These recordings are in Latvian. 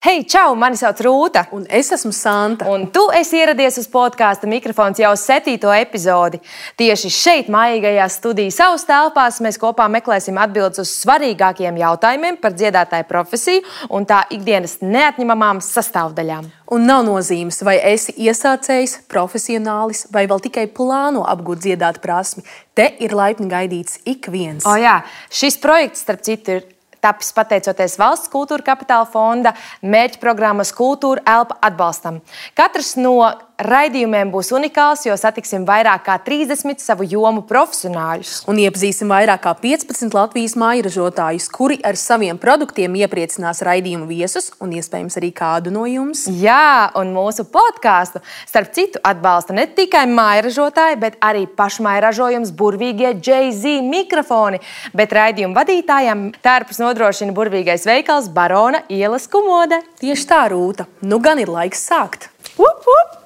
Hei, čau! Mani sauc Rūta. Un es esmu Santa. Un tu esi ieradies uz podkāsta mikrofons jau 7. epizodi. Tieši šeit, mājīgajās studijas savas telpās, mēs kopā meklēsim atbildes uz svarīgākiem jautājumiem par dziedātāju profesiju un tā ikdienas neatņemamām sastāvdaļām. Un nav nozīmes, vai esi iesācējs, profesionālis vai vēl tikai plāno apgūt dziedāt prasmi. Te ir laipni gaidīts ik viens. O jā, šis projekts, starp citu, ir tapis pateicoties Valsts kultūra kapitāla fonda mērķprogrammas Kultūra Elpa atbalstam. Katrs no raidījumiem būs unikāls, jo satiksim vairāk kā 30 savu jomu profesionāļus. Un iepazīsim vairāk kā 15 Latvijas mājražotājus, kuri ar saviem produktiem iepriecinās raidījumu viesus un iespējams arī kādu no jums. Jā, un mūsu podkāstu, starp citu, atbalsta ne tikai mājražotāji, bet arī pašmājražojums burvīgie Jay-Z mikrofoni, bet raidījumu vadītājiem tērpus nodrošina burvīgais veikals Barona ielas Kumode. Tieši tā, Rūta. Nu gan ir laiks sākt. Up, up.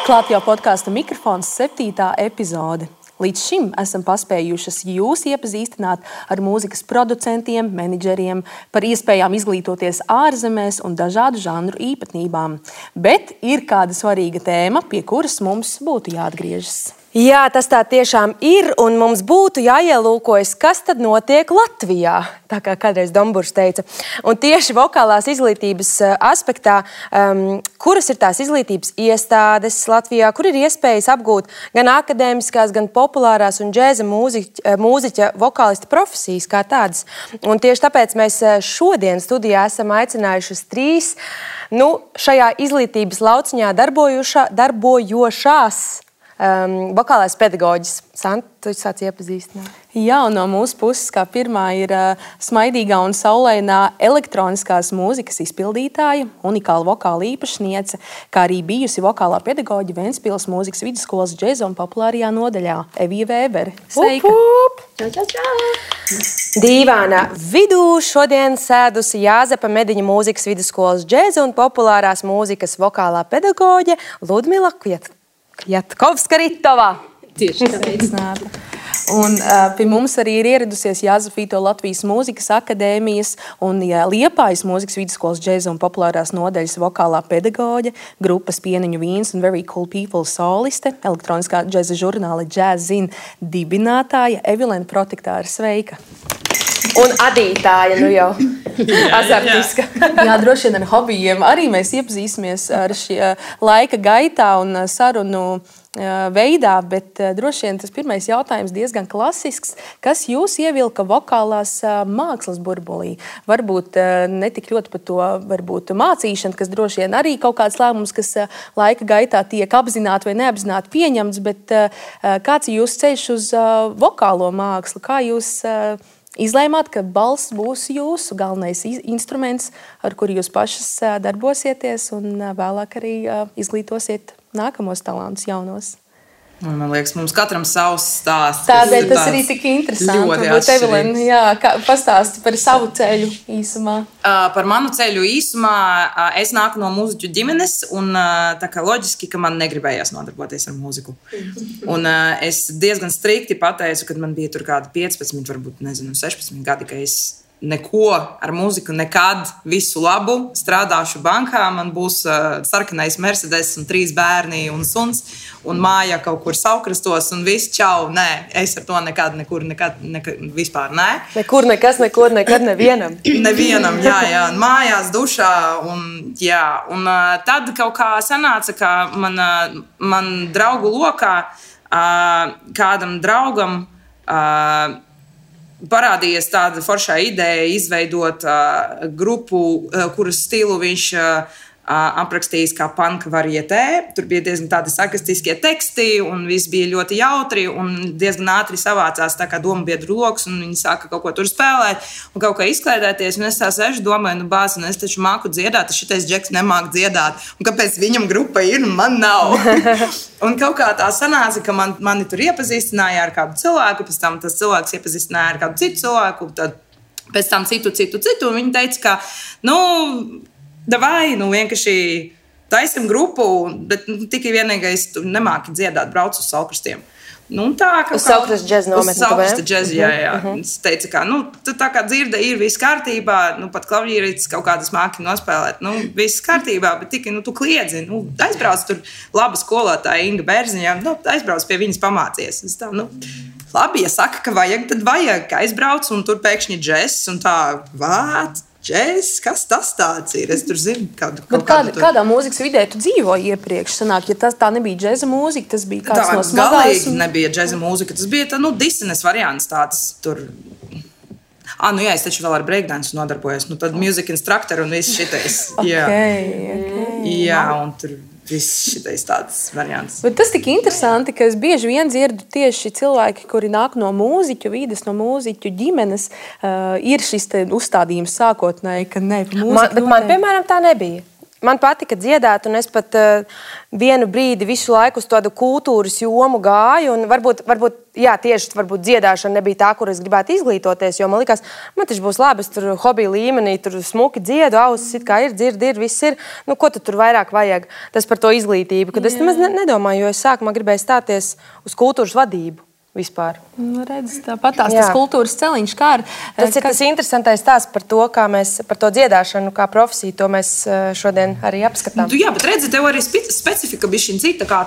Klāt jau podkāsta mikrofons 7. epizode. Līdz šim esam paspējušas jūs iepazīstināt ar mūzikas producentiem, menedžeriem, par iespējām izglītoties ārzemēs un dažādu žanru īpatnībām. Bet ir kāda svarīga tēma, pie kuras mums būtu jāatgriežas. Jā, tas tā tiešām ir, un mums būtu jāielūkojas, kas tad notiek Latvijā, tā kā kādreiz Domburs teica. Un tieši vokālās izglītības aspektā, kuras ir tās izglītības iestādes Latvijā, kur ir iespējas apgūt gan akadēmiskās, gan populārās un džēza mūziķa vokālista profesijas kā tādas. Un tieši tāpēc mēs šodien studijā esam aicinājušas 3 šajā izglītības lauciņā darbojošās vokālais pedagoģis. Santa, tu sāc iepazīstināt. Jā, un no mūsu puses kā pirmā ir smaidīgā un saulainā elektroniskās mūzikas izpildītāja, unikāla vokāla īpašniece, kā arī bijusi vokālā pedagoģa Ventspils mūzikas vidusskolas džeza un populārajā nodaļā Evija Vēbere. Sveika! Dīvānā vidū šodien sēdusi Jāzepa Mediņa mūzikas vidusskolas džeza un populārās mūzikas vokālā pedagoģe Ludmila Kjatkovska-Ritovā. Tieši sveicināta. Un pie mums arī ir ieradusies Jāzefīto Latvijas mūzikas akadēmijas un Liepājas mūzikas vidusskolas džeza un populārās nodaļas vokālā pedagoģe, grupas Pieniņu vīns un Very Cool People soliste, elektroniskā džeza žurnāla Jazzin dibinātāja Evilena Protektāra. Sveika! Un adītāja, nu jau azartiska. Jā, droši vien ar hobijiem arī mēs iepazīsimies ar šī laika gaitā un sarunu veidā, bet droši vien tas pirmais jautājums diezgan klasisks. Kas jūs ievilka vokālās mākslas burbulī? Varbūt ne tik ļoti par to varbūt mācīšanu, kas droši vien arī kaut kāds lēmums, kas laika gaitā tiek apzināti vai neapzināti pieņemts, bet kāds ir jūsu ceļš uz vokālo mākslu? Kā jūs izlēmāt, ka balss būs jūsu galvenais instruments, ar kuru jūs pašas darbosieties un vēlāk arī izglītosiet nākamos talantus jaunos? Man liekas, mums katram savs stāsts. Tādēļ tas arī tik interesanti. Varbūt Evelina, pastāsti par savu ceļu īsumā. Par manu ceļu īsumā es nāku no mūziķu ģimenes un tā kā loģiski, ka man negribējās nodarboties ar mūziku. Un es diezgan strikti pateicu, kad man bija tur kādi 15, varbūt 16 gadi, ka es neko ar mūziku nekad, visu labu, strādāšu bankā, man būs sarkanais Mercedes un 3 bērni un suns un māja kaut kur Saukrastos un viss čau, nē, es ar to nekad, vispār nē. Nekur, nekas, nekur, nekad nevienam. Nevienam, jā, mājās, dušā un jā. Un tad kaut kā sanāca, ka man draugu lokā kādam draugam parādījās tāda foršā ideja izveidot grupu, kuras stilu viņš aprakstījis kā panka varietē. Tur bija diezgan tādi sarkastiskie teksti un viss bija ļoti jautri un diezgan ātri savācās tā kā domabiedru loks un viņi sāka kaut ko tur spēlēt un kaut kā izklaidēties. Un es tā sešu domāju, bāz, un es taču māku dziedāt, šitais džeks nemāk dziedāt. Un kāpēc viņam grupa ir un man nav? Un kaut kā tā sanāca, ka mani tur iepazīstināja ar kādu cilvēku, pēc tam tas cilvēks iepazīstināja ar kādu citu cilvēku, tad pēc tam citu, un viņi teica, ka, davai, vienkārši taisim grupu, bet tikai vienīgais tu nemāki dziedāt, brauc uz Saukrastiem. Nu, tā kā uz Saukrasta džeza nometni. Uz Saukrasta džeza, jā. Es teicu, ka, tā kā dzirde ir viss kārtībā, pat klavierītis kaut kādas māki nospēlēt, viss kārtībā, bet tikai, tu kliedzi, aizbrauc tur laba skolotāja Inga Bērziņā, aizbrauc pie viņas pamācies. Es tā, labi, ja saka, ka vajag, tad vajag, ka aizbrauc un tur pēkšņi džess un tā, džess, kas tas tāds ir? Es tur zinu, kādā mūzikas vidē tu dzīvoji iepriekš? Sanāk, ja tā nebija džeza mūzika, tas bija kāds no smagās. Galīgi nebija džeza mūzika, tas bija Disenes variants tāds tur. Jā, es taču vēl ar breakdance nodarbojos. Tad music instructor un viss šitais. Jā, un tur viss šitais tāds variants. Bet tas tik interesanti, ka es bieži vien dzirdu tieši cilvēki, kuri nāk no mūziķu vides, no mūziķu ģimenes, ir šis te uzstādījums sākotnēji, ka ne, bet man, piemēram, tā nebija. Man patika dziedāt, un es pat vienu brīdi visu laiku uz tādu kultūras jomu gāju. Varbūt dziedāšana nebija tā, kur es gribētu izglītoties, jo man likās, man taču būs labi, es tur hobiju līmenī, tur smuki dziedu, ausis it kā ir, dzirdi ir, viss ir. Ko tu tur vairāk vajag? Tas par to izglītību, kad es nemaz nedomāju, jo es sākumā gribēju stāties uz kultūras vadību. Vispār. Redz, tāpat tas kultūras celiņš, kā ar... Tas ir tas interesantais stāsts par to, kā mēs par to dziedāšanu, kā profesiju, to mēs šodien arī apskatām. Jā, bet redzi, tev arī specifika bija šī cita, kā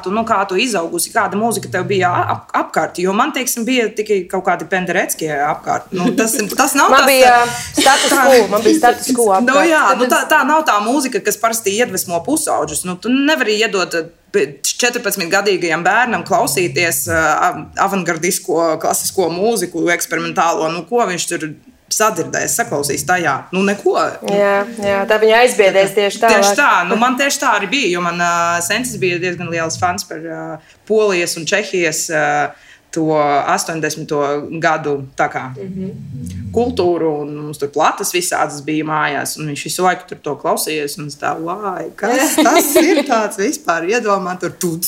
tu izaugusi, kāda mūzika tev bija apkārt, jo man, teiksim, bija tikai kaut kādi pendereckie apkārt. Tas nav man bija status quo apkārt. Tā nav tā mūzika, kas parasti iedvesmo pusauģus. Tu nevari iedot 14-gadīgajam bērnam klausīties avangardisko, klasisko mūziku, eksperimentālo, ko viņš tur sadzirdēs, saklausīs tajā. Neko. Jā, tā viņa aizbiedēs tieši tā. Tieši tā, man tieši tā arī bija, jo man sensis bija diezgan liels fans par Polijas un Čehijas to 80. gadu tā kā kultūru, un mums tur platas visādas bija mājās, un viņš visu laiku tur to klausījies, un es tā, kas tas ir tāds vispār, iedomā tur tuc.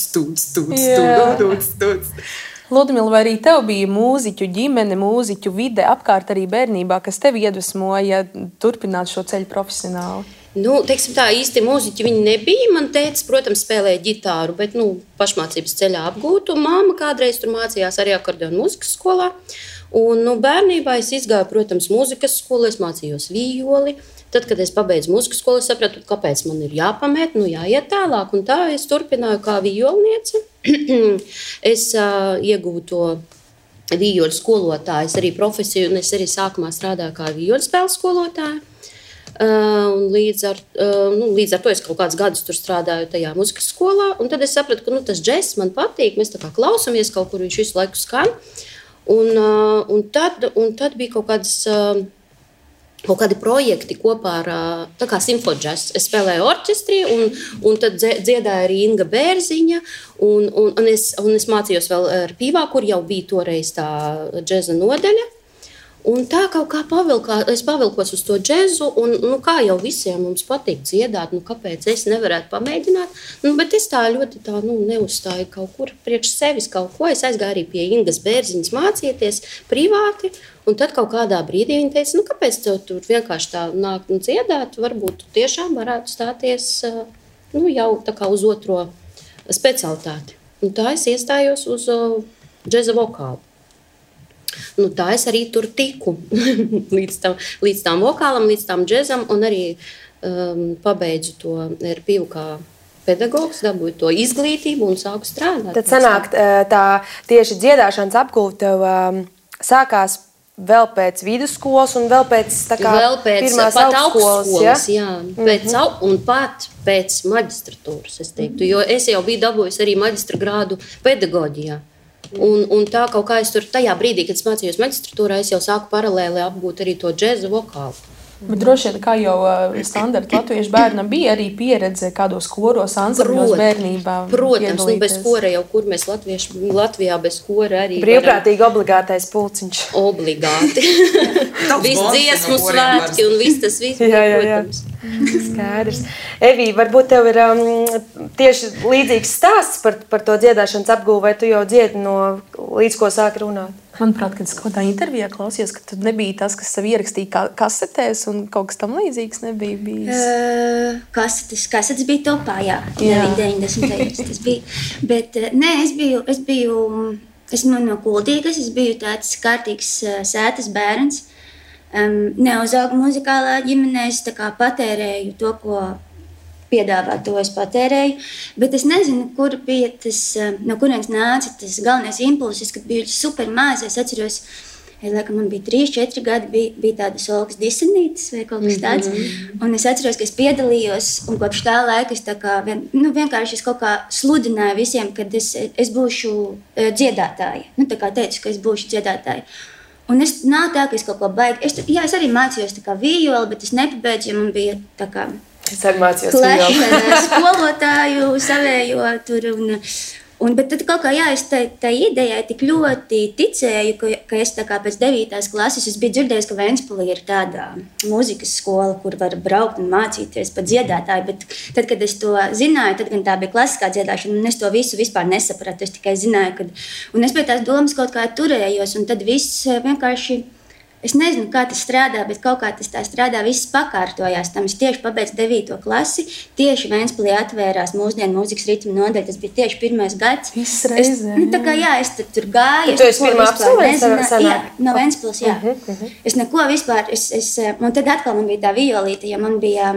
Ludmila, vai arī tev bija mūziķu ģimene, mūziķu vide apkārt arī bērnībā, kas tev iedvesmoja turpināt šo ceļu profesionāli? Teiksim tā, īsti mūziķi viņi nebija. Man tētis, protams, spēlēja ģitāru, bet, pašmācības ceļā apgūtu. Māma kādreiz tur mācījās arī akordeonu mūzikas skolā. Un, bērnībā es izgāju, protams, mūzikas skolu, es mācījos vijoli. Tad, kad es pabeidzu mūzikas skolu, es sapratu, kāpēc man ir jāpamēt, jāiet tālāk. Un tā es turpināju kā vijolniece. Es ieguvu to vijoļu skolotāju, arī profesiju, un es arī sākumā strādāju kā vijoļu spēles skolotāja. Un līdz ar to es kaut kādus gadus tur strādāju tajā mūzikas skolā, un tad es sapratu, ka tas džess man patīk, mēs tā kā klausamies kaut kur, viņš visu laiku skan, un tad bija kaut kādi projekti kopā ar tā kā simfodžess. Es spēlēju orķestrī, un tad dziedāja arī Inga Bērziņa, un es mācījos vēl ar Pīvā, kur jau bija toreiz tā džeza nodaļa. Un tā kaut kā es pavilkos uz to džezu, un kā jau visiem mums patīk dziedāt, kāpēc es nevarētu pamēģināt. Bet es tā ļoti neuzstāju kaut kur priekš sevis kaut ko. Es aizgāju arī pie Ingas Bērziņas mācīties privāti, un tad kaut kādā brīdī viņa teica, kāpēc tev tur vienkārši tā nākt un dziedāt, varbūt tiešām varētu stāties jau tā kā uz otro specialitāti. Un tā es iestājos uz džeza vokālu. Tā es arī tur tiku līdz tām vokālam, līdz tām džezam, un arī pabeidzu to ar Pīvu kā pedagogs, dabūju to izglītību un sāku strādāt. Tad sanāk, tā tieši dziedāšanas apgūve tev sākās vēl pēc vidusskolas un vēl pēc pirmās augstskolas, jā? Un pat pēc maģistratūras, es teiktu, jo es jau biju dabūjusi arī maģistra grādu pedagoģijā. Un tā kaut kā es tur tajā brīdī, kad es mācījos maģistratūrā, es jau sāku paralēli apgūt arī to džezu vokālu. Bet droši vien, kā jau standarta latviešu bērnam bija arī pieredze kādos koros, ansambļos bērnībā. Protams, bez kora jau, kur mēs Latvijā bez kora arī brīvprātīgi obligātais pulciņš. Obligāti. Viss dziesmu svētki un viss tas viss, protams. Skaidrs. Evī, varbūt tev ir tieši līdzīgs stāsts par to dziedāšanas apgūvu, vai tu jau dziedi līdz ko sāki runāt? Manuprāt, kad es kaut kādā intervijā klausījos, ka tu nebija tas, kas sev ierakstīja kasetēs, un kaut kas tam līdzīgs nebija bijis. Kasetes bija topā, jā. 90. tas bija. Bet nē, es biju esmu no Kuldīgas, es biju tāds kārtīgs sētas bērns. Neuzaugu muzikālā ģimenē, es tā kā patērēju to, ko piedāvā, to es patērēju. Bet es nezinu, kur bija tas, no kurienes nāca tas galvenais impulsis, kad biju super maz. Es atceros, laikam man bija 3-4 gadi, bija tādas Olgas disenītes vai kaut kas tāds. Un es atceros, ka es piedalījos, un kopš tā laika es tā kā, vienkārši es kaut kā sludināju visiem, kad es būšu dziedātāja. Tā kā teicu, ka es būšu dziedātāja. Un es nav tā, ka es kaut ko baigi. Es arī mācījos tā kā vijoli, bet es nepabeidzu, jo man bija tā kā Es arī mācījos vijoli. Skolotāju savējo tur. Bet tad kaut kā, es tā idejai tik ļoti ticēju, ka es tā kā pēc 9. klases es biju dzirdējis, ka Ventspilī ir tāda mūzikas skola, kur var braukt un mācīties par dziedātāju. Bet tad, kad es to zināju, tad gan tā bija klasiskā dziedāšana, un es to visu vispār nesapratu. Es tikai zināju, un es pie tās domas kaut kā turējos, un tad viss vienkārši, es nezinu, kā tas strādā, bet kaut kā tas tā strādā, viss pakārtojās. Tam es tieši pabeidzu 9. klasi, tieši Ventspilī atvērās mūsdienu mūzikas ritmu nodaļa, tas bija tieši 1. gads. Viss reizē. Tā kā, es tur gāju. Tu esi pirmā absolvente? Jā, no Ventspils, jā. Es neko vispār, un tad atkal man bija tā violīte, ja man bija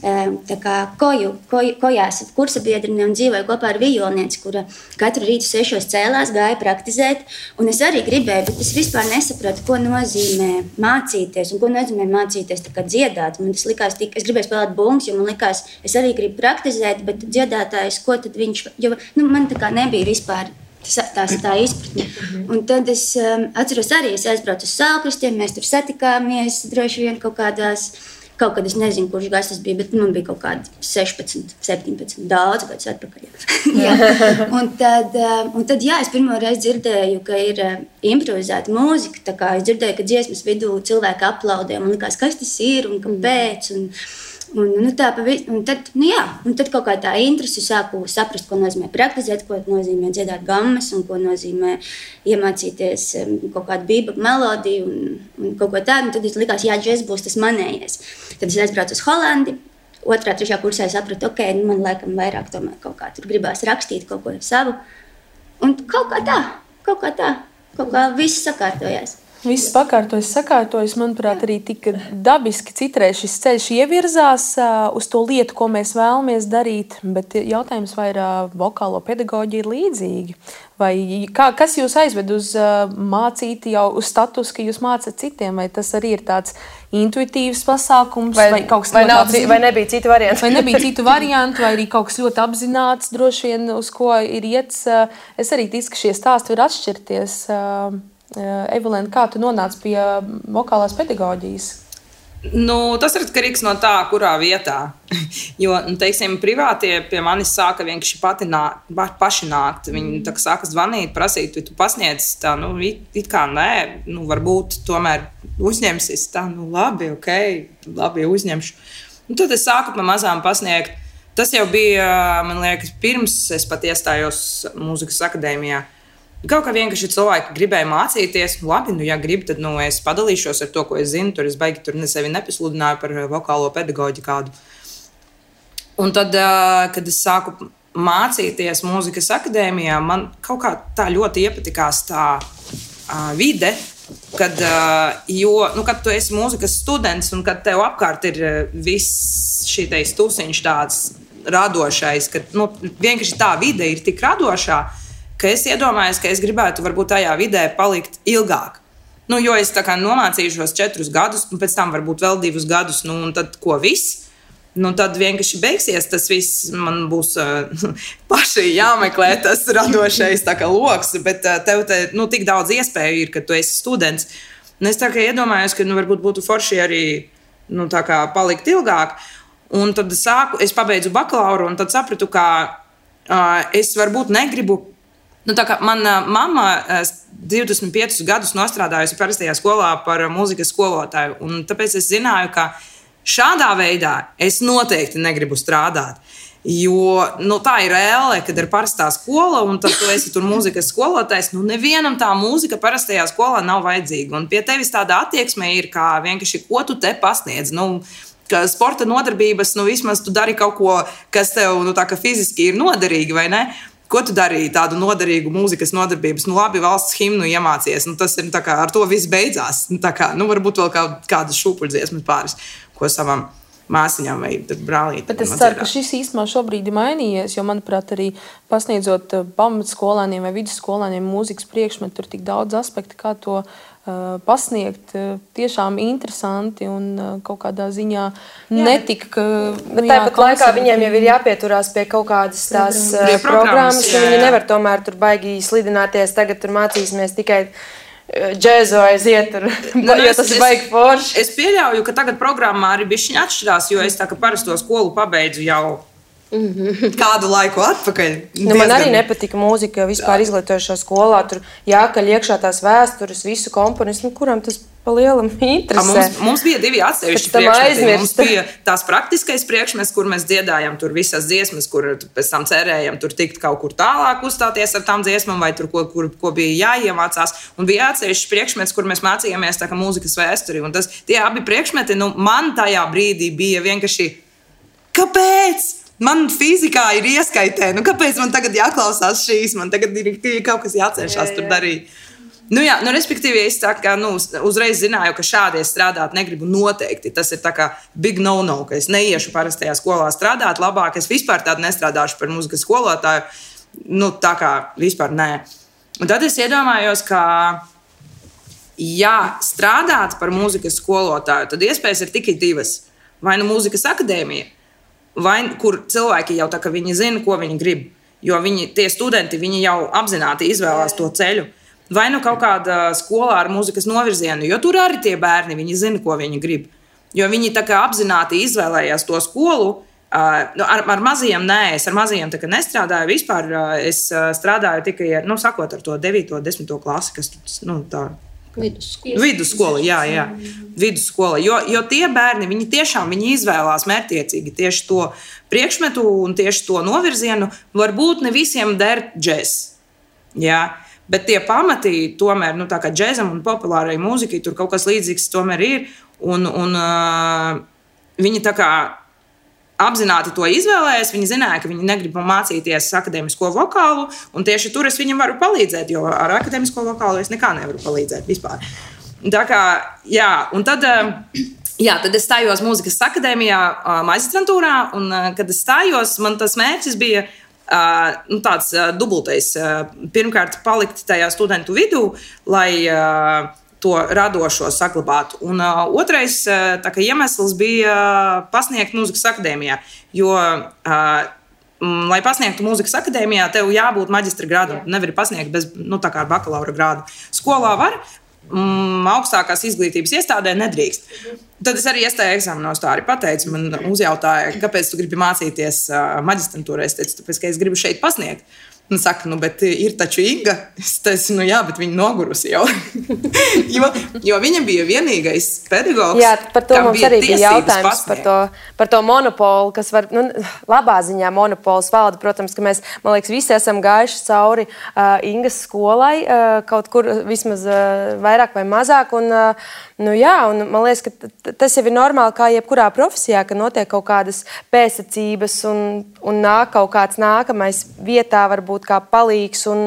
tā kā kojās kursa biedrine un dzīvoja kopā ar vijolnieci, kura katru rītu 6 cēlās, gāja praktizēt. Un es arī gribēju, bet es vispār nesapratu, ko nozīmē mācīties un ko nozīmē mācīties tā kā dziedāt. Man tas likās, es gribēju spēlēt bungas, jo man likās, es arī gribu praktizēt, bet dziedātājs, ko tad viņš, jo man tā kā nebija vispār tā izpratne. Un tad es atceros arī, es aizbraucu uz Saulkrastiem, mēs tur satikāmies droši vien kaut kad es nezinu, kurš gads tas bija, bet man bija kaut kādi 16, 17, daudz gadus atpakaļ. Un tad, es pirmo reizi dzirdēju, ka ir improvizēta mūzika. Tā kā es dzirdēju, ka dziesmas vidū cilvēki aplaudē. Man likās, kas tas ir un kāpēc. Un tad kaut kā tā interese sāku saprast, ko nozīmē praktizēt, ko nozīmē dziedāt gammas un ko nozīmē iemācīties kaut kādu bībagu melodiju un kaut ko tādu. Un tad es likās, džez būs tas manējais. Tad es aizbraucu uz Holandi. 2., 3. kursā es sapratu, man laikam vairāk tomēr kaut kā tur gribās rakstīt kaut ko savu. Un kaut kā viss sakārtojās. Viss sakārtojas, manuprāt, arī tik dabiski citreiz šis ceļš ievirzās uz to lietu, ko mēs vēlamies darīt, bet jautājums, vai vokālo pedagoģija ir līdzīgi? Vai kas jūs aizved uz mācīt jau uz status, ka jūs mācat citiem, vai tas arī ir tāds intuitīvs pasākums, vai kaut kas vai nebija citu variantu? Vai nebija citu variantu, vai arī kaut kas ļoti apzināts, droši vien, uz ko ir iets. Es arī ticu, ka šie stāsti var atšķirties. Evelīna, kā tu nonāci pie vokālās pedagoģijas? Tas ir atkarīgs no tā, kurā vietā. Jo, teiksim, privātie pie manis sāka vienkārši paši nākt. Viņi sāka zvanīt, prasīt, vai tu pasniedz tā, it kā nē, varbūt tomēr uzņemsies tā, labi, labi, uzņemšu. Un tad es sāku pa mazām pasniegt. Tas jau bija, man liekas, pirms es pat iestājos mūzikas akadēmijā. Kaut kā vienkārši cilvēki gribēja mācīties. Labi, ja gribi, tad es padalīšos ar to, ko es zinu. Tur es baigi sevi nepasludināju par vokālo pedagoģiju kādu. Un tad, kad es sāku mācīties mūzikas akadēmijā, man kaut kā tā ļoti iepatikās tā vide, kad tu esi mūzikas students un kad tev apkārt ir viss šitais tusiņš tāds radošais, ka vienkārši tā vide ir tik radošā, ka es iedomājos, ka es gribētu varbūt tajā vidē palikt ilgāk. Jo es tā kā nomācīšos 4 gadus, un pēc tam varbūt vēl 2 gadus, un tad ko viss? Tad vienkārši beigsies tas viss, man būs paši jāmeklē tas radošais loks, bet tev tik daudz iespēju ir, ka tu esi students. Un es tā kā iedomājos, ka varbūt būtu forši arī palikt ilgāk. Un tad es pabeidzu bakalauru, un tad sapratu, ka es varbūt negribu. Mana mamma 25 gadus nostrādājusi parastajā skolā par mūzikas skolotāju, un tāpēc es zināju, ka šādā veidā es noteikti negribu strādāt. Jo tā ir reāli, kad ir parastā skola, un tad tu esi tur mūzikas skolotājs. Nevienam tā mūzika parastajā skolā nav vajadzīga. Un pie tevis tāda attieksme ir, kā vienkārši, ko tu te pasniedz. Ka sporta nodarbības, vismaz tu dari kaut ko, kas tev fiziski ir noderīgi, vai ne? Ko tu darīji tādu noderīgu mūzikas nodarbības? Nu, labi, valsts himnu iemācies. Nu, tas ir tā kā ar to viss beidzās. Nu, tā kā, nu, varbūt vēl kādas šūpuļdziesmas pāris, ko savam māsiņām vai brālītēm. Bet es ceru, ka šis īstenībā šobrīd ir mainījies, jo, manuprāt, arī pasniedzot pamatskolāniem vai vidusskolāniem mūzikas priekšmetu, tur tik daudz aspektu, kā to pasniegt, tiešām interesanti un kaut kādā ziņā netika. Bet tāpat laikā viņiem jau ir jāpieturās pie kaut kādas tās programmas, ka viņi nevar tomēr tur baigi slidināties, tagad tur mācīsimies tikai džēzu aiziet, jo tas ir baigi forši. Es pieļauju, ka tagad programmā arī bišķiņ atšķirās, jo es tā kā parasto skolu pabeidzu jau kādu laiku atpakaļ. Man arī nepatika mūzika vispār izglītojušā skolā. Tur jākaļ iekšā tās vēstures, visu komponistu, kuram tas pa lielam interesē. Mums bija 2 atsevišķi priekšmeti. Mums bija tās praktiskais priekšmets, kur mēs dziedājam tur visas dziesmas, kur pēc tam cerējam tur tikt kaut kur tālāk uzstāties ar tām dziesmām, vai tur ko bija jāiemācās. Un bija atsevišķi priekšmets, kur mēs mācījāmies tā kā mūzikas vēsturi. Un tie abi priekšmeti, man tajā brīdī bija vienkārši, kāpēc? Man fizikā ir ieskaitē, kāpēc man tagad jāklausās šīs, man tagad ir kaut kas jācenšas tur darīt. Respektīvi, es tā kā uzreiz zināju, ka šādi es strādāt negribu noteikti. Tas ir tā kā big no-no, ka es neiešu parastajā skolā strādāt. Labāk es vispār tādu nestrādāšu par mūzikas skolotāju. Tā kā vispār nē. Un tad es iedomājos, ka strādāt par mūzikas skolotāju, tad iespējas ir tikai 2. Vai mūzikas akadēmija, vai kur cilvēki jau tā kā viņi zina, ko viņi grib. Jo tie studenti, viņi jau apzināti izvēlās to ceļu. Vai kaut kāda skolā ar mūzikas novirzienu, jo tur arī tie bērni, viņi zina, ko viņi grib. Jo viņi tā kā apzināti izvēlējās to skolu. Ar mazajiem nē, es ar mazajiem tā kā nestrādāju vispār. Es strādāju tikai sakot ar to 9. un 10. klasi, kas tā. Vidusskola, jā. Vidusskola. Jo tie bērni, viņi tiešām izvēlās mērķtiecīgi tieši to priekšmetu un tieši to novirzienu. Varbūt ne visiem der džēs. Jā. Bet tie pamati, tomēr, tā kā džēzam un populārai mūzikai, tur kaut kas līdzīgs tomēr ir. Un viņi tā kā apzināti to izvēlējās. Viņi zināja, ka viņi negrib mācīties akadēmisko vokālu. Un tieši tur es viņam varu palīdzēt, jo ar akadēmisko vokālu es nekā nevaru palīdzēt vispār. Tā kā, un tad es stājos mūzikas akadēmijā, maģistrantūrā. Un, kad es stājos, man tas mērķis bija tāds dubultais. Pirmkārt, palikt tajā studentu vidū, lai to radošo saglabātu. Un otrais iemesls bija pasniegt mūzikas akadēmijā. Jo, lai pasniegtu mūzikas akadēmijā, tev jābūt maģistra grādam. Nevari pasniegt bez bakalaura grādu. Skolā var, augstākās izglītības iestādē nedrīkst. Tad es arī iestāju eksāmenos, tā arī pateicu. Man uzjautāja, kāpēc tu gribi mācīties maģistrantūrā. Es teicu, tāpēc, ka es gribu šeit pasniegt. Un saka, bet ir taču Inga. Es teicu, jā, bet viņa nogurusi jau. jo viņa bija vienīgais pedagogs. Jā, par to mums arī bija jautājums par to monopolu, kas var, labā ziņā monopols valda. Protams, ka mēs, man liekas, visi esam gājuši cauri Ingas skolai, kaut kur vismaz vairāk vai mazāk. Un man liekas, ka tas jau ir normāli kā jebkurā profesijā, ka notiek kaut kādas pēcsacības un nāk kaut kāds nākamais vietā varbūt kā palīgs un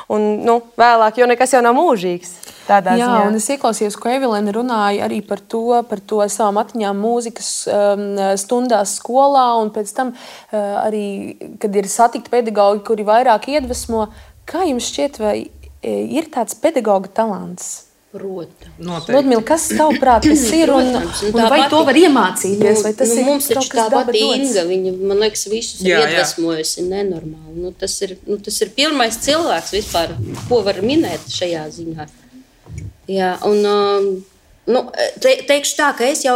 vēlāk, jo nekas jau nav mūžīgs. Jā, un es ieklausījos, ko Evelīna runāja arī par to savām atmiņām mūzikas stundās skolā, un pēc tam arī, kad ir satikti pedagogi, kuri vairāk iedvesmo. Kā jums šķiet, vai ir tāds pedagoga talants? Protams. Ludmila, kas tavuprāt tas ir un vai to var iemācīties? Vai tas ir mums kaut kas tāpat daba Inga, viņa, man liekas, visus ir iedvesmojusi nenormāli. Tas ir pirmais cilvēks vispār, ko var minēt šajā ziņā. Jā, un teikšu tā, ka es jau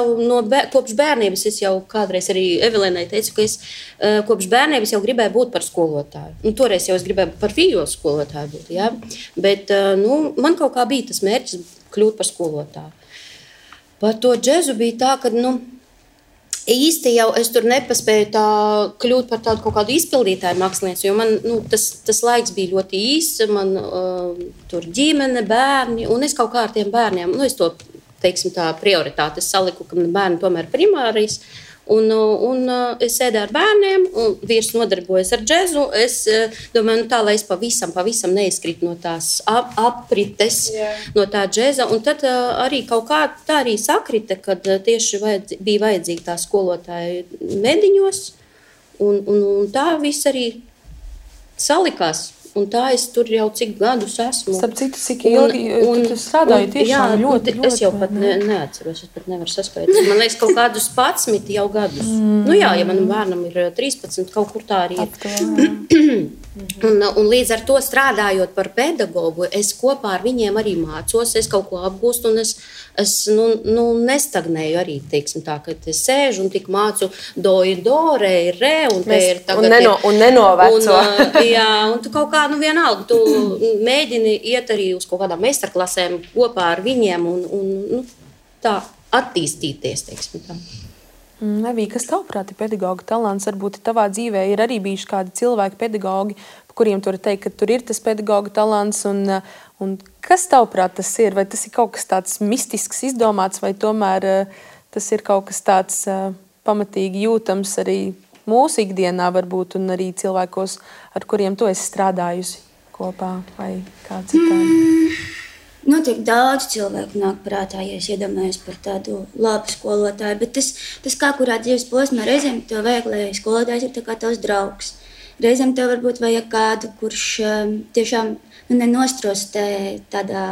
kopš bērnības, es jau kādreiz arī Evelīnai teicu, ka es kopš bērnības jau gribēju būt par skolotāju. Toreiz jau es gribēju par vīļu skolotāju būt, jā. Bet man kaut kā bija tas mērķis kļūt par skolotāju. Par to džezu bija tā, ka īsti jau es tur nepaspēju kļūt par tādu kaut kādu izpildītāju mākslinieci, jo man tas laiks bija ļoti īss, man tur ģimene, bērni, un es kaut kā ar tiem bērniem, es to teiksim tā prioritāte. Es saliku, ka bērni tomēr primārijas, Un es sēdēju ar bērniem, un vīrs nodarbojas ar džezu. Es domāju, tā, lai es pavisam neizkrītu no tās aprites, no tā džeza. Un tad arī kaut kā tā arī sakrita, kad tieši bija vajadzīga tā skolotāja mediņos. Un tā viss arī salikās. Un tā es tur jau cik gadus esmu. Starp citu, cik ilgi tu strādāji tiešām ļoti. Es jau pat neatceros, es pat nevaru saspēt. Man liekas, kaut kādus 11 jau gadus. Nu jā, ja manam bērnam ir 13, kaut kur tā arī ir. Un līdz ar to strādājot par pedagogu, es kopā ar viņiem arī mācos, es kaut ko apgūstu, un es nestagnēju arī, teiksim tā, kad es sēžu un tik mācu do ir do, re ir re, un te ir tagad... Un nenoveco. Jā, un tu kaut kā, vienalga, tu mēģini iet arī uz kaut kādām meistarklasēm kopā ar viņiem un tā attīstīties, teiksim tā. Evija, kas tavuprāt ir pedagoga talants? Varbūt tavā dzīvē ir arī bijuši kādi cilvēki pedagogi, kuriem tu vari teikt, ka tur ir tas pedagoga talants, un kas tavuprāt tas ir? Vai tas ir kaut kas tāds mistisks izdomāts, vai tomēr tas ir kaut kas tāds pamatīgi jūtams arī mūsu ikdienā varbūt, un arī cilvēkos, ar kuriem tu esi strādājusi kopā, vai kā citādi? Notiek daudz cilvēku nāk prātā, ja es iedomājos par tādu labu skolotāju, bet tas kā kurā dzīves posmā reizēm tev vajag, lai skolotājs ir tā kā tavs draugs. Reizēm tev varbūt vajag kādu, kurš tiešām nenostrostē tādā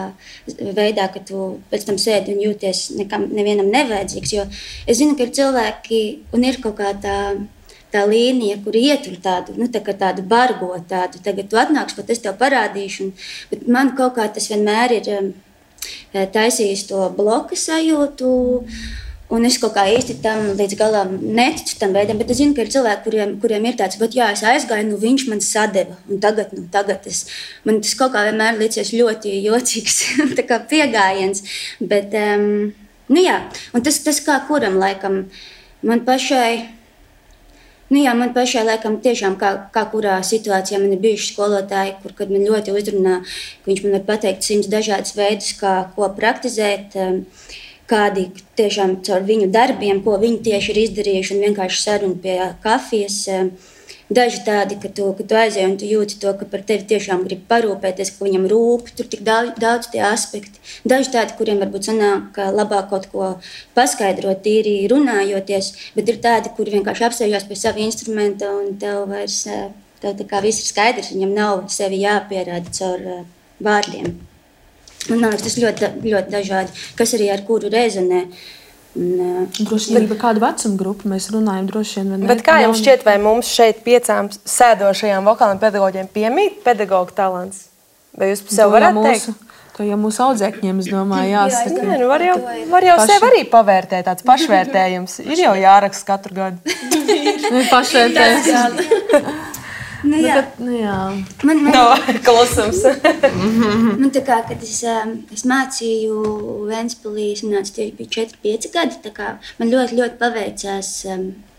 veidā, ka tu pēc tam sēdi un jūties nevienam nevajadzīgs, jo es zinu, ka ir cilvēki un ir kaut kā tā līnija, kur ietur tādu, tādu bargo tādu, tagad tu atnāks, pat es tev parādīšu, bet man kaut kā tas vienmēr ir taisījis to bloka sajūtu, un es kaut kā īsti tam līdz galam neticu tam veidam, bet es zinu, ka ir cilvēki, kuriem ir tāds, bet jā, es aizgāju, viņš man sadeva, un tagad man tas kaut kā vienmēr licies ļoti jocīgs, tā kā piegājiens, bet, jā, un tas kā kuram laikam, man pašai, man pašai laikam tiešām kā kurā situācijā man ir bijuši skolotāji, kad man ļoti uzrunā, ka viņš man var pateikt 100 dažādas veidus, ko praktizēt, kādi tiešām caur viņu darbiem, ko viņi tieši ir izdarījuši un vienkārši saruna pie kafijas. Daži tādi, ka tu aizej un tu jūti to, ka par tevi tiešām grib parūpēties, ka viņam rūp, tur tik daudz tie aspekti. Daži tādi, kuriem varbūt sanāk labāk kaut ko paskaidrot, tīri runājoties, bet ir tādi, kuri vienkārši apsēžās pie sava instrumenta un tev vairs, tev tā kā viss ir skaidrs, viņam nav sevi jāpierāda caur vārdiem. Un man liekas, tas ļoti, ļoti dažādi, kas arī ar kuru rezonē. Droši vien par kādu vecumu grupu mēs runājam droši vien. Bet kā jums šķiet, vai mums šeit 5 sēdošajām vokāliem pedagoģiem piemīt pedagoga talants? Vai jūs sev varat teikt? To jau mūsu audzēkņiem, es domāju, jāsaka. Jā, var jau sev arī pavērtēt, tāds pašvērtējums. Ir jau jāraksta katru gadu. Pašvērtējums. Klusums. Man tā kā, kad es mācīju Ventspilī, es nācu tieši bija 4-5 gadi, tā kā man ļoti, ļoti paveicās.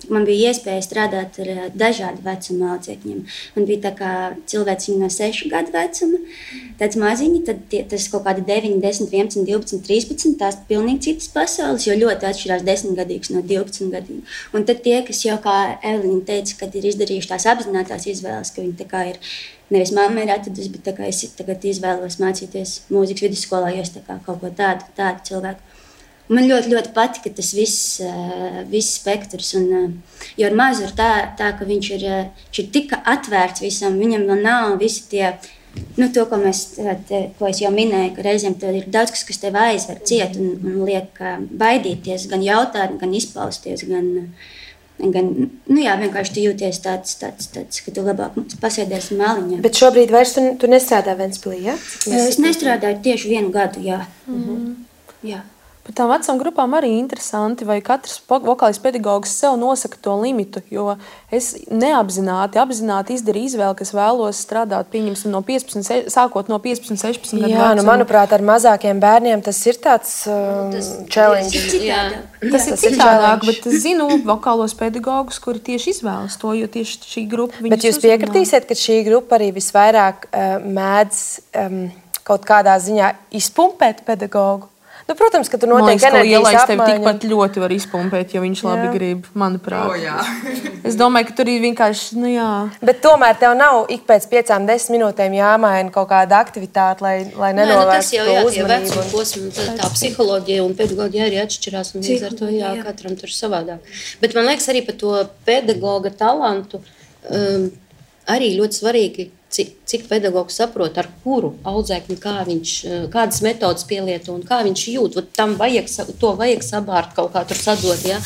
Man bija iespēja strādāt ar dažādu vecumu audzēkņiem. Man bija tā kā cilvēciņi no 6 gadu vecuma, tāds maziņi, tad tas kaut kādi 9, 10, 11, 12, 13, tās pilnīgi citas pasaules, jo ļoti atšķirās 10-gadīgs no 12-gadīga. Un tad tie, kas jau, kā Evelīna teica, kad ir izdarījuši tās apzinātās izvēles, ka viņi tā kā ir, nevis mamma ir atradusi, bet tā kā es tagad izvēlos mācīties mūzikas vidusskolā, jo es tā kā kaut ko tādu cilvēku. Man ļoti, ļoti patika tas viss spektrs, jo ar mazu ir tā, ka viņš ir tik atvērts visam, viņam vēl nav visi tie, to, ko es jau minēju, ka reizēm tev ir daudz kas tev aizver ciet un liek baidīties, gan jautāt, gan izpausties, gan vienkārši tu jūties tāds, ka tu labāk pasēdies maliņā. Bet šobrīd vairs tu nestrādā Ventspilī, ja? Es nestrādāju tieši 1 gadu, jā. Jā. Par tām vecām grupām arī interesanti, vai katrs vokālis pedagogs sev nosaka to limitu, jo es apzināti izdarīju izvēli, kas vēlos strādāt, pieņemsim, sākot no 15, 16 gadu vecuma. Manuprāt, ar mazākiem bērniem tas ir tāds challenge. Tas ir citādāk, bet es zinu vokālos pedagogus, kuri tieši izvēlas to, jo tieši šī grupa viņus Bet jūs piekritīsiet, ka šī grupa arī visvairāk mēdz kaut kādā ziņā izpumpēt pedagogu? Nu, protams, ka tur notiek enerģijas apmaiņa. Tev tikpat ļoti var izpumpēt, ja viņš labi grib, manuprāt. Es domāju, ka tur ir vienkārši, Bet tomēr tev nav ik pēc 5-10 minūtēm jāmaina kaut kāda aktivitāte, lai nenovērstu to uzmanību. Vecuma posma, tā psiholoģija un pedagoģija arī atšķirās, un līdz ar to, katram tur savādāk. Bet man liekas arī par to pedagoga talantu, arī ļoti svarīgi, cik pedagogs saprot, ar kuru audzēkni, kādas metodas pielieto un kā viņš jūt. To vajag sabārt kaut kā tur sadot, ja?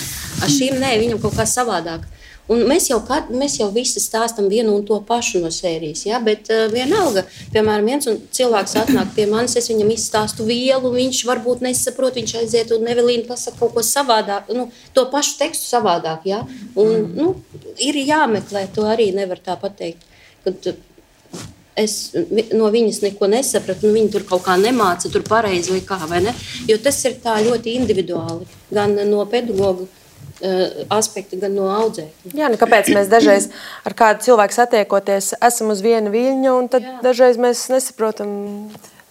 Ar šīm nē, viņam kaut kā savādāk. Un mēs jau visi stāstam vienu un to pašu no sērijas, ja? Bet vienalga, piemēram, viens cilvēks atnāk pie manis, es viņam izstāstu vielu, viņš varbūt nesaprot, viņš aiziet un Evelīna pasaka kaut ko savādāk, to pašu tekstu savādāk, ja? Un, ir jāmeklē, to arī nevar tā pateikt, kad es no viņas neko nesapratu, viņa tur kaut kā nemāca, tur pareizi vai kā, vai ne? Jo tas ir tā ļoti individuāli, gan no pedagoga aspekta, gan no audzēkņa. Jā, kāpēc mēs dažreiz ar kādu cilvēku satiekoties esam uz viena viļņa, un tad dažreiz mēs nesaprotam,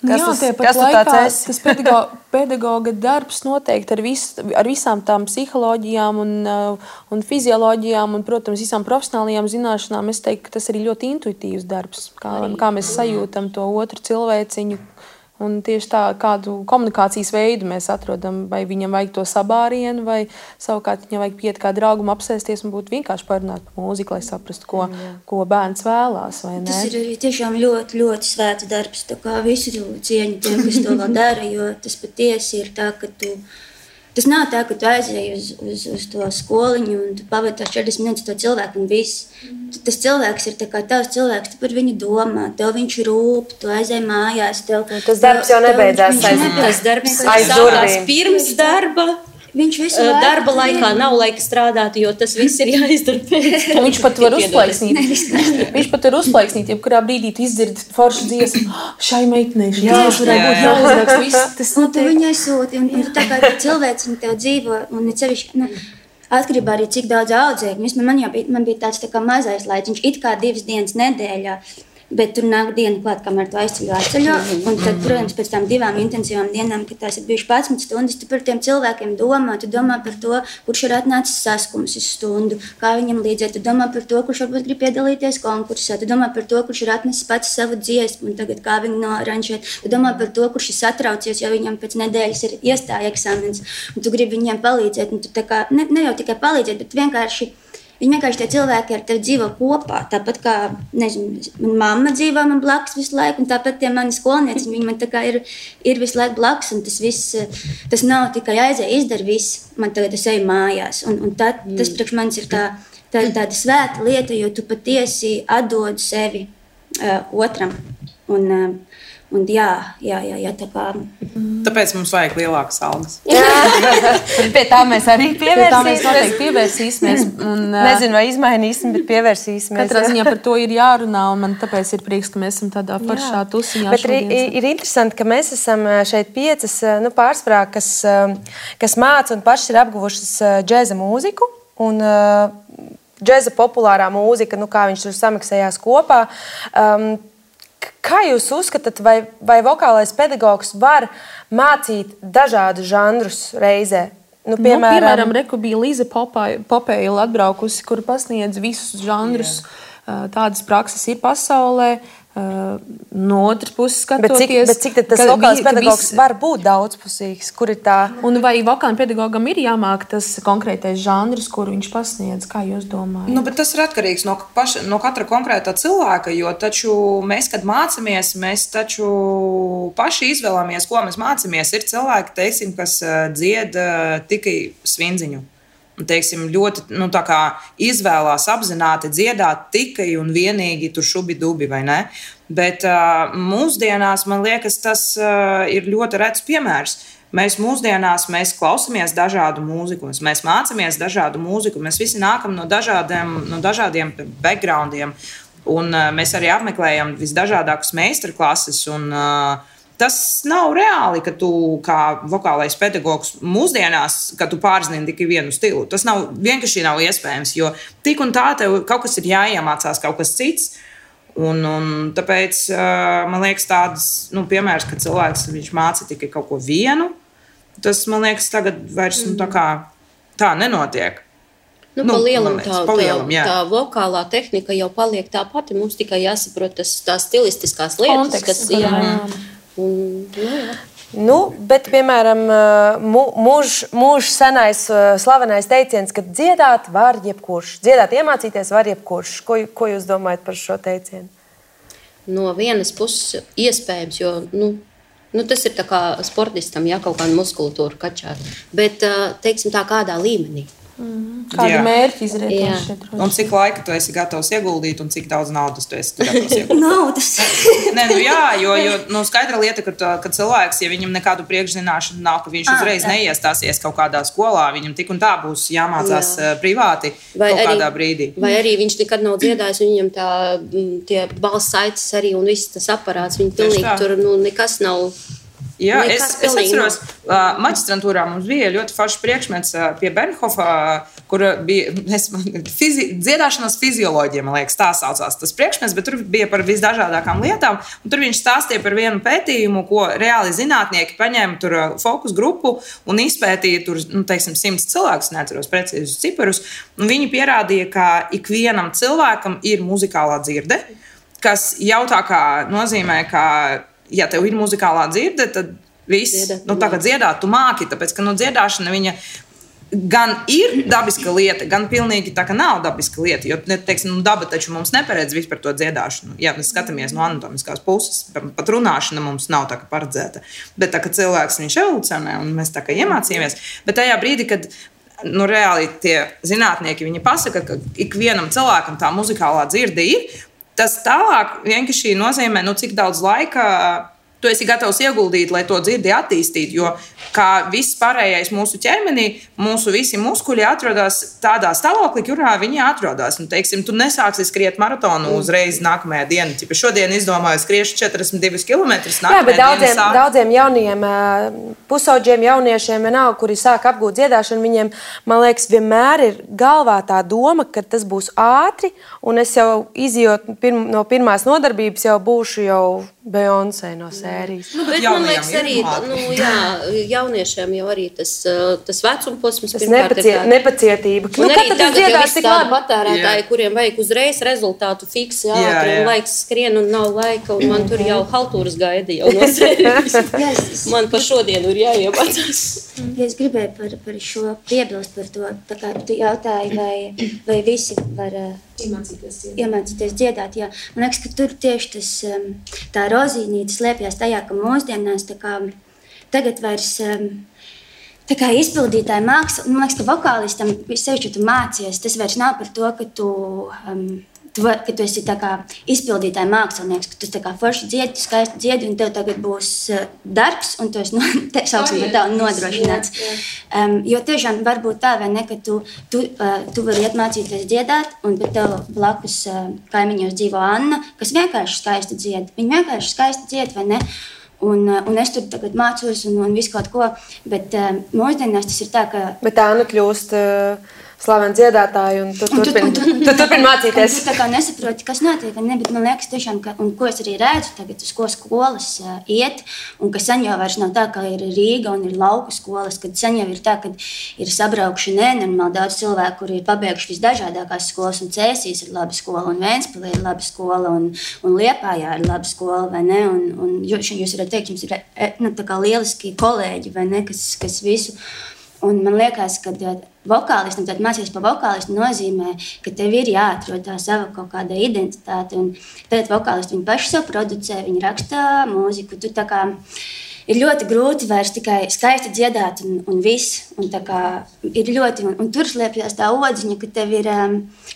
kas tu tāds esi. Tas pedagoga darbs noteikti ar visām tām psiholoģijām un fizioloģijām un, protams, visām profesionālajām zināšanām, es teiktu, ka tas arī ļoti intuitīvs darbs, kā mēs sajūtam to otru cilvēciņu. Un tieši tā, kādu komunikācijas veidu mēs atrodam, vai viņam vajag to sabārienu, vai savukārt viņam vajag piet kā draugam apsēsties un būt vienkārši parunāt par mūziku, lai saprastu, ko bērns vēlās, vai ne? Tas ir arī tiešām ļoti, ļoti svēts darbs, tā kā visu cieņu tiem, kas to vēl dara, jo tas patiesi ir tā, ka tas nav tā, ka tu aizēji uz to skoliņu un tu pavadi tās 40 minūtes to cilvēku un viss. Tas cilvēks ir tā kā tavs cilvēks, tu par viņu domā, tev viņš rūp, tu aizēji mājās. Tas darbs jau nebeidzās Tas darbs sākās pirms darba. Viņš visu laiku darba laikā nav laika strādāt, jo tas viss ir jāizdara pēc. Viņš pat var uzplaiksnīt. Jebkurā brīdī tu izdzirdi foršu dziesmu. Šai meitenei varētu būt jāuzraksta viss. Un tu viņai sūti, un tā kā cilvēks tev dzīvo, un cevišķi, atkarībā arī cik daudz audzēkņu. Man bija tāds tā kā mazais laiciņš, it kā 2 dienas nedēļā. Bet tur nāk diena klāt, kamēr tu aizceļo. Un tad, protams, pēc tām 2 intensīvām dienām, kad tās ir bijušas 11 stundas, tu par tiem cilvēkiem domā. Tu domā par to, kurš ir atnācis saskums uz stundu, kā viņam līdzēt. Tu domā par to, kurš varbūt grib piedalīties konkursā. Tu domā par to, kurš ir atnesis pats savu dziesmu un tagad kā viņu noranžēt. Tu domā par to, kurš ir satraucies, jo viņam pēc nedēļas ir iestāja eksāmens. Un tu gribi viņiem palīdzēt. Un tu tā kā, ne jau tikai palīdzēt, bet vienkārši tie cilvēki ar tevi dzīvo kopā. Tāpat kā, nezinu, mana mamma dzīvo man blakus visu laiku, un tāpat tie mani skolnieci, viņi man tā kā ir visu laiku blakus, un tas viss, tas nav tikai aizēja, izdara viss, man tagad es eju mājās. Un tas priekš manis ir tāda svēta lieta, jo tu patiesi atdod sevi otram. Un jā, tā kā. Tāpēc mums vajag lielākas algas. Pie tā mēs arī pievērsīsimies. Nezinu, vai izmainīsim, bet pievērsīsimies. Katrā ziņā par to ir jārunā, un man tāpēc ir prieks, ka mēs esam tādā foršā tusiņā. Bet ir interesanti, ka mēs esam šeit 5 pārsvarā, kas māca un pašas ir apguvušas džēza mūziku. Un džēza populārā mūzika, kā viņš tur samiksējās kopā. Kā jūs uzskatāt, vai vokālais pedagogs var mācīt dažādus žanrus reizē? Piemēram, reku bija Līza Popēla atbraukusi, kur pasniedz visus žanrus. Tādas prakses ir pasaulē. No otras puses skatoties. Bet cik tas vokālais pedagogs var būt daudzpusīgs? Kur ir tā? Un vai vokālam pedagogam ir jāmāk tas konkrētais žanrs, kuru viņš pasniedz? Kā jūs domājat? Bet tas ir atkarīgs no katra konkrētā cilvēka, jo taču mēs, kad mācāmies, mēs taču paši izvēlamies, ko mēs mācāmies. Ir cilvēki, teiksim, kas dzied tikai svindziņu. Un, teiksim, ļoti izvēlās apzināti dziedāt tikai un vienīgi tur šubi-dubi, vai ne? Bet mūsdienās, man liekas, tas ir ļoti rets piemērs. Mēs mūsdienās klausāmies dažādu mūziku, mēs mācāmies dažādu mūziku, mēs visi nākam no dažādiem backgroundiem, un mēs arī apmeklējam visdažādākus meistarklases. Tas nav reāli, ka tu kā vokālais pedagogs mūsdienās, ka tu pārzini tikai vienu stilu. Tas vienkārši nav iespējams, jo tik un tā tev kaut kas ir jāiemācās, kaut kas cits. Un tāpēc man liekas tāds piemērs, ka cilvēks māca tikai kaut ko vienu, Tas, man liekas, tagad vairs tā nenotiek. Pa lielam tā vokālā tehnika jau paliek tā pati. Mums tikai jāsaprot tās stilistiskās lietas, konteksts, kas Bet, piemēram, mūžs senais slavenais teiciens, ka dziedāt var jebkurš. Dziedāt, iemācīties var jebkurš. Ko jūs domājat par šo teicienu? No vienas puses iespējams, jo tas ir tā kā sportistam, ja kaut kāda muskulatūra kačāt. Bet, teiksim tā, kādā līmenī. Kādu mērķi izrēķināt? Un cik laika tu esi gatavs ieguldīt un cik daudz naudas tu esi gatavs ieguldīt? Naudas. Jo skaidra lieta, ka cilvēks, ja viņam nekādu priekšzināšanu nav, ka viņš uzreiz neiestāsies kaut kādā skolā, viņam tik un tā būs jāmācās privāti kaut kādā brīdī. Vai arī viņš nekad nav dziedājis, un viņam tie balss saites arī un viss tas aparāts, viņi pilnīgi tur nekas nav. Jā, es atceros, maģistrantūrā mums bija ļoti foršs priekšmets pie Bernhofa, kur bija dziedāšanas fizioloģija, man liekas, tā saucās tas priekšmets, bet tur bija par visdažādākām lietām, un tur viņš stāstīja par vienu pētījumu, ko reāli zinātnieki paņēma tur fokus grupu un izpētīja tur, 100 cilvēkus, neatceros precīzus ciparus, un viņi pierādīja, ka ikvienam cilvēkam ir muzikālā dzirde, kas jau tā kā nozīmē, ka ja tev ir muzikālā dzirde, tad viss, tā kā dziedāt, tu māki, tāpēc, ka dziedāšana viņa gan ir dabiska lieta, gan pilnīgi tā, ka nav dabiska lieta, jo, teiksim, daba taču mums neparedz vispār to dziedāšanu. Ja mēs skatāmies no anatomiskās puses, pat runāšana mums nav tā kā paredzēta, bet tā, ka cilvēks viņš evolucionē un mēs tā kā iemācījāmies, bet tajā brīdī, kad reāli tie zinātnieki, viņi pasaka, ka ikvienam cilvēkam tā muzikālā dzirde ir, tas tālāk vienkārši nozīmē, cik daudz laika tu esi gatavs ieguldīt, lai to dzirdi attīstītu. Jo kā viss pārējais mūsu ķermenī, mūsu visi muskuļi atrodas tādā stāvoklī, kurā viņi atrodas. Teiksim, tu nesāksi skriet maratonu uzreiz nākamajā dienā. Tipa šodien izdomāju skriešu 42 km. Jā, bet daudziem jauniem pusauģiem jauniešiem vienalga, kuri sāk apgūt dziedāšanu, viņiem, man liekas, vienmēr ir galvā tā doma, ka tas būs ātri, un es jau izjot no pirmās nodarbības jau būšu jau Beyoncé no sērijas. Bet man liekas arī, jauniešiem jau arī tas vecumposms pirmkārt ir nepacietība. Un arī tagad jau visi tādi patērētāji, kuriem vajag uzreiz rezultātu fiksi ātri, un laiks skrien un nav laika, un man tur jau haltūras gaida jau no sērijas. Man pa šodienu ir jāiemācās. Ja es gribēju par šo piebilst par to, tā kā tu jautāji, vai visi var iemācīties dziedāt. Jā. Man liekas, ka tur tieši tā rozīnīte slēpjas tajā, ka mūsdienās tagad vairs tā kā izpildītāja māksla, man liekas, ka vokālistam, sevišķi, ja tu mācies, tas vairs nav par to, ka tu esi tā kā izpildītāja mākslinieks, ka tu tā kā forši dziedi, tu skaisti dziedi, un tev tagad būs darbs, un tu esi nodrošināts. Jo tiešām var būt tā, vai ne, ka tu vari iet mācīties dziedāt, un pat tev blakus kaimiņos dzīvo Anna, kas vienkārši skaisti dzied. Viņa vienkārši skaisti dzied, vai ne? Un es tur tagad mācos un visu kaut ko, bet mūsdienās tas ir tā, ka... Bet Anna kļūst slavena dziedātāja, un tu turpini mācīties. Tu tā kā nesaproti, kas notiek, ne, bet man liekas tiešām, un ko es arī redzu tagad, uz ko skolas iet, un ka sen jau vairs nav tā, ka ir Rīga un ir lauku skolas, kad sen jau ir tā, ka ir sabraukši nenormāli daudz cilvēku, kuri ir pabeiguši visdažādākās skolas, un Cēsīs ir laba skola, un Ventspilī ir laba skola, un Liepājā ir laba skola, vai ne, un jūs varat teikt, jums ir tā kā lieliski kolēģi, vai ne, kas visu. Un man liekas, ka vokālistam, tad mācīties par vokālistu nozīmē, ka tev ir jāatrod tā sava kaut kāda identitāte. Un tad vokālisti viņi paši sev producē, viņi raksta mūziku. Tu tā kā ir ļoti grūti vairs tikai skaisti dziedāt un viss. Un tā kā ir ļoti, un tur slēpjas tā odziņa, ka tev ir,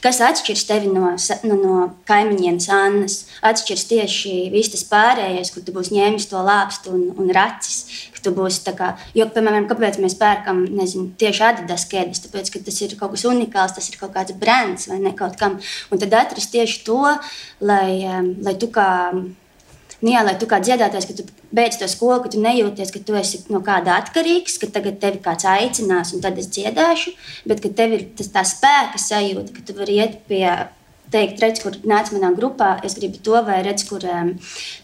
kas atšķirs tevi no kaimiņienes Annas. Atšķirs tieši viss tas pārējais, kur tu būsi ņēmis to lāpstu un racis. Tu būsi tā kā, jo, piemēram, kāpēc mēs pērkam, nezinu, tieši Adidas kēdes, tāpēc, ka tas ir kaut kas unikāls, tas ir kaut kāds brands vai ne kaut kam. Un tad atrast tieši to, lai tu kā dziedātājs, ka tu beidz to skolu, ka tu nejūties, ka tu esi no kāda atkarīgs, ka tagad tevi kāds aicinās un tad es dziedāšu, bet ka tev ir tā spēka sajūta, ka tu vari iet pie teikt, redz, kur nāc manā grupā, es gribu to, vai redz, kur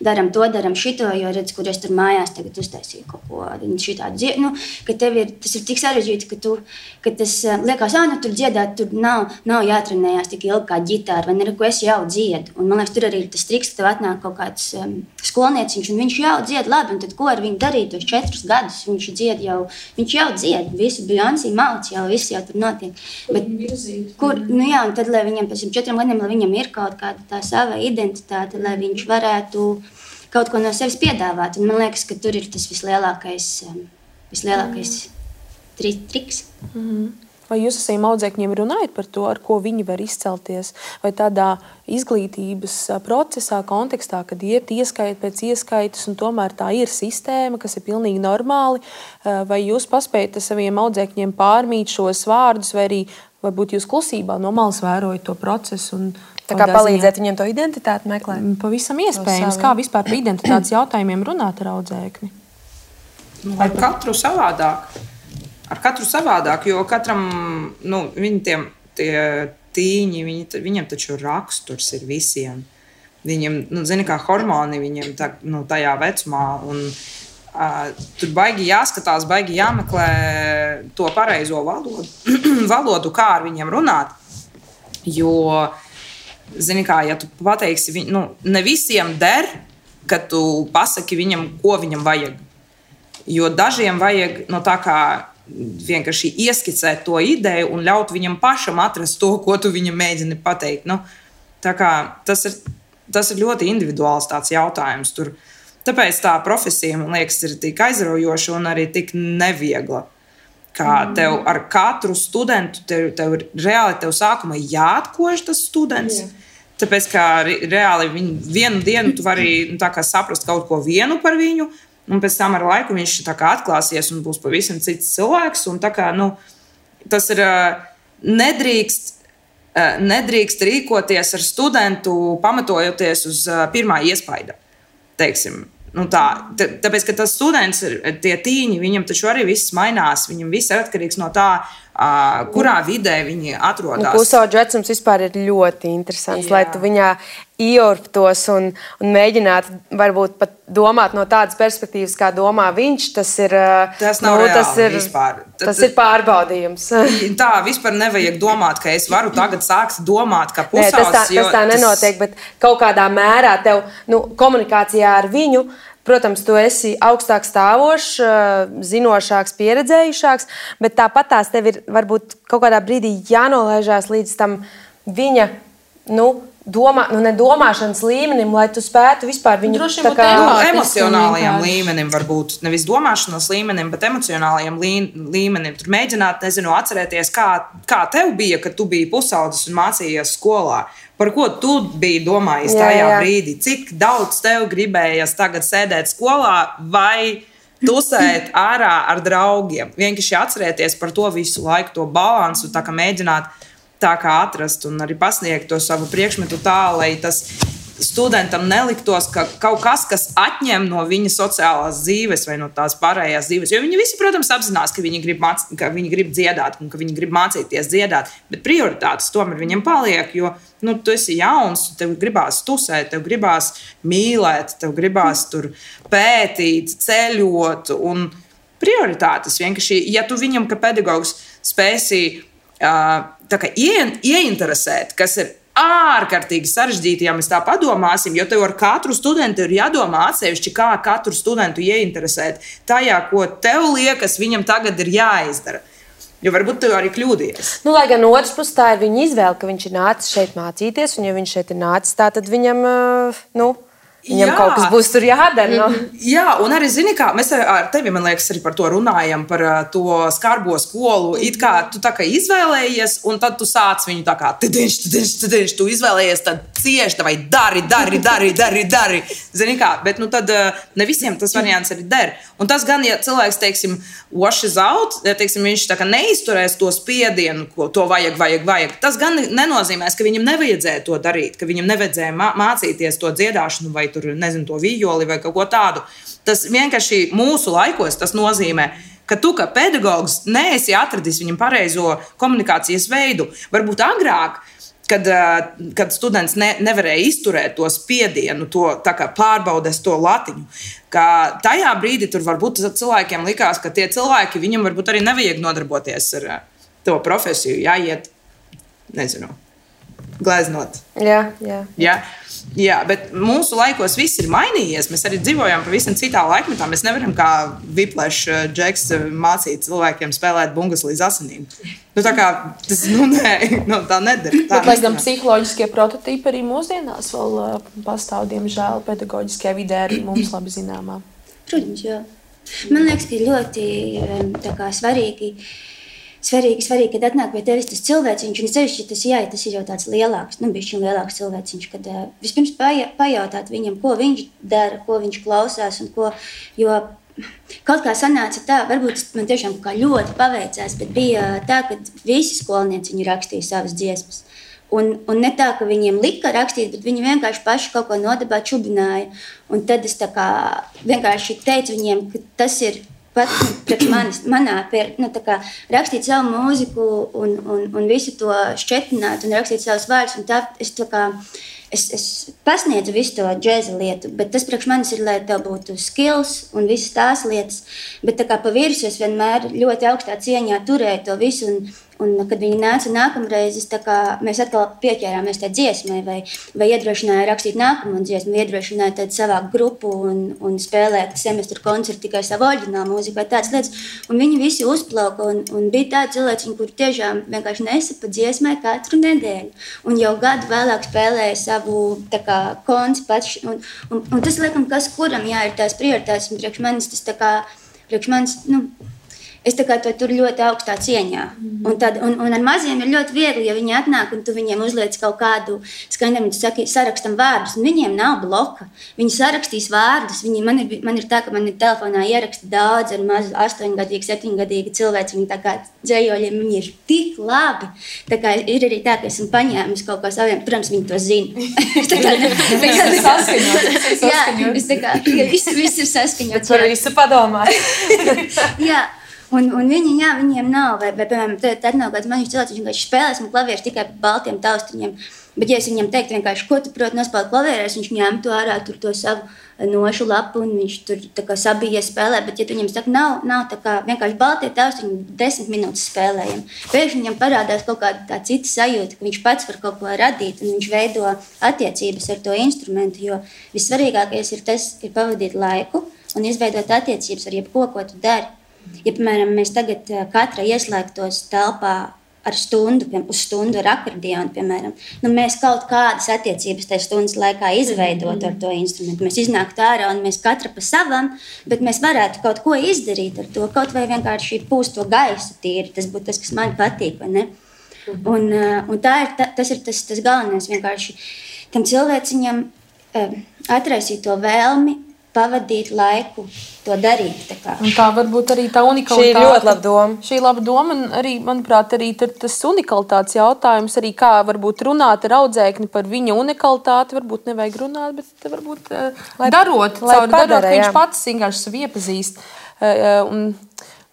daram to, daram šito, jo redz, kur es tur mājās tagad uztaisīju kaut ko šitādu dzied. Nu, ka tev tas ir tik sarežģīti, ka tas liekas, nu tur dziedāt, tur nav jātrenējās tik ilgi kā ģitāra, vai ne, ko es jau dziedu. Un man liekas, tur arī ir tas triks, ka tev atnāk kaut kāds skolnieciņš, un viņš jau dzied labi, un tad ko ar viņu darīt tos 4 gadus? Viņš jau dzied, visu Beyoncé malc jau, viss jau tur notiek. Bet, nu jā, un tad, lai viņam pēc 4 gadiem, lai viņam ir kaut kāda tā sava identitāte, lai viņš varētu kaut ko no sevis piedāvāt. Un man liekas, ka tur ir tas vislielākais triks. Vai jūs ar saviem audzēkņiem runājat par to, ar ko viņi var izcelties? Vai tādā izglītības procesā, kontekstā, kad iet ieskaita pēc ieskaitas un tomēr tā ir sistēma, kas ir pilnīgi normāli? Vai jūs paspējat ar saviem audzēkņiem pārmīt šos vārdus, vai arī varbūt jūs klusībā no malas vērojat to procesu? Tā kā palīdzēt viņiem to identitāti meklēt? Pavisam iespējams. Kā vispār par identitātes jautājumiem runāt ar audzēkni? Ar katru savādāk, jo katram, viņi tie tīņi, viņiem taču raksturs ir visiem. Viņiem, zini, kā hormoni viņiem tajā vecumā, un tur baigi jāskatās, baigi jāmeklē to pareizo valodu, kā ar viņiem runāt. Jo, zini kā, ja tu pateiksi, ne visiem der, ka tu pasaki viņam, ko viņam vajag. Jo dažiem vajag tā kā vienkārši ieskicēt to ideju un ļaut viņam pašam atrast to, ko tu viņam mēģini pateikt. Tā kā tas ir ļoti individuāls tāds jautājums. Tāpēc tā profesija, man liekas, ir tik aizraujoša un arī tik neviegla. Kā tev ar katru studentu, tev reāli sākumā jāatkož tas students. Tāpēc, ka reāli vienu dienu tu vari saprast kaut ko vienu par viņu, un pēc tam ar laiku viņš atklāsies un būs pavisam cits cilvēks. Un tas ir nedrīkst rīkoties ar studentu, pamatojoties uz pirmā iespaida. Teiksim. Tāpēc, ka tas students, tie tīņi, viņam taču arī viss mainās. Viņam viss ir atkarīgs no tā, kurā vidē viņi atrodas. Pusauģu vecums vispār ir ļoti interesants, lai tu viņā ieurptos un mēģinātu varbūt pat domāt no tādas perspektīvas, kā domā viņš. Tas nav reāli vispār. Tas ir pārbaudījums. Tā vispār nevajag domāt, ka es varu tagad sākt domāt, ka pusaudzis. Tas tā nenotiek, bet kaut kādā mērā tev komunikācijā ar viņu, protams, tu esi augstāk stāvošs, zinošāks, pieredzējušāks, bet tāpat tās tev ir varbūt kaut kādā brīdī jānolaižās līdz tam viņa, nedomāšanas līmenim, lai tu spētu vispār viņu emocionālajiem līmenim, varbūt nevis domāšanas līmenim, bet emocionālajiem līmenim. Tur mēģināt, atcerēties, kā tev bija, kad tu biji pusaudzis un mācījies skolā. Par ko tu biji domājis tajā brīdī? Cik daudz tev gribējies tagad sēdēt skolā vai tusēt ārā ar draugiem? Vienkārši atcerēties par to visu laiku, to balansu, tā kā mēģināt tā kā atrast un arī pasniegt to savu priekšmetu tā, lai tas studentam neliktos, ka kaut kas atņem no viņa sociālās dzīves vai no tās pārējās dzīves. Jo viņi visi, protams, apzinās, ka viņi grib dziedāt un ka viņi grib mācīties dziedāt, bet prioritātes tomēr viņiem paliek, jo tu esi jauns, tev gribās tusēt, tev gribās mīlēt, tev gribās tur pētīt, ceļot un prioritātes vienkārši, ja tu viņam, ka pedagogs spēsi ieinteresēt, kas ir ārkārtīgi sarežģīti, ja mēs tā padomāsim, jo tev ar katru studentu ir jādomā atsevišķi, kā katru studentu ieinteresēt tajā, ko tev liekas, viņam tagad ir jāizdara. Jo varbūt tu arī kļūdījies. Lai gan otrs puses tā ir viņa izvēle, ka viņš ir nācis šeit mācīties, un ja viņš šeit ir nācis, tā tad viņam, viņam kaut kas būs tur jādara. Jā, un arī, zini kā, mēs ar tevi, man liekas, arī par to runājam, par to skarbo skolu. It kā tu tā kā izvēlējies, un tad tu sāc viņu tā kā tidiņš, tu izvēlējies, tad cieši, vai dari. Zini kā, bet tad ne visiem tas variants arī der. Un tas gan, ja cilvēks, teiksim, washes out, ja, teiksim, viņš tā kā neizturēs to spiedienu, ko to vajag, tas gan nenozīmēs, ka viņam nevajadzēja to darīt, ka viņam nevajadzēja mācīties to dziedāšanu vai tur, nezinu, to vijoli vai kaut ko tādu. Tas vienkārši mūsu laikos tas nozīmē, ka tu kā pedagogs neesi atradis viņam pareizo komunikācijas veidu. Varbūt agrāk kad students nevarēja izturēt to spiedienu, to pārbaudes to latiņu. Ka tajā brīdī tur varbūt cilvēkiem likās, ka tie cilvēki, viņam varbūt arī nevajag nodarboties ar to profesiju, jāiet, nezinu, gleznot. Jā, bet mūsu laikos viss ir mainījies. Mēs arī dzīvojam pavisam citā laikmetā. Mēs nevaram kā Whiplash Džeks mācīt cilvēkiem spēlēt bungas līdz asinīm. Tā kā tas, tā nedara. Bet, lai gan psiholoģiskie prototipi arī mūsdienās vēl pastāv, diemžēl, pedagoģiskajā vidē arī mums labi zināmā. Protams, jā. Man liekas, ka ļoti svarīgi, kad atnāk pie tevis tas cilvēciņš, un sevišķi tas ir jau tāds lielāks, bišķiņ lielāks cilvēciņš, kad vispirms pajautāt viņam, ko viņš dara, ko viņš klausās, un jo kaut kā sanāca tā, varbūt man tiešām kā ļoti paveicās, bet bija tā, ka visi skolnieci viņu rakstīja savas dziesmas. Un ne tā, ka viņiem lika rakstīt, bet viņi vienkārši paši kaut ko nodabā čubināja. Un tad es vienkārši teicu viņiem, ka tas ir pat priekš manā rakstīt savu mūziku un visu to šķetināt un rakstīt savus vārdus. Un tā es pasniedzu visu to džēza lietu, bet tas priekš manis ir, lai tev būtu skills un visas tās lietas. Bet pa virsmu es vienmēr ļoti augstā cieņā turēju to visu. Un kad viņi nāca nākamreiz, mēs atkal pieķērāmies tai dziesmai vai iedrošināja rakstīt nākamo dziesmu, iedrošināja tad savākt grupu un spēlēt semestru koncertu tikai savu oriģinālu mūziku vai tādas lietas. Un viņi visi uzplauka un bija tādi cilvēki, kuri tiešām vienkārši nesapa dziesmai katru nedēļu. Un jau gadu vēlāk spēlēja savu konci pats. Un tas, laikam, kas kuram ir tās prioritātes, un priekš manis, es to tur ļoti augstā cieņā. Un ar maziem ir ļoti viegli, ja viņi atnāk un tu viņiem uzliec kaut kādu skaņdarbu, tu saki, sarakstam vārdus, un viņiem nav bloka. Viņi sarakstīs vārdus. Man ir tā, ka man ir telefonā ieraksti daudz ar mazu 8-gadīgu, 7-gadīgu cilvēku. Viņi dzējoļiem, viņi ir tik labi. Ir arī tā, ka esmu paņēmusi kaut ko saviem, protams, viņi to zina. Viss ir saskaņots. Par visu padomāt. Jā. Un viņiem nav, vai piemēram, tad nav kāds maņš cilvēks, viņš vienkārši spēlēs un klavieres tikai par baltiem taustiņiem. Bet, ja es viņam teiktu vienkārši, ko tu proti nospēlēt klavierēs, viņš ņemtu ārā to savu nošu lapu un viņš tur sabijies spēlē. Bet, ja tu viņam saka, nav vienkārši baltie taustiņi 10 minūtes spēlējam, pēkšņi viņam parādās kaut kāda tā cita sajūta, ka viņš pats var kaut ko radīt un viņš veido attiecības ar to instrumentu, jo vissvarīgākais ir tas, ir pavadīt laiku un izveidot attiecības ar jebko, ko tu dari. Ja, piemēram, mēs tagad katra ieslēgtos telpā uz stundu ar akordionu, piemēram, mēs kaut kādas attiecības tajā stundas laikā izveidot ar to instrumentu. Mēs iznāktu ārā un mēs katra pa savam, bet mēs varētu kaut ko izdarīt ar to, kaut vai vienkārši pūst to gaisu tīri. Tas būtu tas, kas man patīk, vai ne? Un tas ir tas galvenais, vienkārši tam cilvēciņam atraisīt to vēlmi, pavadīt laiku, to darīt. Un tā varbūt arī tā unikalitāte. Šī ir ļoti laba doma. Šī ir laba doma, un arī, manuprāt, arī tas unikalitātes jautājums, arī kā varbūt runāt ar audzēkni par viņa unikalitāti, varbūt nevajag runāt, bet varbūt darot, ka viņš pats vienkārši sevi iepazīst.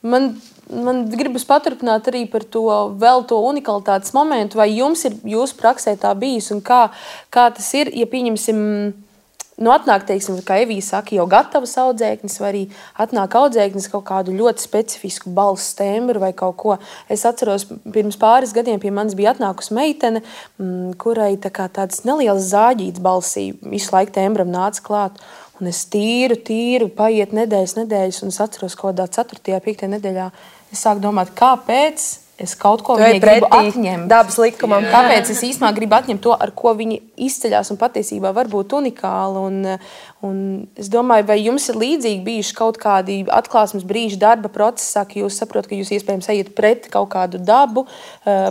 Man gribas paturpināt arī par to unikalitātes momentu, vai jums ir jūsu praksē tā bijis, un kā tas ir, ja pieņemsim, atnāk, teiksim, kā Evija saka, jau gatavas audzēknis, vai arī atnāk audzēknis kaut kādu ļoti specifisku balss tembru vai kaut ko. Es atceros, pirms pāris gadiem pie manis bija atnākusi meitene, kurai tāds neliels zāģīts balsī visu laiku tembram nāca klāt. Un es tīru, paiet nedēļas, un es atceros, kaut kādā 4. 5. nedēļā es sāku domāt, kāpēc es kaut ko viņai gribu atņemt. Dabas likumam. Kāpēc es īstenībā gribu atņemt to, ar ko viņi izceļās un patiesībā var būt unikāli. Un es domāju, vai jums ir līdzīgi bijuši kaut kādi atklāsmes brīži darba procesā, ka jūs saprotat, ka jūs iespējams ejat pret kaut kādu dabu.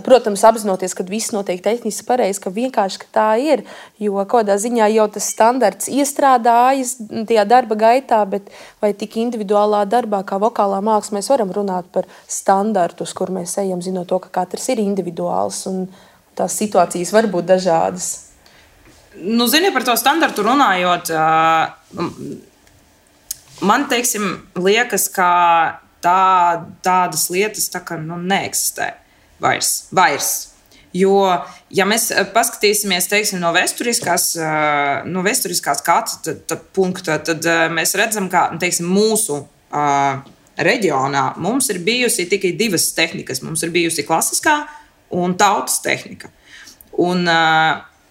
Protams, apzinoties, ka viss notiek tehniski pareizi, ka vienkārši tā ir. Jo kādā ziņā jau tas standarts iestrādājas tajā darba gaitā, bet vai tik individuālā darbā kā vokālā māksla mēs varam runāt par standartu, uz kur mēs ejam, zinot to, ka katrs ir individuāls un tās situācijas var būt dažādas. Zini, par to standartu runājot, man, teiksim, liekas, ka tādas lietas neeksistē vairs. Jo, ja mēs paskatīsimies, teiksim, no vēsturiskās skatu punkta, tad mēs redzam, ka, teiksim, mūsu reģionā mums ir bijusi tikai divas tehnikas. Mums ir bijusi klasiskā un tautas tehnika. Un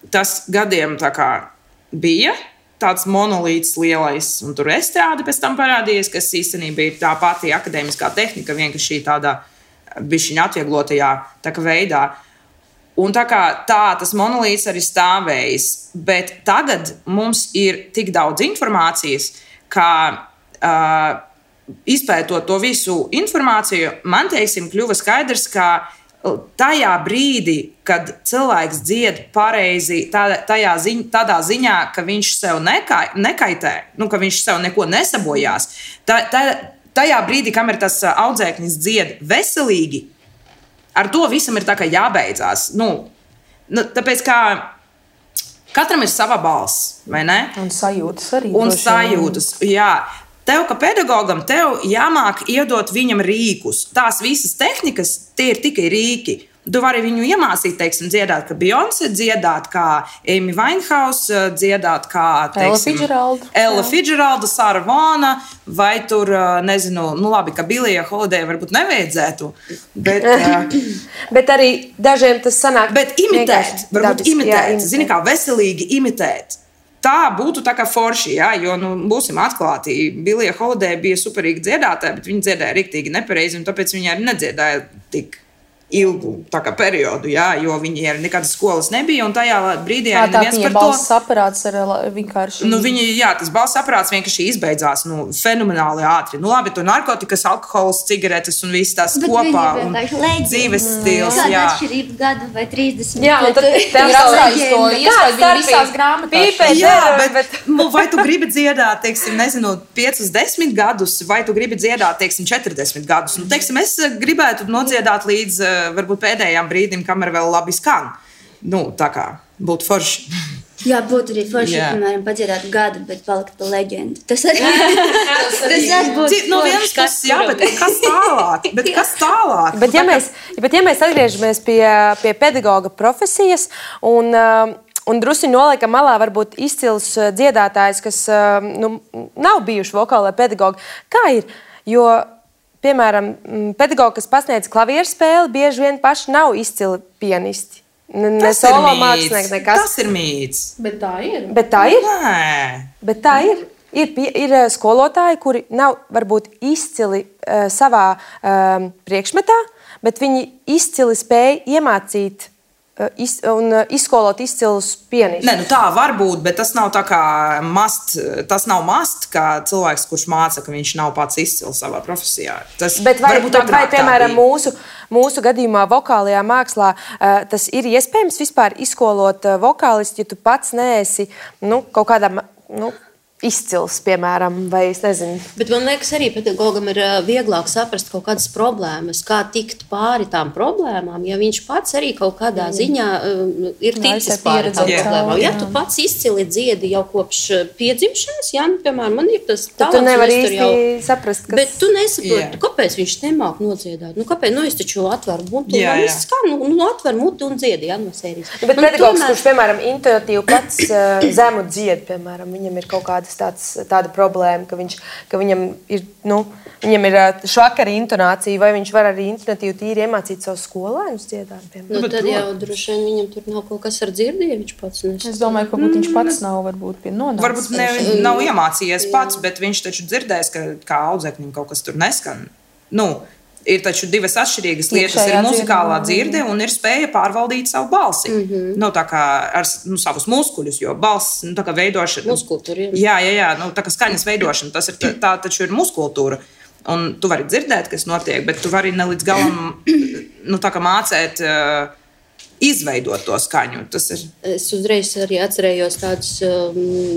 tas gadiem tā kā bija tāds monolīts lielais, un tur estrāde pēc tam parādījies, kas īstenībā ir tā pati akadēmiskā tehnika, vienkārši tādā bišķiņa atvieglotajā tā kā veidā. Un tā kā tas monolīts arī stāvējis, bet tagad mums ir tik daudz informācijas, ka izpētot to visu informāciju, man, teiksim, kļuva skaidrs, ka tajā brīdī, kad cilvēks dzied pareizi, tādā ziņā, ka viņš sev nekaitē, ka viņš sev neko nesabojās, tajā brīdī, kamēr tas audzēknis dzied veselīgi, ar to visam ir tā kā jābeidzās. Tāpēc, ka katram ir sava balss, vai ne? Un sajūtas arī. Un sajūtas, jā. Tev, kā pedagogam, tev jāmāk iedot viņam rīkus. Tās visas tehnikas, tie ir tikai rīki. Tu vari viņu iemācīt, teiksim, dziedāt, kā Beyoncé, dziedāt, kā Amy Winehouse, dziedāt, kā, teiksim, Ella Fitzgeralda, Sara Vona, vai tur, nezinu, labi, ka Billija Holiday varbūt nevajadzētu, bet... bet arī dažiem tas sanāk... Bet imitēt, varbūt imitēt, zini, kā veselīgi imitēt. Tā būtu tā kā forši, jā, jo, būsim atklāti, Billija Holiday bija superīgi dziedātāja, bet viņa dziedāja riktīgi nepareizi, un tāpēc viņa arī nedziedāja tik ilgu periodu, jā, jo viņi arī nekādas skolas nebija, un tajā brīdī arī neviens par to... Tā balss aparāts ar vienkārši... Tas balss aparāts vienkārši izbeidzās, fenomenāli ātri. Labi, tur narkotikas, alkohols, cigaretes un viss tās kopā. Un dzīves stils, jā. Kāda atšķirība gadu vai 30? Jā, un tad tev atstājas to iespēju bija visās grāmatās. Jā, bet vai tu gribi dziedāt, teiksim, nezinu, 5-10 gadus, vai tu gribi dziedāt, teiksim, 40 gadus? Teiksim, es gribētu nodziedāt līdz varbūt pēdējām brīdim, kamēr vēl labi skan. Tā kā būtu forši. Jā, būtu arī forši, piemēram, padziedāt gadu, bet palikt pa leģendu. Tas arī būtu. No vienas puses, jā, bet kas tālāk? Bet ja mēs atgriežamies pie pedagoga profesijas un drusku noliekam malā varbūt izcils dziedātājs, kas nav bijuši vokālai pedagogi, kā ir? Jo piemēram, pedagogi, kas pasniedz klavieru spēli, bieži vien paši nav izcili pianisti. Ne solo mākslinieki, nekas. Tas ir mīts. Bet tā ir. Bet tā ir? Nē. Bet tā ir. Ir skolotāji, kuri nav varbūt izcili savā priekšmetā, bet viņi izcili spēj iemācīt un izskolot izcilus pianistus. Nē, tā var būt, bet tas nav tā kā tas nav mast, kā cilvēks, kurš māca, ka viņš nav pats izcils savā profesijā. Bet vai piemēram, mūsu gadījumā vokālajā mākslā tas ir iespējams vispār izskolot vokālistu, ja tu pats neesi kaut kādā izcils, piemēram, vai es nezinu. Bet man liekas, arī pedagogam ir vieglāk saprast kaut kādas problēmas, kā tikt pāri tām problēmām, ja viņš pats arī kaut kādā ziņā ir ticis pāri tām problēmām. Ja tu pats izcili dziedi jau kopš piedzimšanas, piemēram, man ir tas talants. Tu nevari īsti saprast, kas... Bet tu nesaproti, kāpēc viņš nemāk nodziedāt. Kāpēc? Es taču atveru muti, atver muti un dziedi, no sērijas. Bet pedagogs, kurš, piemēram, intuitīvi pats zemu dzied, piemēram, viņam ir kaut kāda tāda problēma, ka viņam ir švakara intonācija, vai viņš var arī intonatīvi tīri iemācīt savus skolēnus dziedāt, piemēram. Tad jau droši vien viņam tur nav kaut kas ar dzirdi, ja viņš pats Es domāju, ka viņš pats nav varbūt pie nonācis. Varbūt nav iemācījies pats, bet viņš taču dzirdēs, ka kā audzēknim kaut kas tur neskan. Ir taču divas atšķirīgas lietas. Ir muzikālā dzirde un ir spēja pārvaldīt savu balsi. Tā kā ar savus muskuļus, jo balss tā kā veidošana... Muskultūra, jā. Tā kā skaņas veidošana, tā taču ir muskultūra. Un tu vari dzirdēt, kas notiek, bet tu vari ne līdz galam tā kā mācēt... izveidot to skaņu. Es uzreiz arī atcerējos tādus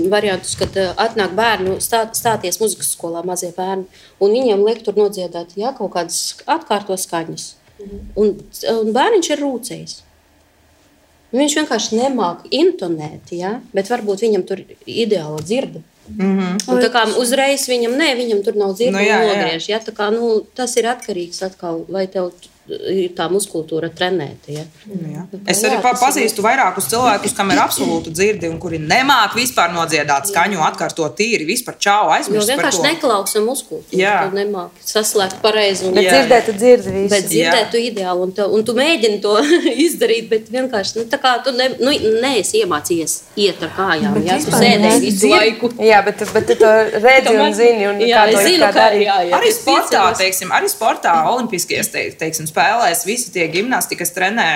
variantus, kad atnāk bērnu stāties muzikas skolā, mazie bērni, un viņiem liek tur nodziedāt kaut kādas atkārto skaņas. Un bērniņš ir rūcējis. Viņš vienkārši nemāk intonēt, bet varbūt viņam tur ideāla dzirde. Un tā kā uzreiz viņam tur nav dzirde un nogriež. Tā kā, tas ir atkarīgs atkal, vai tev tā muskultūra trenēta. Ja? Es arī pazīstu vairākus cilvēkus, kam ir absolūti dzirdi un kuri nemāk vispār nodziedāt skaņu, atkārtot tīri, vispār čau aizmirst par to. Vienkārši neklausā muskultūru. Tu nemāk saslēgt pareizi. Bet dzirdēt, tu dzirdi visu. Bet dzirdēt, tu ideāli, un tu mēģini to izdarīt, bet vienkārši, tā kā tu neesi iemācījies iet ar kājām, ja? Tu sēdēji visu laiku. Jā, bet tu to redzi un zini, un kā to ir kā darīt. Arī sportā, olimpiskajās, teiksim, spēlēs, visi tie gimnastikas trenē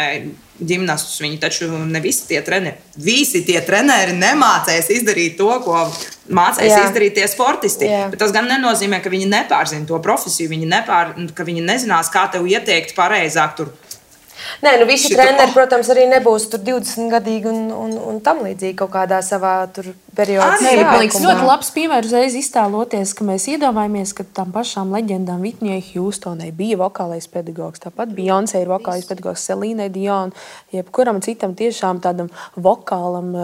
ģimnastus, viņi taču ne visi tie treneri nemācēs izdarīt to, ko mācēs izdarīt tie sportisti. Bet tas gan nenozīmē, ka viņi nepārzina to profesiju, ka viņi nezinās, kā tev ieteikt pareizāk tur. Nē, visi treneri, protams, arī nebūs tur 20-gadīgi un tam līdzīgi kaut kādā savā tur periodā. Man liekas, ļoti labs piemērs uzreiz iztēloties, ka mēs iedomājamies, ka tam pašām leģendām Whitneyai Houstonai bija vokālais pedagogs, tāpat Beyoncé ir vokālais pedagogs, Celine Dion, jebkuram citam tiešām tādam vokālam,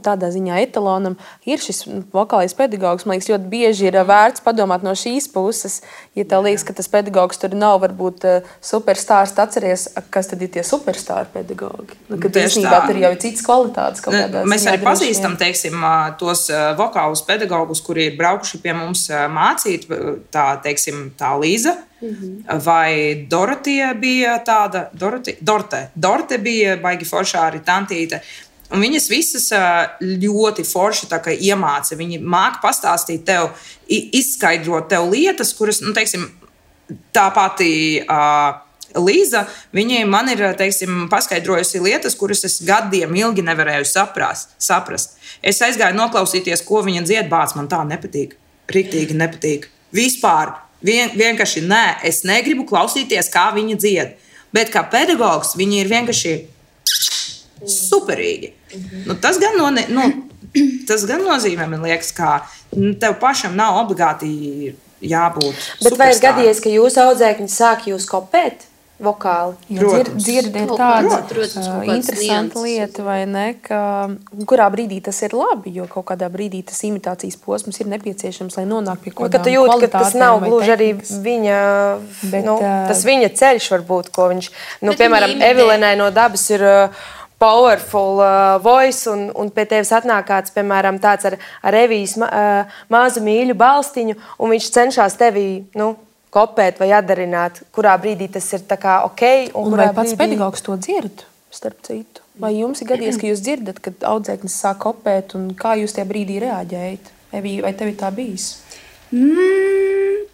tādā ziņā etalonam ir šis vokālais pedagogs. Man liekas, ļoti bieži ir vērts padomāt no šīs puses, ja tev liekas, ka tas pedagogs tur nav varbūt superstārs, atceries, kas tad ir tie superstāri pedagogi. Kad īstenībā tur jau ir citas kvalitātes. Mēs arī pazīstam, teiksim, tos vokālus pedagogus, kuri ir braukuši pie mums mācīt, tā Līza, vai Dorotija bija tāda, Dorte bija baigi foršā arī tantīte. Un viņas visas ļoti forši tā kā iemāca. Viņi māk pastāstīt tev, izskaidrot tev lietas, kuras, teiksim, tā pati Līza, viņai man ir, teiksim, paskaidrojusi lietas, kuras es gadiem ilgi nevarēju saprast. Es aizgāju noklausīties, ko viņa dzied, bāc, man tā nepatīk. Riktīgi nepatīk. Vispār. Vienkārši nē, es negribu klausīties, kā viņa dzied. Bet kā pedagogs, viņa ir vienkārši superīgi. Tas gan nozīmē, man liekas, ka tev pašam nav obligāti jābūt superstāram. Bet vai ir gadījies, ka jūsu audzēkņi sāk jūs kopēt? Vokāli. Dzirdi ir tāda interesanta lieta, vai ne, ka kurā brīdī tas ir labi, jo kaut kādā brīdī tas imitācijas posms ir nepieciešams, lai nonāk pie kaut kādām kvalitātēm. Ka tas nav gluži arī viņa, tas viņa ceļš varbūt, ko viņš, piemēram, Evelinai no dabas ir powerful voice, un pie tevis atnāk kāds, piemēram, tāds ar Evijas mazu mīļu balstiņu, un viņš cenšas tevi, kopēt vai atdarināt, kurā brīdī tas ir tā kā ok. Un vai pats pedagogs to dzird, starp citu? Vai jums ir gadījies, ka jūs dzirdat, kad audzēknis sāk kopēt, un kā jūs tajā brīdī reaģējat? Vai tev ir tā bijis?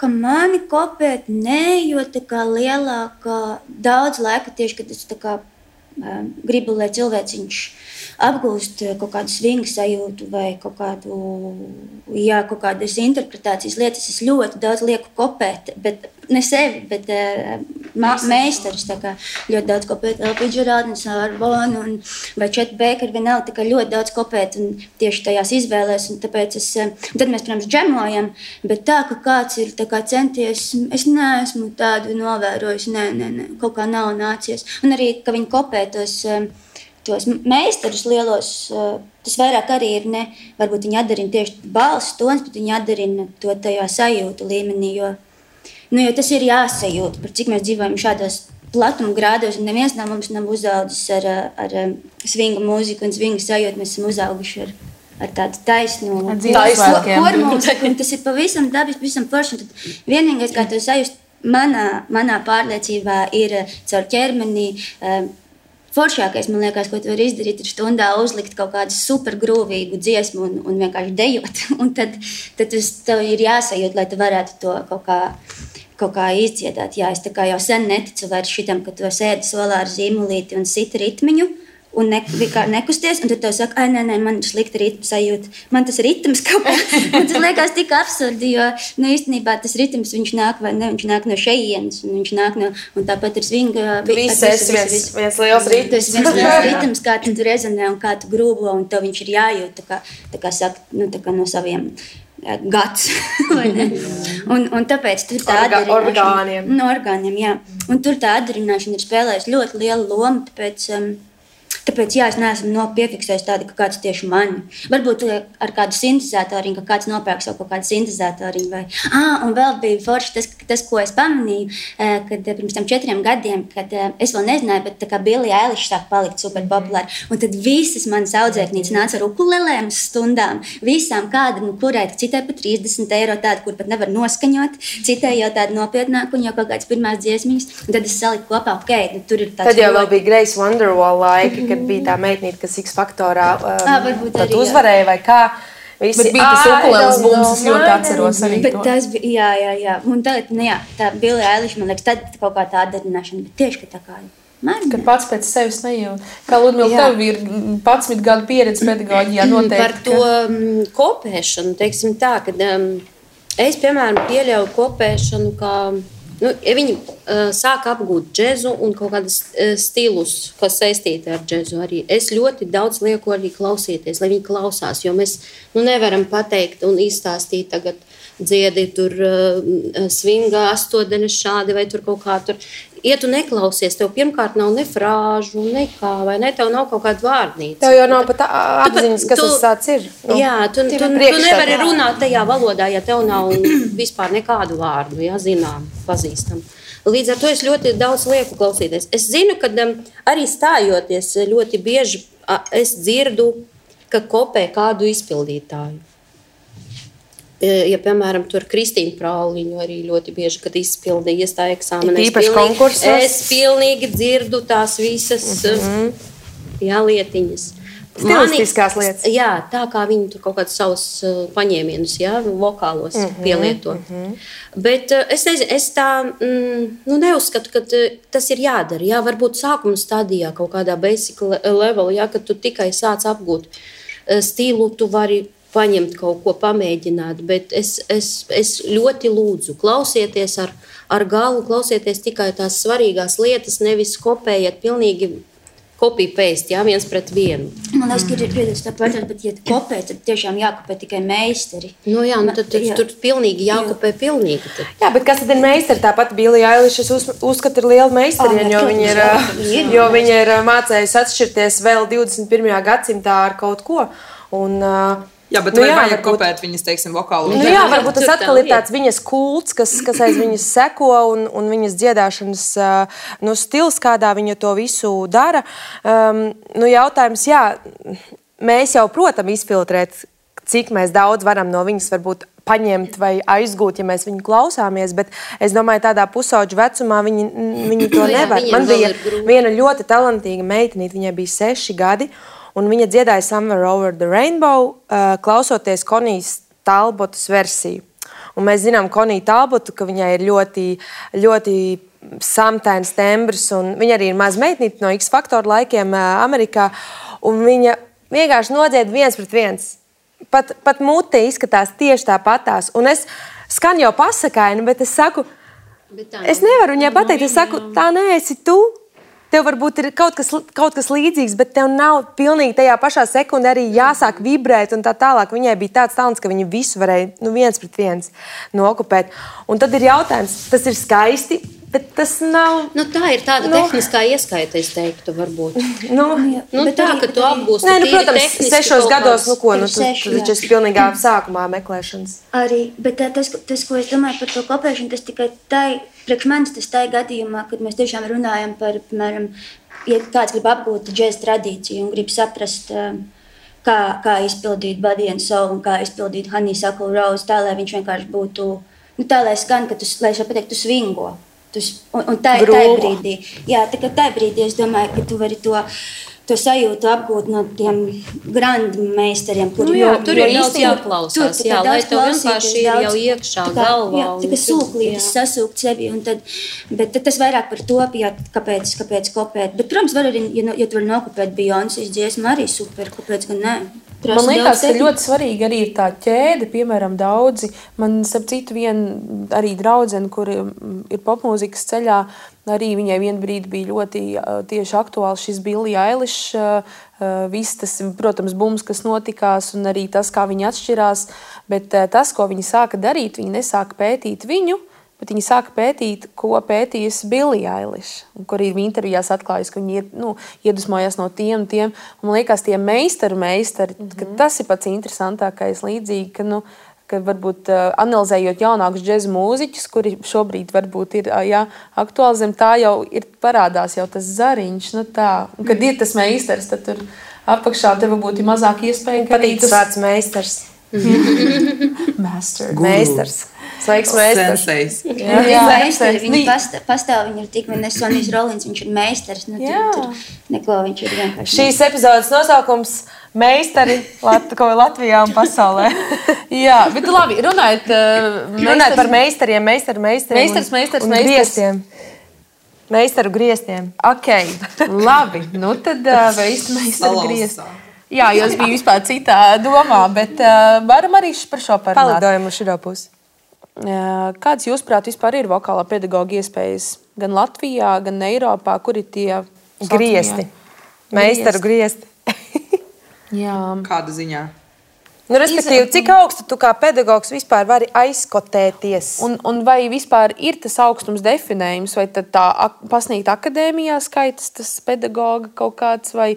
Ka mani kopēt, nē, jo tā kā lielākā daudz laika tieši, kad es tā kā gribu, lai cilvēciņš apgūst kaut kādu svingu sajūtu vai kaut kādas interpretācijas lietas. Es ļoti daudz lieku kopēt, bet ne sevi, bet meistarus. Ļoti daudz kopēt Elpiju Džerādnes, Arbonu vai Četu Bēkaru, vienalga, tā kā ļoti daudz kopēt un tieši tajās izvēlēs. Un tāpēc tad mēs, protams, džemojam, bet tā, ka kāds ir tā kā centies, es neesmu tādu novērojis, nē, kaut kā nav nācies. Un arī, ka viņi kopē tos meistarus lielos, tas vairāk arī ir varbūt viņi atdarina tieši balss tons, bet viņi atdarina to tajā sajūtu līmenī, jo tas ir jāsajūt, par cik mēs dzīvojam šādos platuma grādos, un neviens no mums nav uzaudzis ar svingu mūziku un svingu sajūtu, mēs esam uzauguši ar tādu taisnu hormonu, un tas ir pavisam dabis, pavisam forši, un tad vienīgais, kā to sajust, manā pārliecībā ir caur ķermeni. Foršākais, man liekas, ko tu vari izdarīt, ir stundā uzlikt kaut kādu supergrūvīgu dziesmu un vienkārši dejot. Un tad tev ir jāsajūt, lai tu varētu to kaut kā izdziedāt. Jā, es tā kā jau sen neticu vairs šitam, ka tu sēdi solā ar zīmolīti un sit ritmiņu un nekusties, un tad tev saka, nē, man ir slikta ritma sajūta. Man tas ritms kaut kā, man tas liekas tik absurdi, jo īstenībā tas ritms, viņš nāk no šejienes, un viņš nāk no, un tāpat ir svinga. Viens liels ritms. Tas viens liels ritms, kā tu rezonē un kā tu grūbo, un tev viņš ir jājūt, tā kā saka, tā kā no saviem gads. un tāpēc tur tā orgāniem. No orgāniem, jā. Un tur tā atdarināšana ir spēlējusi ļoti lielu lomu, tāpēc Tāpēc, jā, es neesmu piefiksējis tādu, ka kāds tieši mani. Varbūt ar kādu sintezētoriņu, ka kāds nopērk savu kaut kādu sintezētoriņu. Vai... un vēl bija forši tas, ko es pamanīju, kad pirms tam 4 gadiem, kad es vēl nezināju, bet tā kā Billie Eilish sāk palikt super populāri. Un tad visas manas audzēknītes nāca ar ukulelēm uz stundām. Visām kāda, kurai citai pa 30 eiro tāda, kur pat nevar noskaņot, citai jau tāda nopietnāka un jau kaut kādas pirmās dziesmiņas. Un tad es saliku kopā, tur ir tāds... Tad jau vēl bija Grace Wonderwall laika, kad bija tā meitnīte, kas X-faktorā pat uzvarēja vai kā. Visi, bet bija tas ukuleles bums, es ļoti atceros arī to. Tas bija, jā. Un tagad, tā Billie Eilish, man liekas, tad kaut kā tā atdarināšana, bet tieši, ka tā kā Ka pats pēc sevis nejūt. Kā Ludmila, tev ir 11 gadu pieredze pedagoģijā noteikti. Par to kopēšanu, teiksim tā, kad es, piemēram, pieļauju kopēšanu, kā, ja viņi sāk apgūt džezu un kaut kādas stilus, kas saistīti ar džezu arī. Es ļoti daudz lieku arī klausīties, lai viņi klausās, jo mēs nevaram pateikt un izstāstīt tagad dziedi tur swinga 8 šādi vai tur kaut kā tur. Ja tu neklausies, tev pirmkārt nav ne frāžu, nekā, vai ne, tev nav kaut kāda vārnīca. Tev jau nav pat apziņas, kas tas tāds ir. Jā, tu nevari runāt tajā valodā, ja tev nav vispār nekādu vārdu, jā, zinām, pazīstam. Līdz ar to es ļoti daudz lieku klausīties. Es zinu, ka arī stājoties ļoti bieži es dzirdu, ka kopē kādu izpildītāju. Ja, piemēram, tur Kristīna Prauliņu arī ļoti bieži, kad izpildīja iestāja eksāmenā. Īpaši konkursos. Es pilnīgi dzirdu tās visas lietiņas. Stilistiskās lietas. Jā, tā kā viņi tur kaut kādus savus paņēmienus, vokālos pielieto. Bet es nezinu, es tā neuzskatu, ka tas ir jādara. Jā, varbūt sākuma stadijā kaut kādā basic level, kad tu tikai sāc apgūt stilu, tu vari paņemt kaut ko, pamēģināt, bet es ļoti lūdzu, klausieties ar galvu, klausieties tikai tās svarīgās lietas, nevis kopējiet pilnīgi copy-paste, viens pret vienu. Man liekas, ka ir piedāts tā pārtāt, bet ja kopē, tad tiešām jākopē tikai meistari. Tad tur pilnīgi jākopē pilnīgi. Tad. Jā, bet kas tad ir meistari? Tāpat Billie Eilish, es uzskatu, ir liela meistariņa, jo viņa ir mācējusi atšķirties vēl 21. gadsimtā ar kaut ko. Un, jā, bet vai vajag kopēt viņas, teiksim, vokālu? Jā, varbūt tas atkal ir tāds viņas kults, kas aiz viņas seko un viņas dziedāšanas stils, kādā viņa to visu dara. Jautājums, jā, mēs jau, protams, izfiltrēt, cik mēs daudz varam no viņas varbūt paņemt vai aizgūt, ja mēs viņu klausāmies, bet es domāju, tādā pusauģu vecumā viņi to nevar. Man bija viena ļoti talantīga meitenīte, viņai bija 6 gadi, un viņa dziedāja Somewhere Over the Rainbow, klausoties Konijas Talbotas versiju. Un mēs zinām Koniju Talbotu, ka viņai ir ļoti, ļoti samtains tembrs, un viņa arī ir maza meitnīte no X-faktora laikiem Amerikā, un viņa vienkārši nodzied 1 pret 1. Pat mute izskatās tieši tāpatās. Un es skan jau pasakaini, bet es saku, es nevaru viņai pateikt, es saku, tā neesi tu. Tev varbūt ir kaut kas līdzīgs, bet tev nav pilnīgi tajā pašā sekundē arī jāsāk vibrēt un tā tālāk. Viņai bija tāds talants, ka viņa visu varēja 1 pret 1 nokopēt. Un tad ir jautājums, tas ir skaisti, bet tas nav... tā ir tāda tehniskā ieskaita, es teiktu, varbūt. Tā, ka tu apgūsti tīri protams, 6 gados, tas ir pilnīgā sākumā meklēšanas. Arī, bet tas, ko es domāju par to kopēšanu, tas tikai priekš manis tas tā gadījumā, kad mēs tiešām runājam par, piemēram, ja kāds grib apgūt džēza tradīciju un grib saprast, kā izpildīt Body and Soul un kā izpildīt Honeysuckle Rose, tā, lai viņš vienkārši būtu, tā, lai skan, ka lai es pateikt, tu swingo. Un tā brīdī, tā brīdī es domāju, ka tu vari to sajūtu apgūt no tiem grandmeistariem, tur ir daudz jāklausās, lai tev vienkārši ir jau iekšā galvā. Tā kā sūklītes sasūkt sevi, bet tas vairāk par to, kāpēc kopēt. Bet, protams, var arī, ja tu vari nokopēt Beyoncés dziesmu, arī super, kāpēc gan ne. Man liekas, ka ļoti svarīgi arī ir tā ķēde, piemēram, daudzi. Man, starp citu, arī draudzene, kur ir popmūzikas ceļā, arī viņai vien brīdi bija ļoti tieši aktuāls šis Billie Eilish, viss tas, protams, bums, kas notikās, un arī tas, kā viņi atšķirās, bet tas, ko viņi sāka darīt, viņi nesāka pētīt viņu, bet viņi sāka pētīt, ko pētījusi Billie Eilish, kur arī intervijās atklājas, ka viņi iedvesmojās no tiem. Un man liekas, tie meistari, ka tas ir pats interesantākais līdzīgi, ka varbūt analizējot jaunākus džeza mūziķus, kuri šobrīd varbūt ir aktuāli zem tā, jau ir parādās jau tas zariņš. Un, kad ir tas meistars, tad tur apakšā tev būtu mazāk iespēja. Patīk tas vārds meistars. Meistars. Sveiks, meistars. Viņi pastāv, viņi ir tikmēr Sonijs Rolins, viņš ir meistars. Tur neko viņš ir vienkārši. Šīs epizodes nosaukums meistari Latvijā un pasaulē. Jā, bet labi, runājot par meistariem, meistars un griestiem. Meistaru griestiem. Ok, labi. Tad meistaru griestiem. Jā, jo es biju vispār citā domā, bet varam arī par šo parunāt. Palidojam uz šito pusi. Kāds jūsuprāt vispār ir vokālā pedagoga iespējas gan Latvijā, gan Eiropā? Kur ir tie griesti? Meistaru griesti. Jā. Kāda ziņā? Respektīvi, cik augstu tu kā pedagogs vispār vari aizkotēties? Un vai vispār ir tas augstums definējums, vai tad tā pasniegt akadēmijā skaitas tas pedagoga kaut kāds, vai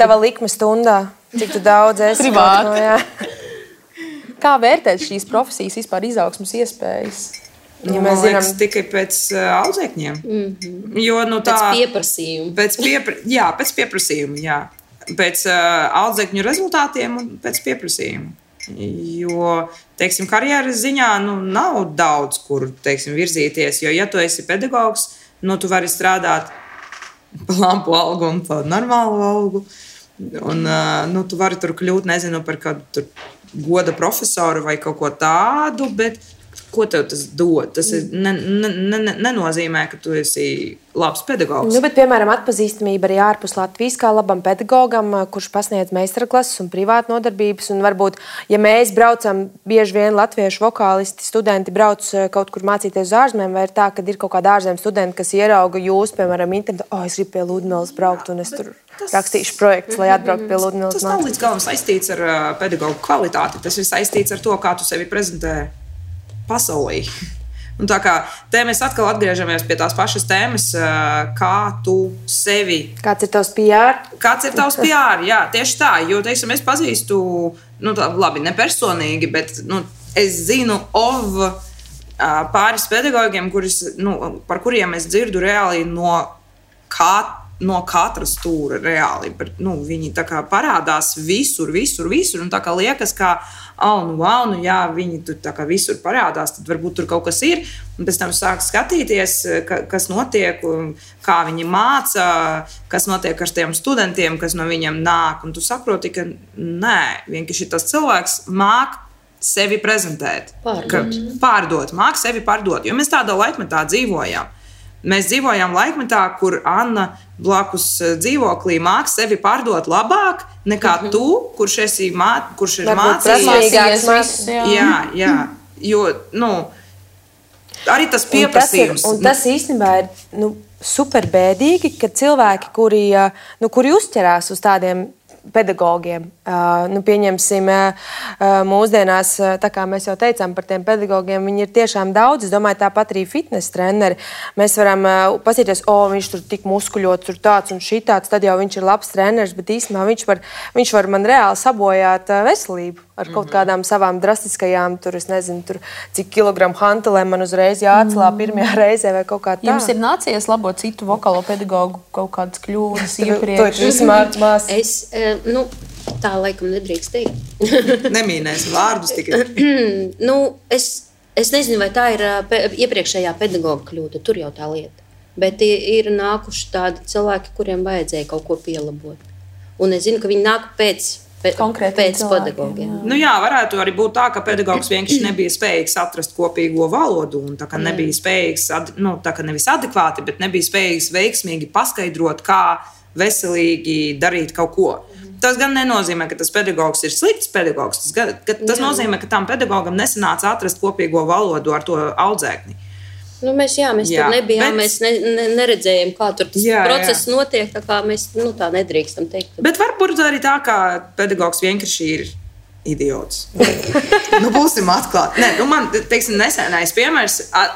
tava likme stundā? Cik tu daudz esi? Privāti. Kā vērtēt šīs profesijas vispār izaugsmas iespējas? Ja mēs zinām, tikai pēc audzēkņiem. Jo, pēc pieprasījuma. Pēc pieprasījuma, jā. Pēc audzēkņu rezultātiem un pēc pieprasījuma. Jo, teiksim, karjeras ziņā nav daudz, kur, teiksim, virzīties. Jo, ja tu esi pedagogs, tu vari strādāt pa lampu algu un pa normālu algu. Un tu vari tur kļūt, nezinu, par kādu goda profesoru vai kaut ko tādu, bet ko tev tas dod? Tas nenozīmē, ka tu esi labs pedagogs. Bet, piemēram, atpazīstamība arī ārpus Latvijas kā labam pedagogam, kurš pasniedz meistarklases un privātu nodarbības. Un varbūt, ja mēs braucam, bieži vien latviešu vokālisti, studenti brauc kaut kur mācīties uz ārzemēm, vai ir tā, ka ir kaut kāda ārzemju studenti, kas ierauga jūs, piemēram, internetā, es gribu pie Ludmilas braukt un es tur rakstīšu projektus, lai atbrauktu pie Ludmilas. Tas nav līdz galam saistīts ar pedagogu kvalitāti. Tas ir saistīts ar to, kā tu sevi prezentē pasaulē. Un tā kā te mēs atkal atgriežamies pie tās pašas tēmas, kā tu sevi... Kāds ir tavs PR? Kāds ir tavs PR, jā, tieši tā. Jo, teiksim, es pazīstu, labi, ne personīgi, bet es zinu pāris pedagogiem, par kuriem es dzirdu reāli no katra stūra reāli. Viņi tā kā parādās visur. Un tā kā liekas, ka jā, viņi tur tā kā visur parādās, tad varbūt tur kaut kas ir. Un pēc tam sāk skatīties, kas notiek, kā viņi māca, kas notiek ar tiem studentiem, kas no viņiem nāk. Un tu saproti, ka nē, vienkārši tas cilvēks māk sevi prezentēt. Pārdot. Māk sevi pārdot. Jo mēs tādā laikmetā dzīvojam. Mēs dzīvojam laikmetā, kur Anna blakus dzīvoklī māk sevi pārdot labāk nekā tu, kurš ir mācījies. Jā. Jo, arī tas pieprasījums. Un tas īstenībā ir super bēdīgi, ka cilvēki, kuri uzķerās uz tādiem pedagogiem. Pieņemsim, mūsdienās, tā kā mēs jau teicām par tiem pedagogiem, viņi ir tiešām daudz. Es domāju, tāpat arī fitness treneri. Mēs varam pasīties, viņš tur tik muskuļots, tur tāds un šitāds, tad jau viņš ir labs treneris, bet īstenībā viņš var man reāli sabojāt veselību ar kaut kādām savām drastiskajām, es nezinu, cik kilogramu hantelēm man uzreiz jāatcelā pirmajā reizē vai kaut kā tā. Jums ir nācies labot citu vokālo pedagogu kaut kādas kļūdas iepriekš? Tu esi mācās. Tā laikam nedrīkst teikt. Nemīnēsim vārdus tikai. Es nezinu, vai tā ir iepriekšējā pedagoga kļūda. Tur jau tā lieta. Bet ir nākuši tādi cilvēki, kuriem vajadzēja kaut ko pielabot. Un es zinu, ka viņi nāk pēc pedagogiem. Jā, varētu arī būt tā, ka pedagogs vienkārši nebija spējīgs atrast kopīgo valodu un tā kā nebija spējīgs, tā kā nevis adekvāti, bet nebija spējīgs veiksmīgi paskaidrot, kā veselīgi darīt kaut ko. Tas gan nenozīmē, ka tas pedagogs ir slikts pedagogs. Tas nozīmē, ka tam pedagogam nesanāca atrast kopīgo valodu ar to audzēkni. Mēs tur nebijām, mēs neredzējām, kā tur tas process notiek, tā kā mēs tā nedrīkstam teikt. Bet varbūt arī tā, ka pedagogs vienkārši ir idiots. Būsim atklāti. Nē, man, teiksim, nesenais piemērs,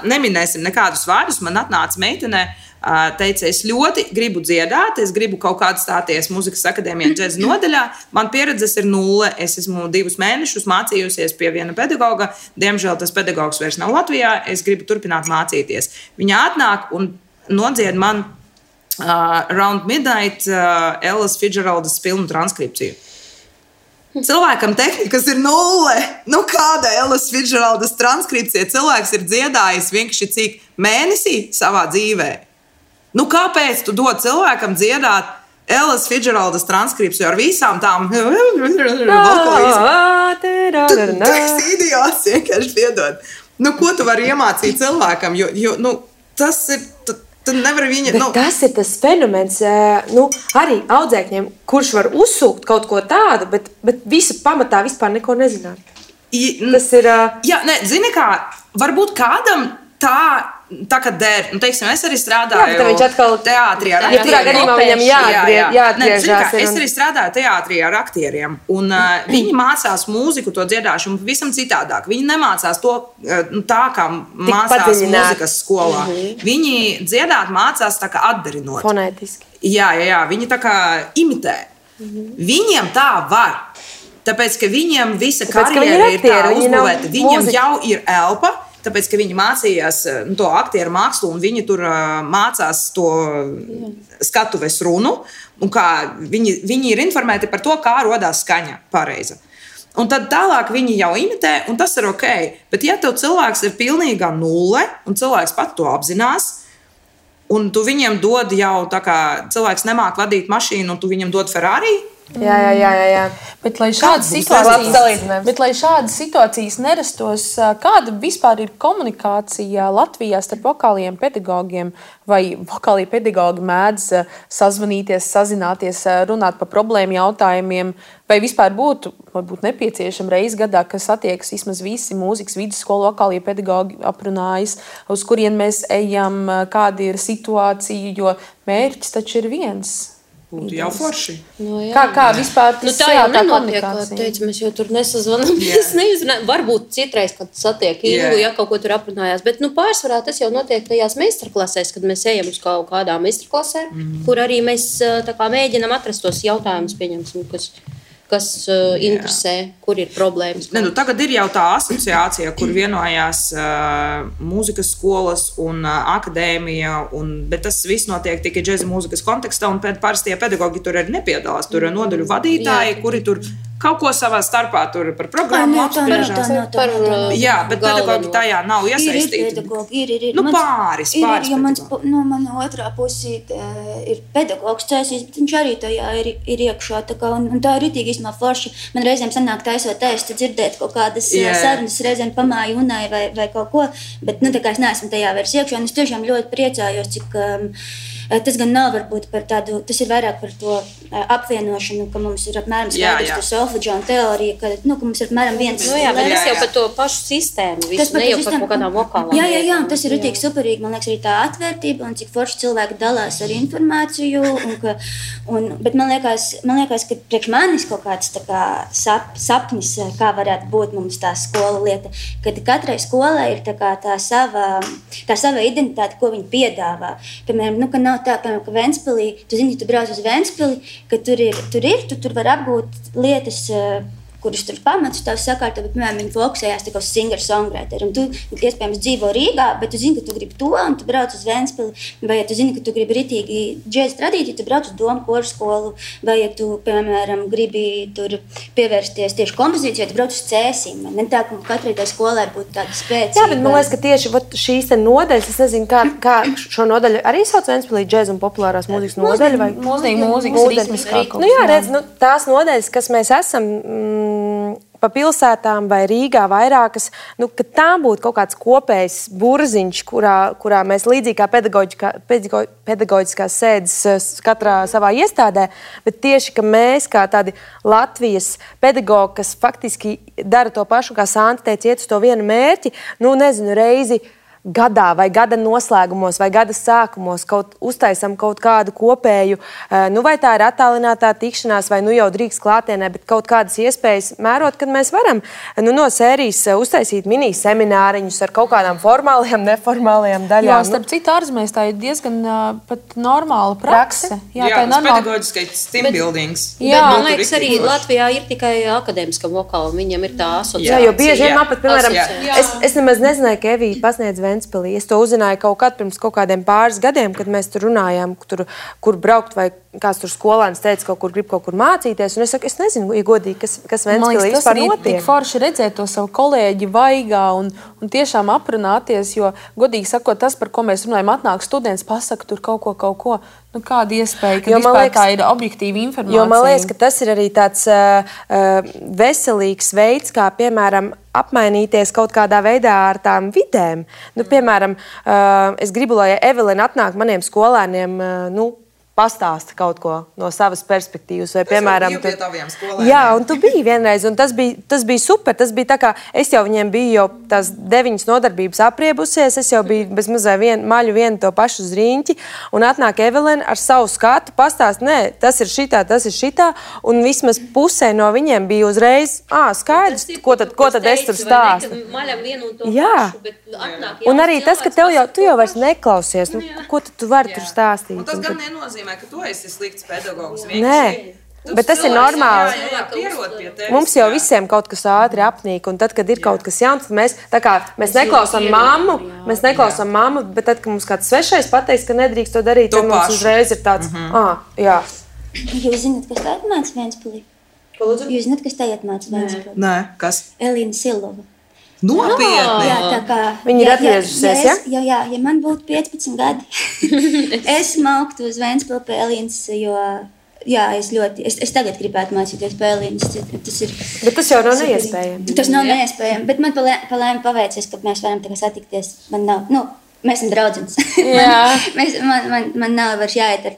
neminēsim nekādus vārdus, man atnāca meitene, teica, es ļoti gribu dziedāt, es gribu kaut kādā stāties Mūzikas akadēmijā džēza nodaļā. Man pieredzes ir 0. Es esmu 2 mēnešus mācījusies pie viena pedagoga. Diemžēl tas pedagogs vairs nav Latvijā. Es gribu turpināt mācīties. Viņa atnāk un nodzied man Round Midnight Ellas Fitzgeraldas filmu transkripciju. Cilvēkam tehnikas ir 0. Kāda Ellas Fitzgeraldas transkripcija? Cilvēks ir dziedājis vienkārši cik mēnesī savā dzīvē. Kāpēc tu dod cilvēkam dziedāt Ellas Fitzgeraldas transkripciju ar visām tām vokalizmām? Tu esi idiots, vienkārši piedod. Ko tu vari iemācīt cilvēkam? Jo tas ir... Tu nevari viņa... Tas ir tas fenomens, arī audzēkņiem, kurš var uzsūkt kaut ko tādu, bet visu pamatā vispār neko nezināt. Tas ir... Jā, zini kā, varbūt kādam tā kā der, teiksim, es arī strādāju teātrī ar aktieriem. Es arī strādāju teātrī ar aktieriem, un viņi mācās mūziku, to dziedāšanu pavisam citādāk. Viņi nemācās to tā, kā mācās mūzikas skolā. Viņi dziedāt mācās tā kā atdarinot. Fonētiski. Jā, viņi tā kā imitē. Viņiem tā var. Tāpēc, ka viņiem visa karjera ir tā uzbūvēta. Viņiem jau ir elpa. Tāpēc, ka viņi mācījās to aktieru mākslu un viņi tur mācās to skatuves runu. Un viņi ir informēti par to, kā rodās skaņa pareiza. Un tad tālāk viņi jau imitē, un tas ir ok. Bet ja tev cilvēks ir pilnīgā 0, un cilvēks pat to apzinās, un tu viņiem dod jau tā kā cilvēks nemāk vadīt mašīnu, un tu viņam dod Ferrari, Jā. Bet, lai šādas situācijas nerastos, kāda vispār ir komunikācija Latvijā starp vokāliem pedagogiem? Vai vokālie pedagogi mēdz sazvanīties, sazināties, runāt par problēmu jautājumiem? Vai vispār būtu nepieciešama reize gadā, kas attiekas vismaz visi mūzikas vidusskolu vokālie pedagogi aprunājas, uz kurien mēs ejam, kāda ir situācija, jo mērķis taču ir viens. Būtu jau forši. Kā vispār tas tā jau nenotiek, kā teicu, mēs jau tur nesazvanamies, neizrunājam. Varbūt citreiz, kad satiek Ingu, ja kaut ko tur aprunājās, bet pārsvarā tas jau notiek tajās meistarklasēs, kad mēs ejam uz kaut kādām meistarklasēm, kur arī mēs tā kā mēģinam atrast tos jautājumus, pieņemsim, kas interesē, kur ir problēmas. Tagad ir jau tā asociācija, kur vienojās mūzikas skolas un akadēmija, bet tas viss notiek tikai džeza mūzikas kontekstā, un parastie pedagogi tur arī nepiedalās. Tur ir nodaļu vadītāji, kuri tur kaut ko savā starpā tur par programmu apspriežās. Jā, bet pedagogi tajā nav iesaistīti. Ir. Pāris pedagogi. Mana otrā pusīte ir pedagogs cēsīs, bet viņš arī tajā ir iekšā. Un tā ir ritīgi īstenībā forši. Man reizēm sanāk taisot ēstu, dzirdēt kaut kādas sarunas, reizēm pamāju unai vai kaut ko, bet tā kā es neesmu tajā vairs iekšā, un es tiešām ļoti priecājos, cik tas gan nav varbūt par tādu, tas ir vairāk par to apvienošanu, ka mums ir apmēram skaidrs to solfeģionu teoriju, ka mums ir apmēram viens... bet tas jau par to pašu sistēmu, visu, ne jau par kaut kādām vokālām. Jā, tas ir ritīgi superīgi, man liekas, arī tā atvērtība, un cik forši cilvēki dalās ar informāciju, bet man liekas, ka priekš manis kaut kāds tā kā sapnis, kā varētu būt mums tā skola lieta, kad katrai skolai ir tā kā tā sava identitāte, ko viņi piedāvā. Piemēram, ka nav tā, piemēram, ka Ventspilī, tu zini, tu brauc uz Ventspili, ka tur var apgūt lietas, kuras tur pamatus tās sakārto, bet, piemēram, viņi fokusējās tā kā uz singer-songwriter. Un tu, iespējams, dzīvo Rīgā, bet tu zini, ka tu gribi to, un tu brauc uz Ventspili. Vai ja tu zini, ka tu gribi ritīgi džēza tradīciju, tu brauc uz Domu koru skolu. Vai ja tu, piemēram, gribi tur pievērsties tieši kompozīcijai, tu brauc uz Cēsīm. Ne tā, ka katrai tai skolai būtu tāda spēcīga. Jā, bet man liekas, ka tieši šīs nodaļas, es nezinu, kā šo nodaļu arī sauc Ventspilī džēza un populārās mūzikas nodaļa. Vai mūzikas ritmiskā. Jā, redz, tās nodaļas, kas mēs esam pa pilsētām vai Rīgā vairākas, ka tām būtu kaut kāds kopējs burziņš, kurā mēs līdzīgi kā pedagoģiskās sēdes katrā savā iestādē, bet tieši, ka mēs kā tādi Latvijas pedagogi, kas faktiski dara to pašu, kā Santa teica, iet uz to vienu mērķi, reizi gadā vai gada noslēgumos vai gada sākumos uztaisam kaut kādu kopēju, vai tā ir attālinātā tikšanās, vai jau drīkst klātienē, bet kaut kādas iespējas mērot, kad mēs varam no sērijas uztaisīt mini semināriņus ar kaut kādām formālajām, neformālajām daļām. Jā, starp citu ārzemēs tā ir diezgan pat normāla prakse. Jā, tā ir normāla. Pedagoģiskais team buildings. Jā, man liekas, arī Latvijā ir tikai akadēmiskam vokālam, viņam ir tā asociācija. Jā, jo bieži vien man pat, piemēram, es nemaz nezināju, ka Evija pasniedz Ventspilī. Es to uzzināju pirms kaut kādiem pāris gadiem, kad mēs tur runājām, kur braukt, vai kāds tur skolēns teica, grib kaut kur mācīties. Un es saku, es nezinu, ja godīgi, kas Ventspilī vispār notiek. Tik forši redzēt to savu kolēģi vaigā un tiešām aprunāties, jo, godīgi sakot, tas, par ko mēs runājam, atnāk students, pasaka tur kaut ko. Kāda iespēja, ka vispār tā ir objektīva informācija? Jo man liekas, ka tas ir arī tāds veselīgs veids, kā, piemēram, apmainīties kaut kādā veidā ar tām vidēm. Piemēram, es gribu, lai Evelina atnāk maniem skolēniem, pastāsta kaut ko no savas perspektīvas. Vai, piemēram, pie taviem skolēniem. Jā, un tu biji vienreiz, un tas bija super. Tas bija tā kā, es jau viņiem biju jau tās 9 nodarbības apriebusies, es jau biju bez mazai maļu vienu to pašu zriņķi, un atnāk Evelina ar savu skatu, pastāst, nē, tas ir šitā, un vismaz pusē no viņiem bija uzreiz, skaidrs, ko tad es tur stāstu. Jā, un arī tas, ka tu jau vairs neklausies, ko tu vari tur stāstīt. Un tas gan nenozīmē, ka tu esi slikts pedagogs. Nē, bet tas ir normāli. Mums jau visiem kaut kas ātri apnīk, un tad, kad ir kaut kas jauns, tad mēs neklausām mammu, bet tad, kad mums kāds svešais pateiks, ka nedrīkst to darīt, tad mums uzreiz ir tāds, jā. Jūs zināt, kas tā atnāca Ventspilī? Jūs zināt, kas tā atnāca Ventspilī? Nē, kas? Elīna Silova. Nopietni! Jā, tā kā... Viņa ir atgriežusies, ja? Jā, ja man būtu 15 gadi, es mauktu uz Ventspili pie Elīnas, jo... Jā, es tagad gribētu mācīties pie Elīnas. Bet tas jau nav neiespējami. Tas nav neiespējami, bet man palēmi paveicies, ka mēs varam tagad satikties. Man nav... Mēs esam draudzenes. man nav vairs jāiet ar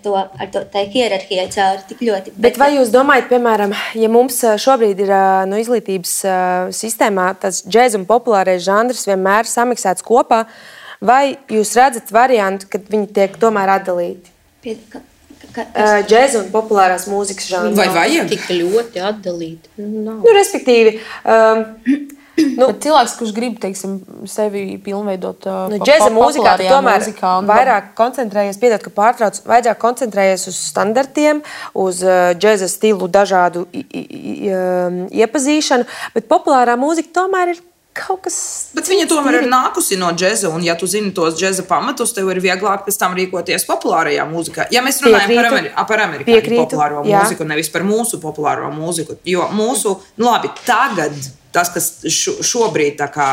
to tā hierarhijai cauri tik ļoti. Bet vai jūs domājat, piemēram, ja mums šobrīd ir no izglītības sistēmā tas džēza un populārais žanrs vienmēr samiksēts kopā, vai jūs redzat variantu, kad viņi tiek tomēr atdalīti? Džēza un populārās mūzikas žanrs. Vai vajag? Tik ļoti atdalīti. Respektīvi... cilvēks, kurš grib, teiksim, sevi pilnveidot džēza mūzikā, tu tomēr vairāk koncentrējies, piedod, ka pārtrauc, vairāk koncentrējies uz standartiem, uz džēza stilu dažādu iepazīšanu, bet populārā mūzika tomēr ir kaut kas... Bet viņa tomēr ir nākusi no džēza, un ja tu zini tos džēza pamatus, tev ir vieglāk pēc tam rīkoties populārajā mūzikā. Ja mēs runājam par amerikāņu populāro mūziku, nevis par mūsu populāro mūziku, jo mūsu, labi, tagad tas, kas šobrīd tā kā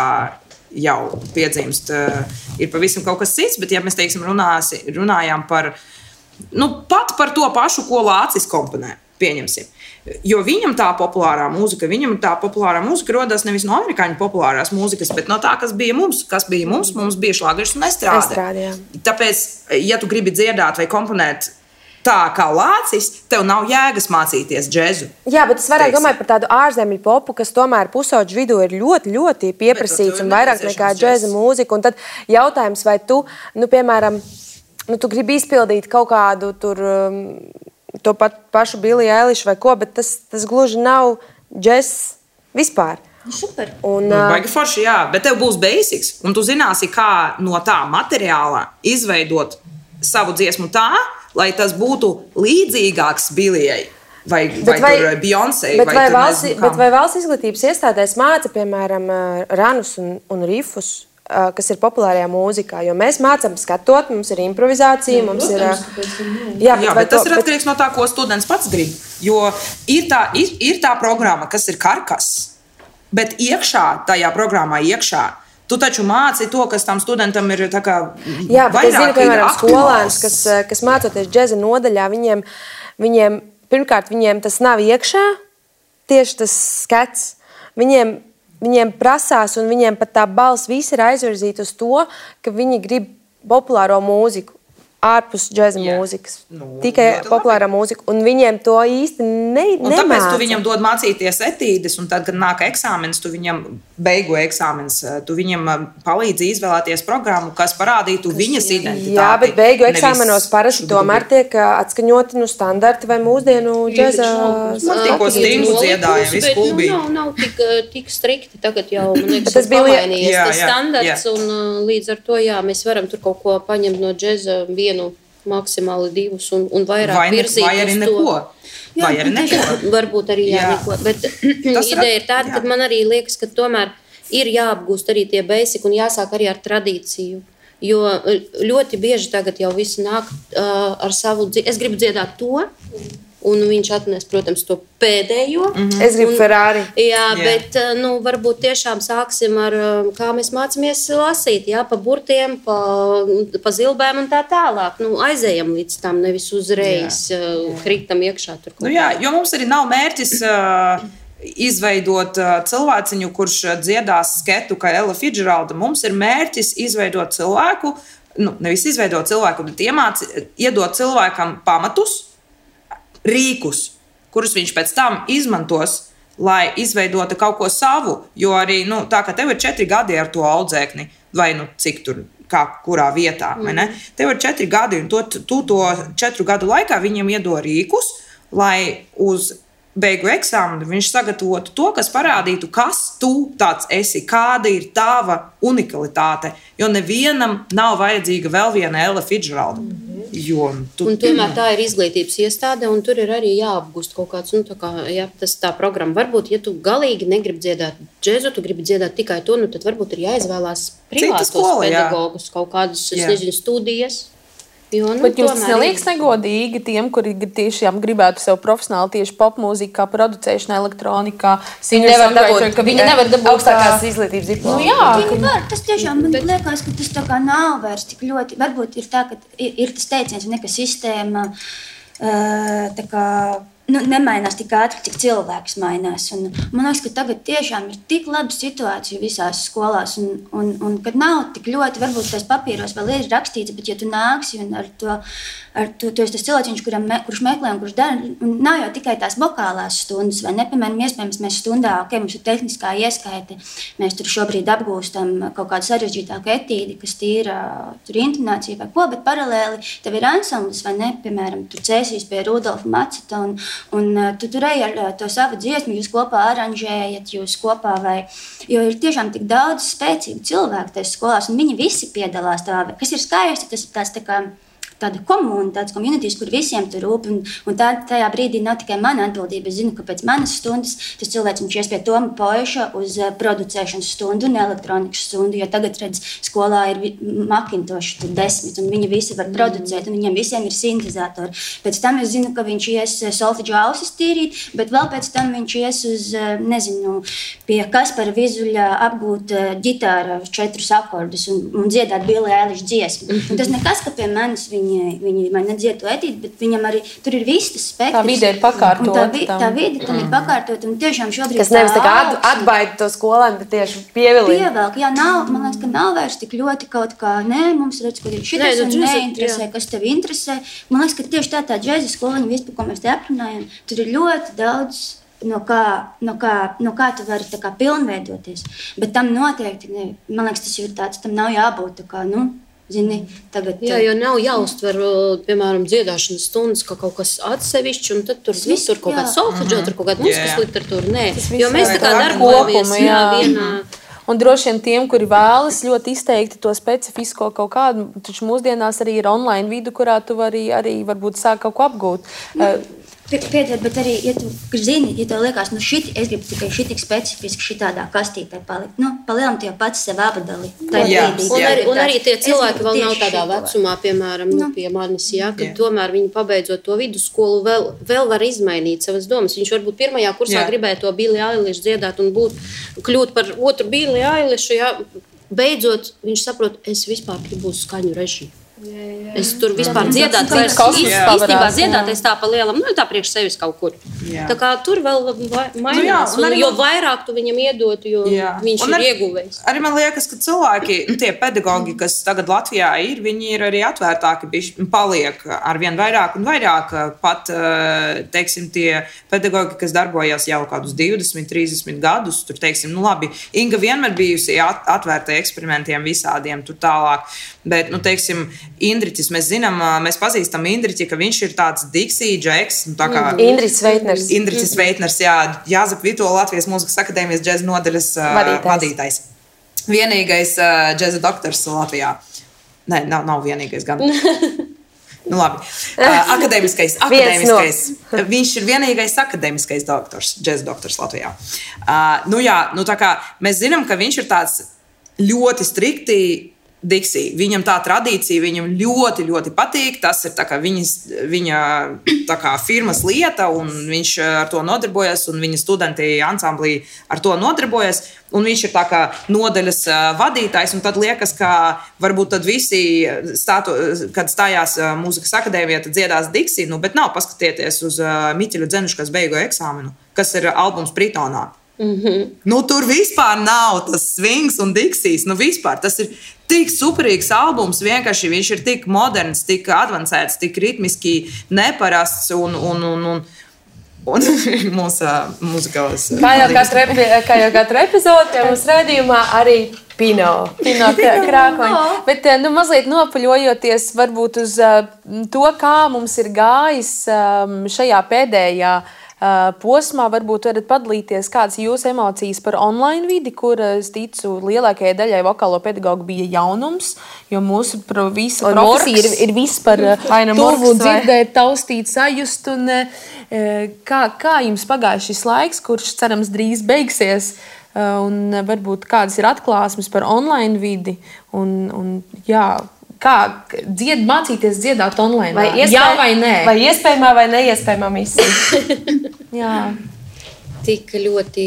jau piedzimst, ir pavisam kaut kas cits, bet ja mēs, teiksim, runājām par, pat par to pašu, ko Lācis komponē, pieņemsim. Jo viņam tā populārā mūzika rodas nevis no amerikāņu populārās mūzikas, bet no tā, kas bija mums. Mums bija šlagers un estrāde. Tāpēc, ja tu gribi dziedāt vai komponēt tā kā Lācis, tev nav jēgas mācīties džēzu. Jā, bet es vairāk domāju par tādu ārzemju popu, kas tomēr pusauģu vidū ir ļoti, ļoti pieprasīts un vairāk nekā džēza mūzika. Un tad jautājums, vai tu, piemēram, tu gribi izpildīt kaut kādu tur, to pašu Billie Eilish vai ko, bet tas gluži nav džēzs vispār. Super. Baigi forši, jā, bet tev būs basics, un tu zināsi, kā no tā materiāla izveidot savu dziesmu tā, lai tas būtu līdzīgāks Billijai vai Beyoncé. Bet vai valsts izglītības iestādēs māca, piemēram, ranus un rifus, kas ir populārajā mūzikā? Jo mēs mācām skatot, mums ir improvizācija, mums ir... Jā, bet tas ir atkarīgs no tā, ko students pats grib. Jo ir tā programma, kas ir karkas, bet tajā programmā iekšā tu taču māci to, kas tam studentam ir tā kā jā, bet es zinu, piemēram, skolēns, kas mācoties džēza nodaļā, viņiem pirmkārt, viņiem tas nav iekšā, tieši tas skats. Viņiem prasās, un viņiem pat tā balss visi ir aizvirzīta uz to, ka viņi grib populāro mūziku. ārpus džeza mūzikas. Tikai populārā mūzika. Un viņiem to īsti nemāca. Tāpēc tu viņam dod mācīties etīdes, un tad, kad nāk eksāmenis, tu viņam beigu eksāmenis, tu viņam palīdzi izvēlēties programmu, kas parādītu viņas identitāti. Jā, bet beigu eksāmenos parasti tomēr tiek atskaņoti standarti vai mūsdienu džeza. Man tikko stingu dziedāja, viss klubī. Nav tik strikti. Tagad jau, man liekas, tas bija pamainījies tas standarts, un līdz ar to, jā, mēs varam tur kaut ko paņemt no džeza vienu, maksimāli 2 un vairāk virzīt vai arī neko. Vai arī neko. Varbūt arī neko. Bet ideja ir tāda, ka man arī liekas, ka tomēr ir jāapgūst arī tie basic un jāsāk arī ar tradīciju. Jo ļoti bieži tagad jau visi nāk ar savu es gribu dziedāt to, un viņš atnes, protams, to pēdējo. Es gribu Ferrari. Jā, bet varbūt tiešām sāksim ar, kā mēs mācāmies lasīt, jā, pa burtiem, pa zilbēm un tā tālāk. Aizējam līdz tam, nevis uzreiz kritam iekšā tur. Jo mums arī nav mērķis izveidot cilvēciņu, kurš dziedās sketu kā Ella Fitzgeralda. Mums ir mērķis izveidot cilvēku, nevis izveidot cilvēku, bet iedot cilvēkam pamatus, rīkus, kurus viņš pēc tam izmantos, lai izveidotu kaut ko savu. Jo arī tā, ka tev ir 4 gadi ar to audzēkni, vai cik tur, kurā vietā. Tev ir 4 gadi, un tu to 4 gadu laikā viņam iedod rīkus, lai uz beigu eksāmenu viņš sagatavotu to, kas parādītu, kas tu tāds esi, kāda ir tava unikalitāte. Jo nevienam nav vajadzīga vēl viena Ella Fitzgeralda. Un tomēr tā ir izglītības iestāde, un tur ir arī jāapgūst kaut kāds, tā programma. Varbūt, ja tu galīgi negribi dziedāt džezu, tu gribi dziedāt tikai to, tad varbūt ir jāizvēlās privātos pedagogus, kaut kādas, studijas. Bet jums neliekas negodīgi tiem, kuri tiešām gribētu sev profesionāli tieši popmūzikā, producēšanā, elektronikā, viņi nevar dabūt augstākās izglītības diplomu. Tas tiešām man liekas, ka tas tā kā nav vairs tik ļoti. Varbūt ir tā, ka ir tas teiciens, ka sistēma tā kā nemainās tik ātri, cik cilvēks mainās. Man liekas, ka tagad tiešām ir tik laba situācija visās skolās, un kad nav tik ļoti, varbūt tais papīros vēl ir rakstīts, bet ja tu nāksi un tu esi tas cilvēciņš, kurš meklē un kurš dara, un nav jau tikai tās vokālās stundas, vai ne, piemēram, iespējams, mēs stundā, mums ir tehniskā ieskaite, mēs tur šobrīd apgūstam kaut kādu sarežģītāku etīdi, kas tīra tur intonācija vai ko, bet paralēli tev ir ansamblis, vai ne, piemēram, tur cēsīs pie Rudolfa Maceta, un tu tur ej ar to savu dziesmu, jūs kopā aranžējat, jūs kopā jo ir tiešām tik daudz spēcīgu cilvēku tajās skolās, un viņi visi piedalās tā, kas ir skaisti, tas ir tāds tā kā tāda komuna, tāds communities, kur visiem tur rūp, un tajā brīdī nav tikai mana atbildība. Es zinu, ka pēc manas stundas tas cilvēks viņš ies pie Toma Poiša uz producēšanas stundu un elektronikas stundu, jo tagad, redz, skolā ir Macintosh 10, un viņi visi var producēt, un viņiem visiem ir sintezatori. Pēc tam es zinu, ka viņš ies solfeģu ausis tīrīt, bet vēl pēc tam viņš ies uz, pie Kaspara Vizuļa apgūt ģitāra 4 akordus un dziedāt Billie Eilish dziesmu. Un tas nekas, ka pie manis viņi man nedzied to etīdi, bet viņam arī tur ir viss tas spektrs. Tā vide ir pakārtot. Tā vide tam ir pakārtot, un tiešām šobrīd tas nevis tā kā atbaida to skolēnu, bet tieši pievilina. Pievelk, man liekas, ka nav vairs tik ļoti kaut kā, mums redz, ka ir šitas un neinteresē, kas tev interesē. Man liekas, ka tieši tā džeza skoliņa, vispār, ko mēs te aprunājam, tur ir ļoti daudz no kā tu vari tā kā pilnveidoties. Bet tam noteikti, man liekas, tas ir tāds, tam nav jābūt tā kā, zini, tagad. Jā, jo nav jāuztver, piemēram, dziedāšanas stundas kā kaut kas atsevišķs, un tad tur kaut kāda solfeģo, tur kaut kāda mūzikas literatūra. Nē, jo mēs tā kā darbojamies vienā. Un droši vien tiem, kuri vēlas ļoti izteikti to specifisko kaut kādu, taču mūsdienās arī ir online vidu, kurā tu vari arī varbūt sāk kaut ko apgūt. Piedod, bet arī, ja tu zini, ja tev liekas, es gribu tikai šitik specifiski šitādā kastītē palikt, palielam tu jau pats sev abadali. Un arī tie cilvēki vēl nav tādā vecumā, piemēram, pie manis, kad tomēr viņi pabeidzot to vidusskolu vēl var izmainīt savas domas. Viņš varbūt pirmajā kursā gribēja to Billie Eilish dziedāt un kļūt par otru Billie Eilish, beidzot viņš saprot, es vispār gribu uz skaņu režiju. Es tur vispār dziedāt, īstenībā dziedāt, es tā pa lielam, tā priekš sevis kaut kur. Tā kā tur vēl mainās, jo vairāk tu viņam iedotu, jo viņš ir ieguvējis. Arī man liekas, ka cilvēki, tie pedagogi, kas tagad Latvijā ir, viņi ir arī atvērtāki, paliek arvien vairāk un vairāk. Pat, teiksim, tie pedagogi, kas darbojas jau kādus 20, 30 gadus, tur, teiksim, labi, Inga vienmēr bijusi atvērta eksperimentiem visādiem tur tālāk. Bet, teiksim, Indriķis, mēs pazīstam Indriķi, ka viņš ir tāds Dixie, Džeks, tā kā Indriķis Veitners, Jāzep Vitola, Latvijas Mūzikas akadēmijas džeza nodaļas vadītājs. Vienīgais džeza doktors Latvijā. Nē, nav vienīgais gan. Labi. Akadēmiskais. Viņš ir vienīgais akadēmiskais doktors, džeza doktors Latvijā. Tā kā mēs zinām, ka viņš ir tāds ļoti strikti Dixie. Viņam tā tradīcija, viņam ļoti, ļoti patīk. Tas ir viņa firmas lieta, un viņš ar to nodarbojas, un viņa studenti ansamblī ar to nodarbojas. Un viņš ir nodaļas vadītājs, un tad liekas, ka varbūt tad visi, kad stājās mūzikas akadēmijā, tad dziedās Dixie, bet nav, paskatieties uz Miķeļu Dzenušu, kas beigo eksāmenu, kas ir albums Britonā. Tur vispār nav tas swings un Dixies. Vispār tas ir tik superīgs albums. Vienkārši viņš ir tik moderns, tik advancēts, tik ritmiski neparasts un mūsu muzikālās. Kā jau katru epizodi mūsu raidījumā arī Pino krākoņi. Bet mazliet nopaļojoties varbūt uz to, kā mums ir gājis šajā pēdējā posmā, varbūt varat padalīties, kādas jūsu emocijas par online vidi, kur, es ticu, lielākajai daļai vokālo pedagogu bija jaunums, jo mūsu visa profesija ir viss par tuvu dzirdēt, taustīt, sajust. Un, kā jums pagāja šis laiks, kurš, cerams, drīz beigsies, un varbūt kādas ir atklāsmes par online vidi, kā mācīties dziedāt online? Jā vai nē? Vai iespējamā vai neiespējamā misija? Jā. Tik ļoti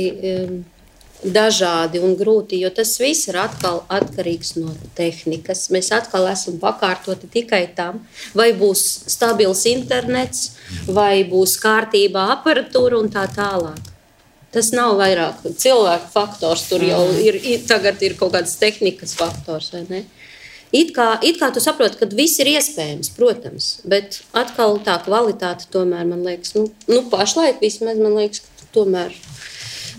dažādi un grūti, jo tas viss ir atkal atkarīgs no tehnikas. Mēs atkal esam pakārtoti tikai tam, vai būs stabils internets, vai būs kārtībā aparatūra un tā tālāk. Tas nav vairāk cilvēku faktors, tur jau tagad ir kaut kāds tehnikas faktors, vai ne? It kā tu saproti, ka viss ir iespējams, protams, bet atkal tā kvalitāte tomēr, man liekas, pašlaik vismaz, man liekas, ka tomēr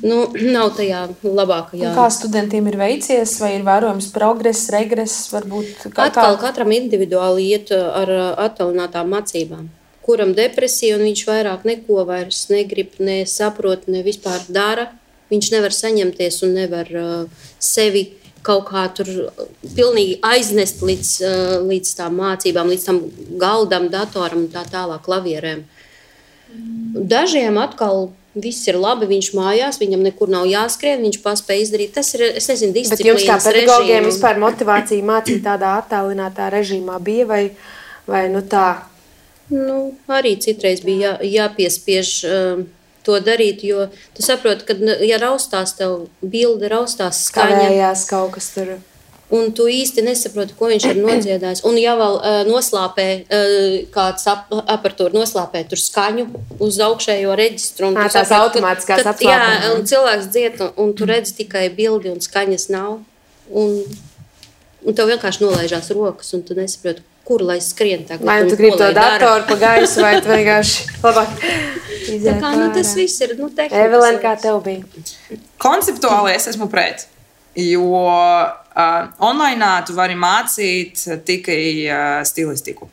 nav tajā labākajā. Kā studentiem ir veicies, vai ir vērojams progress, regress, varbūt? Atkal katram individuāli iet ar attālinātām mācībām. Kuram depresija, un viņš vairāk neko vairs negrib, nesaprot, ne vispār dara. Viņš nevar saņemties un nevar sevi kaut kā tur pilnīgi aiznest līdz tām mācībām, līdz tam galdam, datoram un tā tālāk, klavierēm. Dažiem atkal viss ir labi, viņš mājās, viņam nekur nav jāskrien, viņš paspēj izdarīt. Tas ir, es nezinu, disciplīnas režīmu. Bet jums kā pedagogiem vispār motivācija mācīt tādā attālinātā režīmā bija vai tā? Arī citreiz bija jāpiespiež to darīt, jo tu saproti, ka, ja raustās tev bilde, raustās skaņa. Kavējās kaut kas tur. Un tu īsti nesaproti, ko viņš ir nodziedājis. Un ja vēl noslāpē, kāds aparatūra noslāpē tur skaņu uz augšējo reģistru. Tās automātiskās apslāpē. Jā, un cilvēks dzied, un tu redzi tikai bildi un skaņas nav. Un tev vienkārši nolaižās rokas, un tu nesaproti, kur lai skrien tagad. Vai tu gribi to datoru pa gaisu, vai tu vienkārši labāk izēt pārā? Tas viss ir, tehnikas. Evelēna, kā tev bija? Konceptuāli es esmu pret, jo online tu vari mācīt tikai stilistiku.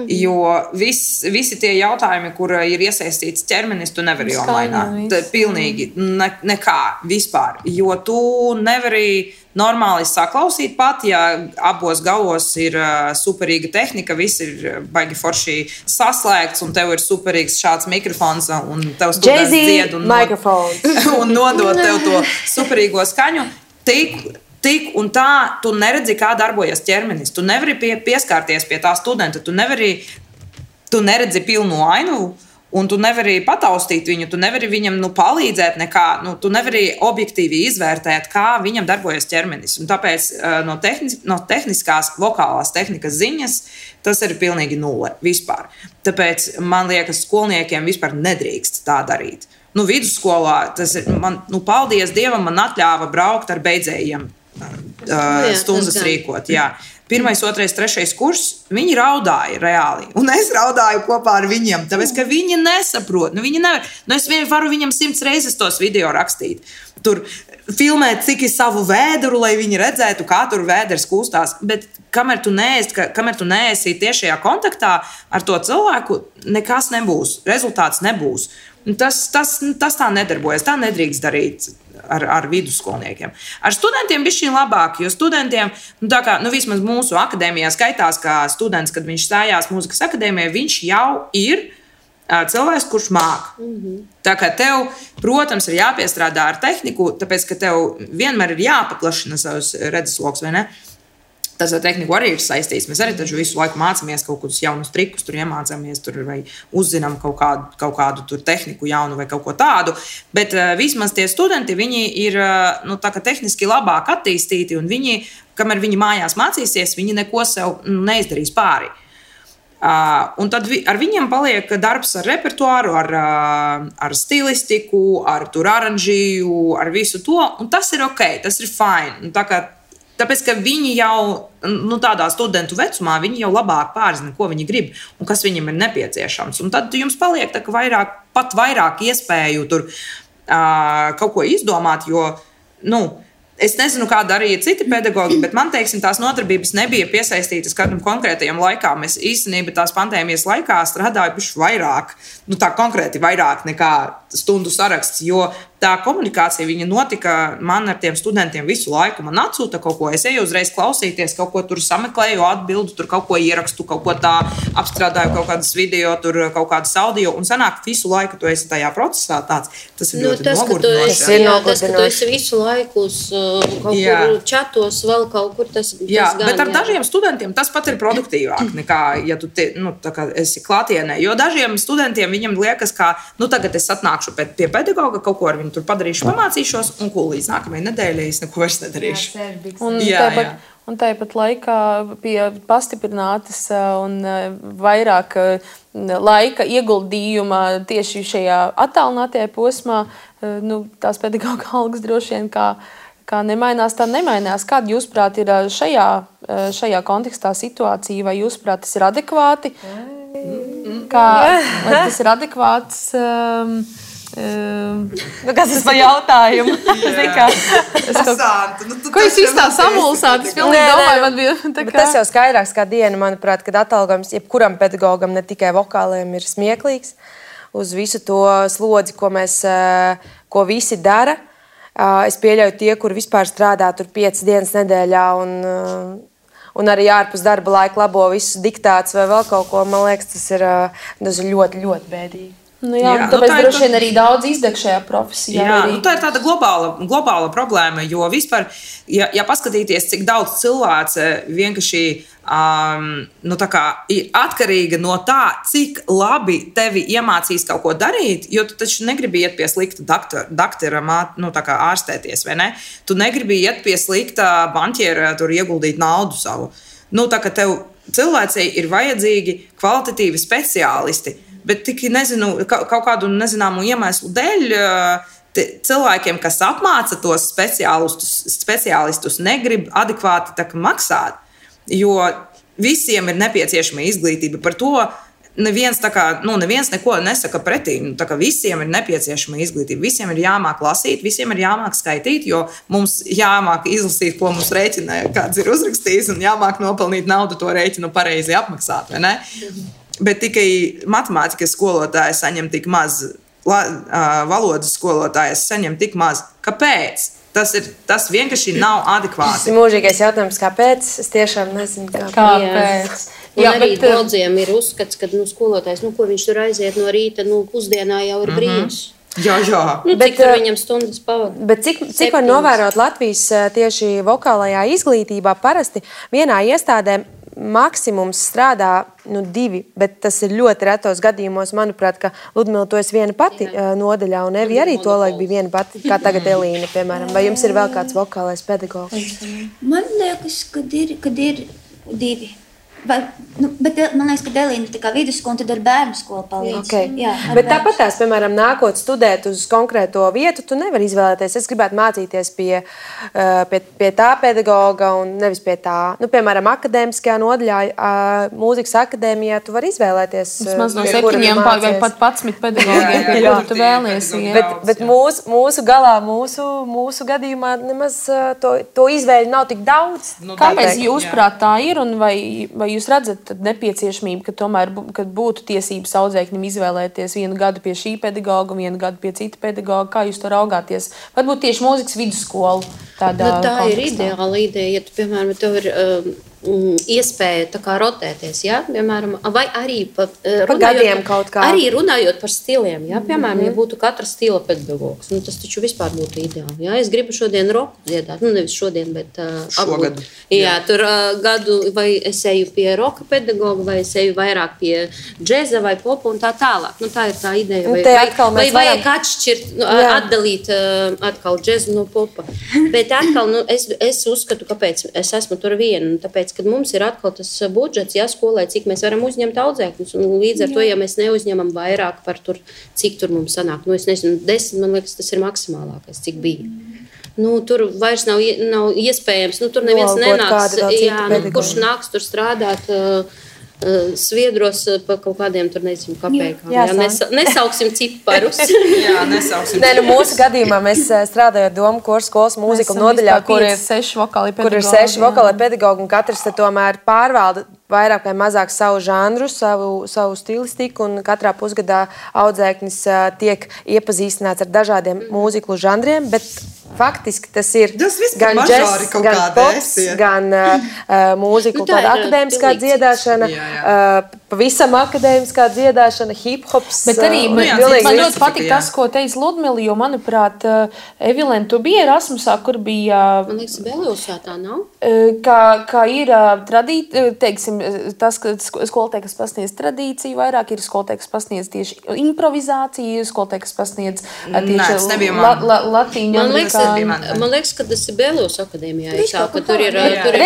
Jo visi tie jautājumi, kur ir iesaistīts ķermenis, tu nevari online. Pilnīgi nekā vispār. Jo tu nevari normāli saklausīt pat, ja abos galos ir superīga tehnika, viss ir baigi forši saslēgts, un tev ir superīgs šāds mikrofons, un tev students dzied un nodot tev to superīgo skaņu. Tik un tā, tu neredzi, kā darbojas ķermenis. Tu nevari pieskārties pie tā studenta, tu neredzi pilnu ainu, Un tu nevari pataustīt viņu, tu nevari viņam palīdzēt nekā, tu nevari objektīvi izvērtēt, kā viņam darbojas ķermenis. Un tāpēc no tehniskās, vokālās tehnikas ziņas tas ir pilnīgi nulle vispār. Tāpēc man liekas, skolniekiem vispār nedrīkst tā darīt. Vidusskolā tas ir, paldies Dievam, man atļāva braukt ar beidzējiem stundas rīkot. Jā. 1., 2., 3. kurs, viņi raudāja reāli. Un es raudāju kopā ar viņiem, tāpēc, ka viņi nesaprot. Viņi nevar. Es varu viņam 100 reizes tos video rakstīt. Tur filmēt, cik ir savu vēdru, lai viņi redzētu, kā tur vēders kūstās. Bet kamēr tu neesi tiešajā kontaktā ar to cilvēku, nekas nebūs. Rezultāts nebūs. Tas tā nedarbojas. Tā nedrīkst darīt ar vidusskolniekiem. Ar studentiem bišķiņ labāk, jo studentiem, vismaz mūsu akadēmijā skaitās, ka students, kad viņš stājās mūzikas akadēmijā, viņš jau ir cilvēks, kurš māk. Tā kā tev, protams, ir jāpiestrādā ar tehniku, tāpēc, ka tev vienmēr ir jāpaplašina savus redzesloks, vai ne? Tas ar tehniku arī ir saistīts. Mēs arī taču visu laiku mācāmies kaut kādus jaunus trikus, tur iemācāmies, vai uzzinām kaut kādu tur tehniku jaunu vai kaut ko tādu. Bet vismaz tie studenti, viņi ir tehniski labāk attīstīti, un viņi, kamēr viņi mājās mācīsies, viņi neko sev neizdarīs pāri. Un tad ar viņiem paliek darbs ar repertuāru, ar stilistiku, ar aranžiju, ar visu to, un tas ir ok, tas ir fine. Tāpēc, ka viņi jau tādā studentu vecumā, viņi jau labāk pārzina, ko viņi grib un kas viņiem ir nepieciešams. Un tad jums paliek pat vairāk iespēju tur kaut ko izdomāt, jo, es nezinu, kā darīja citi pedagogi, bet man, tās nodarbības nebija piesaistītas kādam konkrētajam laikam. Es īstenībā tās pandēmijas laikā strādāju bišķi vairāk, tā konkrēti vairāk nekā stundu saraksts, jo tā komunikācija viņa notika man ar tiem studentiem visu laiku. Man atsūta kaut ko, es eju uzreiz klausīties, kaut ko tur sameklēju, atbildu, tur kaut ko ierakstu, kaut ko tā apstrādāju, kaut kādas video, tur kaut kādas audio, un sanāk visu laiku tu esi tajā procesā tāds. Tas ir ļoti nogurdinoši. Tas, ka tu esi visu laiku uz kaut kur čatos, vēl kaut kur, tas gan. Bet ar dažiem studentiem tas pat ir produktīvāk nekā, ja tu esi klātienē. Jo dažiem studentiem viņam liekas, ka tagad es atnākšu pie pedagoga, kaut ko ar viņu tur padarīšu, pamācīšos, un līdz nākamajai nedēļai es neko vairs nedarīšu. Un tāpat laikā pie pastiprinātas un vairāk laika ieguldījuma tieši šajā attālinātajā posmā, tās pedagoga algas droši vien kā nemainās, tā nemainās. Kāda, jūsuprāt, ir šajā kontekstā situācija, vai jūsuprāt, tas ir adekvāti? Vai tas ir adekvāts? Kas tas par jautājumu? Ko jūs īstā samulsāt? Es pilnīgi domāju, man bija tā kā... Tas jau skaidrāks kā diena, manuprāt, kad atalgojums jebkuram pedagogam, ne tikai vokāliem, ir smieklīgs uz visu to slodzi, ko visi dara. Es pieļauju tie, kuri vispār strādā tur 5 dienas nedēļā un arī ārpus darba laika labo visus diktātus vai vēl kaut ko. Man liekas, tas ir ļoti, ļoti bēdīgi. Tāpēc droši vien arī daudz izdeg šajā profesijā. Tā ir tāda globāla problēma, jo vispār, ja paskatīties, cik daudz cilvēce vienkārši ir atkarīga no tā, cik labi tevi iemācīs kaut ko darīt, jo tu taču negribi iet pie slikta doktora, ārstēties, vai ne? Tu negribi iet pie slikta banķiera, tur ieguldīt naudu savu. Tā kā tev cilvēcei ir vajadzīgi kvalitatīvi speciālisti, bet tik kaut kādu nezināmu iemeslu dēļ cilvēkiem, kas apmāca tos speciālistus, negrib adekvāti maksāt, jo visiem ir nepieciešama izglītība. Par to neviens neko nesaka pretī. Visiem ir nepieciešama izglītība. Visiem ir jāmāk lasīt, visiem ir jāmāk skaitīt, jo mums jāmāk izlasīt, ko mums rēķina, kāds ir uzrakstījis, un jāmāk nopelnīt naudu to rēķinu pareizi apmaksāt, vai ne? Bet tikai matemātikas skolotājs saņem tik maz, valodas skolotājs saņem tik maz. Kāpēc? Tas vienkārši nav adekvāti. Tas ir mūžīgais jautājums, kāpēc? Es tiešām nezinu, kāpēc. Arī daudziem ir uzskats, ka skolotājs, ko viņš tur aiziet no rīta, pusdienā jau ir brīvs. Jā. Cik tur viņam stundas pavada? Bet cik var novērot Latvijas tieši vokālajā izglītībā, parasti vienā iestādē maksimums strādā 2, bet tas ir ļoti retos gadījumos. Manuprāt, ka Ludmila, tu esi viena pati nodaļā, un Evi arī tolaik bija viena pati, kā tagad Elīna, piemēram. Vai jums ir vēl kāds vokālais pedagogs? Man liekas, kad ir 2. Bet man liekas, ka Elīna ir tā kā vidusskola, un tad ar bērnu skolu palīdz. Okay. Jā, bet tāpat tās, piemēram, nākot studēt uz konkrēto vietu, tu nevari izvēlēties. Es gribētu mācīties pie tā pedagoga un nevis pie tā. Piemēram, akadēmiskajā nodaļā, mūzikas akadēmijā, tu vari izvēlēties. Vismaz no 7 vai pat 11 pedagogiem, pie kura tu vēlies. Bet mūsu galā, mūsu gadījumā nemaz to izvēļu nav tik daudz. Kāpēc jūsuprāt tā ir un vai jūs redzat nepieciešamību, ka tomēr būtu tiesības audzēkņiem izvēlēties 1 gadu pie šī pedagoga, 1 gadu pie cita pedagoga? Kā jūs to raugāties? Varbūt tieši mūzikas vidusskolu tādā tā kontekstā. Ir ideāla ideja, ja tu, piemēram, tev ir iespēja tā kā rotēties, ja? Piemēram, vai arī runājot par stiliem, ja? Piemēram, ja būtu katra stila pedagogs, tas taču vispār būtu ideāli. Ja? Es gribu šodien roku dziedāt, nevis šodien, bet šogad. Jā, tur gadu vai es eju pie roka pedagoga, vai es eju vairāk pie džeza vai popa un tā tālāk. Tā ir tā ideja. Vai vajag atšķirt, atdalīt atkal džezu no popa. Bet atkal, es uzskatu, kāpēc es esmu tur viena, tāpēc, kad mums ir atkal tas budžets, skolai, cik mēs varam uzņemt audzēkņus, un līdz ar to, ja mēs neuzņemam vairāk par tur, cik tur mums sanāk, es nezinu, 10, man liekas, tas ir maksimālākais, cik bija. Tur vairs nav iespējams, tur neviens nenāks, kurš nāks tur strādāt Sviedros par kaut kādiem tur nezinu kapēkām. Nesauksim ciparus. Nesauksim. Mūsu gadījumā mēs strādājam Domu Koru skolas mūzika nodaļā, kur ir 6 vokāli pedagogi, un katrs tomēr pārvalda vairāk vai mazāk savu žanru, savu stilistiku, un katrā pusgadā audzēknis tiek iepazīstināts ar dažādiem mūziklu žanriem, bet faktiski tas ir gan džess, gan pops, gan mūziklu tāda akadēmiskā dziedāšana, pavisam akadēmiskā dziedāšana, hip-hops. Bet arī man ļoti patīk tas, ko teica Ludmila, jo, manuprāt, Evilēna, tu biji Erasmusā, kur bija... Man liekas, Beliusā tā nav? Kā ir teiksim, tas, ka skolotāji, kas pasniedz tradīciju vairāk, ir skolotāji, kas pasniedz tieši improvizāciju, skolotāji, kas pasniedz tieši latīņu. Man liekas, ka tas ir Belius akadēmijā. Tur ir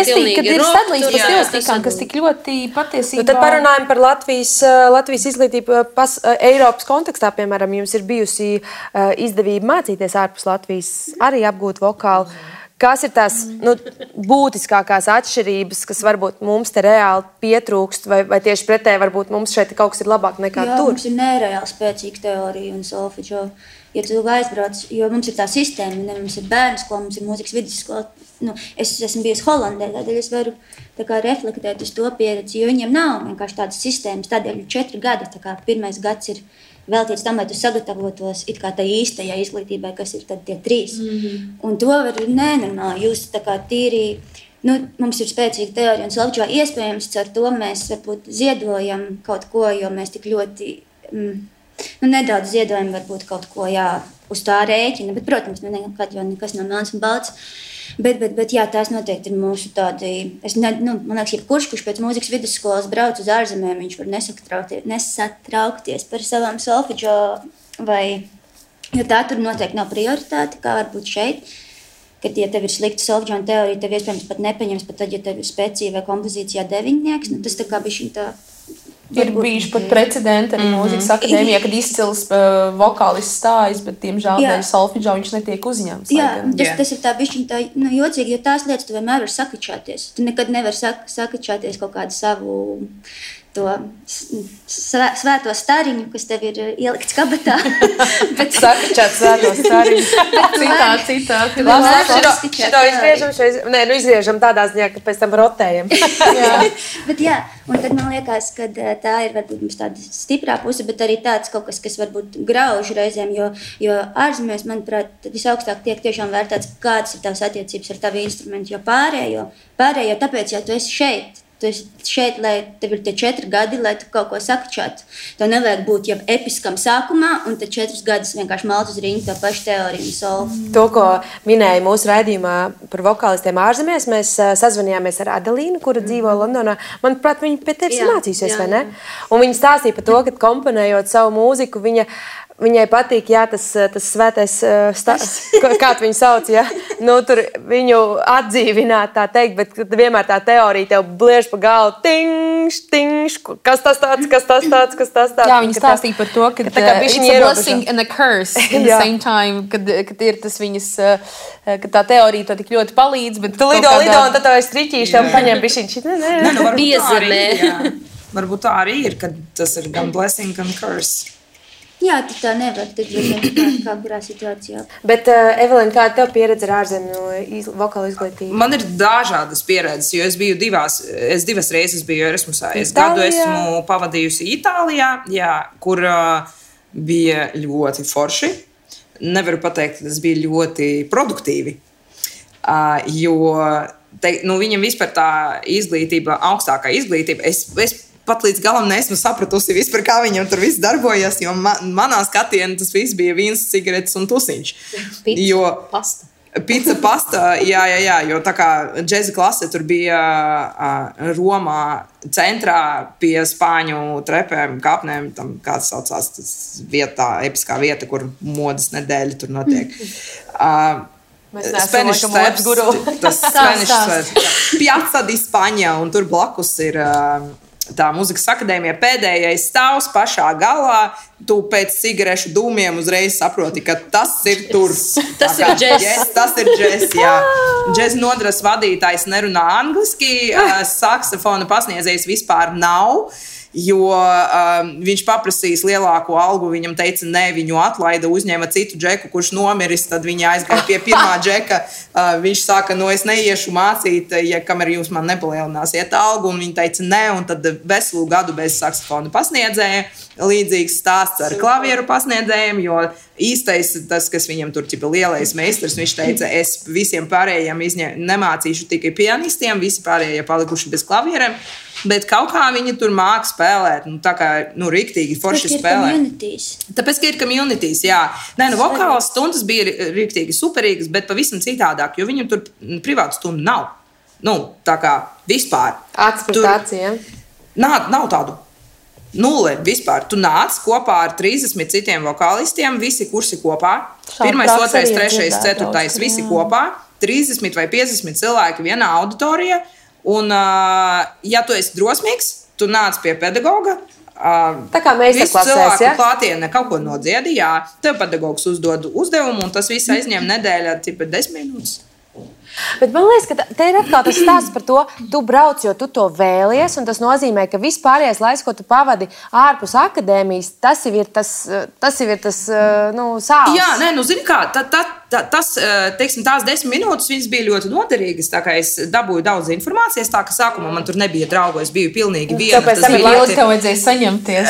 pilnīgi sadalīts pa stilistikām, kas tik ļoti patiesībā... Tad parunājam par Latvijas izglītību Eiropas kontekstā, piemēram, jums ir bijusi izdevība mācīties ārpus Latvijas, arī apgūt vokālu. Kas ir tās būtiskākās atšķirības, kas varbūt mums te reāli pietrūkst, vai tieši pretēji varbūt mums šeit kaut kas ir labāk nekā tur? Mums ir nereāli spēcīga teorija un solfeģo. Ja tu aizbrauc, jo mums ir tā sistēma, mums ir bērnu skola, mums ir mūzikas vidusskola. Es esmu bijusi Holandē, tādēļ es varu reflektēt uz to pieredzi, jo viņiem nav vienkārši tādas sistēmas. Tādēļ 4 gadi, pirmais gads ir veltīts tam, lai tu sagatavotos it kā tā īstajā izglītībai, kas ir tad tie 3. Un to var nenormāli just tā kā tīri. Mums ir spēcīga teorija un solfeģo. Iespējams, ar to mēs varbūt ziedojam kaut ko, jo mēs tik ļoti... nedaudz ziedojam varbūt kaut ko uz tā rēķina, bet, protams, nekad jau nekas nav melns un balts. Bet tās noteikti ir mūsu tādi... Man liekas, jebkurš, kurš pēc mūzikas vidusskolas brauc uz ārzemēm, viņš var nesatraukties par savām solfeģo, jo tā tur noteikti nav prioritāte, kā varbūt šeit. Kad, ja tev ir slikta solfeģo teorija, tev iespējams pat nepaņems, pat tad, ja tev ir spēcīga vai kompozīcijā 9, tas tā kā bišķiņ tā... Ir bijuši pat precedenti arī mūzikas akadēmijā, kad izcils vokālists stājas, bet, diemžēl, dēļ solfeģo viņš netiek uzņemts. Tas ir tā bišķiņ tā jocīgi, jo tās lietas tu vienmēr var sakačāties. Tu nekad nevar sakačāties kaut kādu savu to svēto stariņu, kas tev ir ielikts kabatā. Sakačāt svēto stariņu. Citā. Šito izgriežam tādā ziņā, ka pēc tam rotējam. Bet un tad man liekas, ka tā ir varbūt mums tāda stiprā puse, bet arī tāds kaut kas, kas varbūt grauž reizēm, jo ārzemēs, manuprāt, visaugstāk tiek tiešām vērtēts, kādas ir tavas attiecības ar tavu instrumentu, jo pārējo, tāpēc, ja tu esi šeit, Tu esi šeit, lai tev ir tie 4 gadi, lai tu kaut ko sakčātu. Tev nevajag būt jau episkam sākumā, un tad 4 gadus vienkārši malt uz ringu to pašu teoriju un solu. To, ko minēja mūsu raidījumā par vokālistiem ārzemēs, mēs sazvanījāmies ar Adelīnu, kura dzīvo Londonā. Manuprāt, viņa pie tevis mācīsies, vai ne? Un viņa stāstīja par to, ka komponējot savu mūziku, viņai patīk, tas svētais kā viņu sauc, tur viņu atdzīvināt, tā teikt, bet vienmēr tā teorija tev bliež pa galvu, tingš, kas tas tāds. Jā, viņa stāstīja par to, ka it's a blessing and a curse in the same time, kad ir tas viņas, ka tā teorija to tik ļoti palīdz, bet tu lido, un tad tev ir striķīši, tev paņem bišķiņš. Piezemē. Varbūt tā arī ir, kad tas ir gan blessing, gan curse. Jā, tu tā nevar, tad kā kurā situācijā. Bet, Evelīna, kāda tev pieredze ar ārzemju vokālu izglītību? Man ir dažādas pieredzes, jo es biju divas reizes biju Erasmusā. Es gadu esmu pavadījusi Itālijā, kur bija ļoti forši. Nevaru pateikt, ka tas bija ļoti produktīvi, jo viņam vispār tā izglītība, augstākā izglītība, es pat līdz galam neesmu sapratusi vispār, kā viņam tur viss darbojas, jo manā skatienā tas viss bija vīns, cigaretes un tusiņš. Pizza, pasta, jā, jo tā kā džeza klase tur bija Romā centrā pie spāņu trepēm, kāpnēm, tam kāds saucās tas vietā, episkā vieta, kur modas nedēļa tur notiek. Spanish Steps, tas Spanish Steps, Piazza di Spagna, un tur blakus ir tā muzikas akadēmija pēdējais stāvs pašā galā. Tu pēc cigarešu dūmiem uzreiz saproti, ka tas ir tur. Tas ir džess. Tas ir džess, jā. Džeza nodaļas vadītājs nerunā angliski, saksofona pasniedzējs vispār nav. Jo viņš paprasīs lielāko algu, viņam teica, nē, viņu atlaida, uzņēma citu džeku, kurš nomiris, tad viņi aizgāja pie pirmā džeka. Viņš saka, es neiešu mācīt, kamēr jūs man nepalielināsiet algu, un viņi teica, nē, un tad veselu gadu bez saksofona pasniedzēja. Līdzīgs stāsts ar klavieru pasniedzējiem, jo īstais, tas, kas viņam tur ķipa lielais meistars, viņš teica, es visiem pārējiem nemācīšu tikai pianistiem, visi pārējie palikuši bez klavieriem. Bet kaut kā viņi tur māk spēlēt, tā kā, riktīgi forši spēlē. Tāpēc, ka ir communities, jā. Nē, vokālas stundas bija riktīgi superīgas, bet pavisam citādāk, jo viņam tur privātu stundu nav. Tā kā vispār. Atspratācija. Nav tādu. Nulle vispār. Tu nāc kopā ar 30 citiem vokālistiem, visi kursi kopā. 1, 2, 3, 4, visi kopā. 30 vai 50 cilvēki vienā auditorijā. Un, ja tu esi drosmīgs, tu nāc pie pedagoga. Tā kā meistarklasēs, cilvēku klātienē kaut ko nodziedi, jā. Tev pedagogs uzdod uzdevumu, un tas viss aizņem nedēļā, 10 minūtes. Bet man liekas, ka te ir atkal tas stāsts par to, tu brauc, jo tu to vēlies, un tas nozīmē, ka vispārējais laiks, ko tu pavadi ārpus akadēmijas, tas ir tas sāls. Jā, zini kā, teiksim, tās 10 minūtes viņas bija ļoti noderīgas, tā kā es dabūju daudz informācijas, tā ka sākumā man tur nebija draugu, es biju pilnīgi viena. Tāpēc tam ilgi tev vajadzēja saņemties.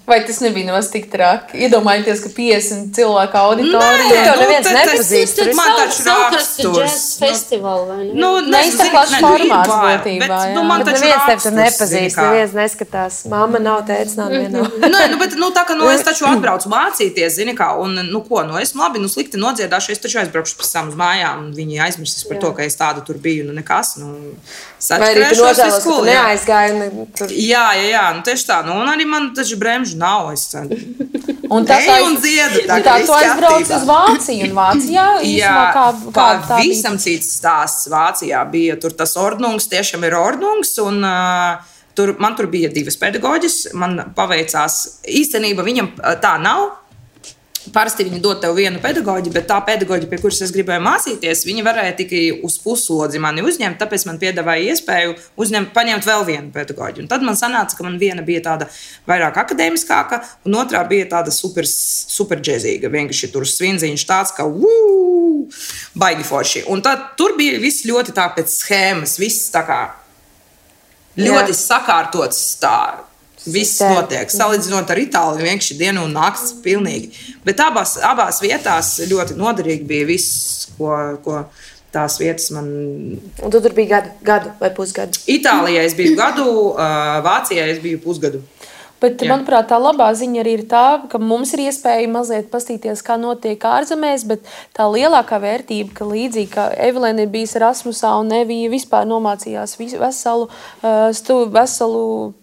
Vai tas nebija nemaz tik traki? Iedomājieties, ka 50 cilvēku auditorija. Tev neviens nepazīst. Man taču raksturs. Festivāli, vai ne? Neizsaklāšu formāts būtībā. Man taču neviens tev tur raksturs, nepazīst, neviens neskatās. Mamma nav, tētis nav, neviena nav. Bet tā kā es taču atbraucu mācīties, zini kā, un esmu labi, slikti nodziedāšu, es taču aizbraukšu pēc tam uz mājām, un viņi aizmirsīs par to, ka es tāda tur biju, nekas, vai arī tu nožēlos, ka tu neaizgāji? Jā, tieši tā, un arī man taču bremžu nav, es un dziedu. Tā tu aizbrauc uz Vāciju, un Vācijā īstenībā kā visam cits stāsts Vācijā bija, tur tas ordnungs tiešām ir ordnungs, un man tur bija 2 pedagoģis, man paveicās, īstenībā viņam tā nav. Parasti viņi dod tev vienu pedagoģi, bet tā pedagoģi, pie kuras es gribēju mācīties, viņi varēja tikai uz puslodzi mani uzņemt, tāpēc man piedāvāja iespēju paņemt vēl vienu pedagoģi. Un tad man sanāca, ka man viena bija tāda vairāk akadēmiskāka, un otrā bija tāda super džezīga. Vienkārši tur svinziņš tāds, ka baigi forši. Un tad tur bija viss ļoti tā pēc schēmas, viss tā kā ļoti sakārtots tā. Viss notiek. Salīdzinot ar Itāliju, vienkārši dienu un nakts pilnīgi. Bet abās vietās ļoti noderīgi bija viss, ko tās vietas man. Un tu tur biji gadu vai pusgadu? Itālijā es biju gadu, Vācijā es biju pusgadu. Bet, manuprāt, tā labā ziņa arī ir tā, ka mums ir iespēja mazliet pastīties, kā notiek ārzemēs, bet tā lielākā vērtība, ka līdzīgi kā Evelēna ir bijis Erasmusā un Evija vispār nomācījās veselu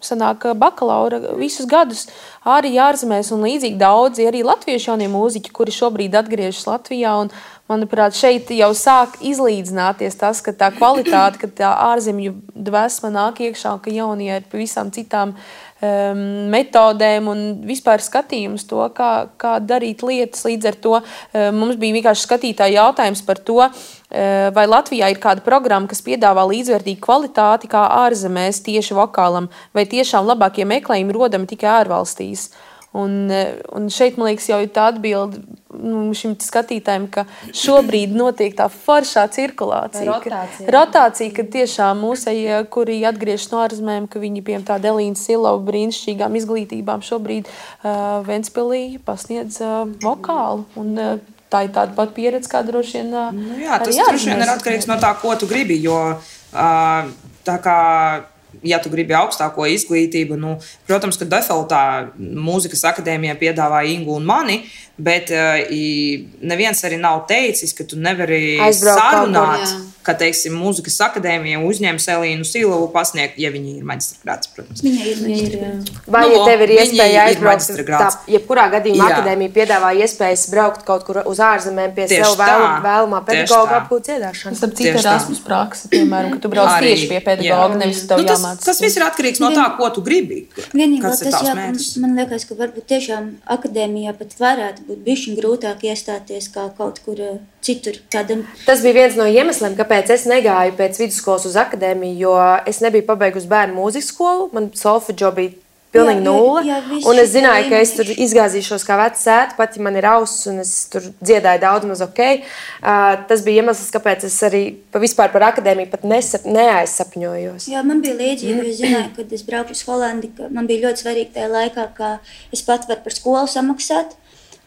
sanāk bakalaura visus gadus arī ārzemēs, un līdzīgi daudzi arī latviešu jaunie mūziķi, kuri šobrīd atgriežas Latvijā, un manuprāt, šeit jau sāk izlīdzināties tas, ka tā kvalitāte, ka tā ārzemju dvēsma nāk iekšā, ka jaunie ir pavisam citām metodēm un vispār skatījums to, kā darīt lietas. Līdz ar to mums bija vienkārši skatītāji jautājums par to, vai Latvijā ir kāda programma, kas piedāvā līdzvērtīgu kvalitāti kā ārzemēs tieši vokālam, vai tiešām labākie meklējumi rodami tikai ārvalstīs. Un šeit, man liekas, jau ir tā atbilde šim skatītājiem, ka šobrīd notiek tā foršā cirkulācija. Rotācija, ka tiešām mūsēji, kuri atgriežas no ārzemēm, ka viņi, piemēram, tāda Elīna Silova brīnišķīgām izglītībām šobrīd Ventspilī pasniedz vokālu. Un tā ir tāda pat pieredze, kā droši vien tas droši vien ir atkarīgs no tā, ko tu gribi, jo tā kā ja tu gribi augstāko izglītību, protams, ka defaultā mūzikas akadēmijā piedāvā Ingu un mani, bet neviens arī nav teicis, ka tu nevari sarunāt, ka, teiksim, mūzikas akadēmija uzņems Elīnu Silovu pasniegt, ja viņi ir maģistrgrāds, protams. Viņa ir maģistrgrāds. Vai, ja tev ir iespēja aizbraukt, jebkurā gadījumā akadēmija piedāvā iespējas braukt kaut kur uz ārzemēm pie sev vēlamā pedagoga apgūt dziedāšanu. Starp citu Erasmus praksa, piemēram, ka tu brauc tieši pie pedagoga, nevis tev jāmācās. Tas viss ir atkarīgs no tā, ko tu gribi. Vienīgais tas, man liekas, ka varbūt tiešām akadēmijā pat varētu būt bišķiņ grūtāk iestāties kā kaut kur citur. Tas bija viens no iemesliem, kāpēc es negāju pēc vidusskolas uz akadēmiju, jo es nebiju pabeigusi bērnu mūzikas skolu, man solfedžo bija pilnīgi nulle, un es zināju, ka es tur izgāzīšos kā vecs sēta, pat ja man ir auss, un es tur dziedāju daudz maz ok. Tas bija iemesls, kāpēc es arī vispār par akadēmiju pat neaizsapņojos. Jā, man bija līdzīgi, jo es zināju, kad es braukšu uz Holandi, ka man bija ļoti svarīgi tajā laikā, ka es pat varu par skolu samaksāt.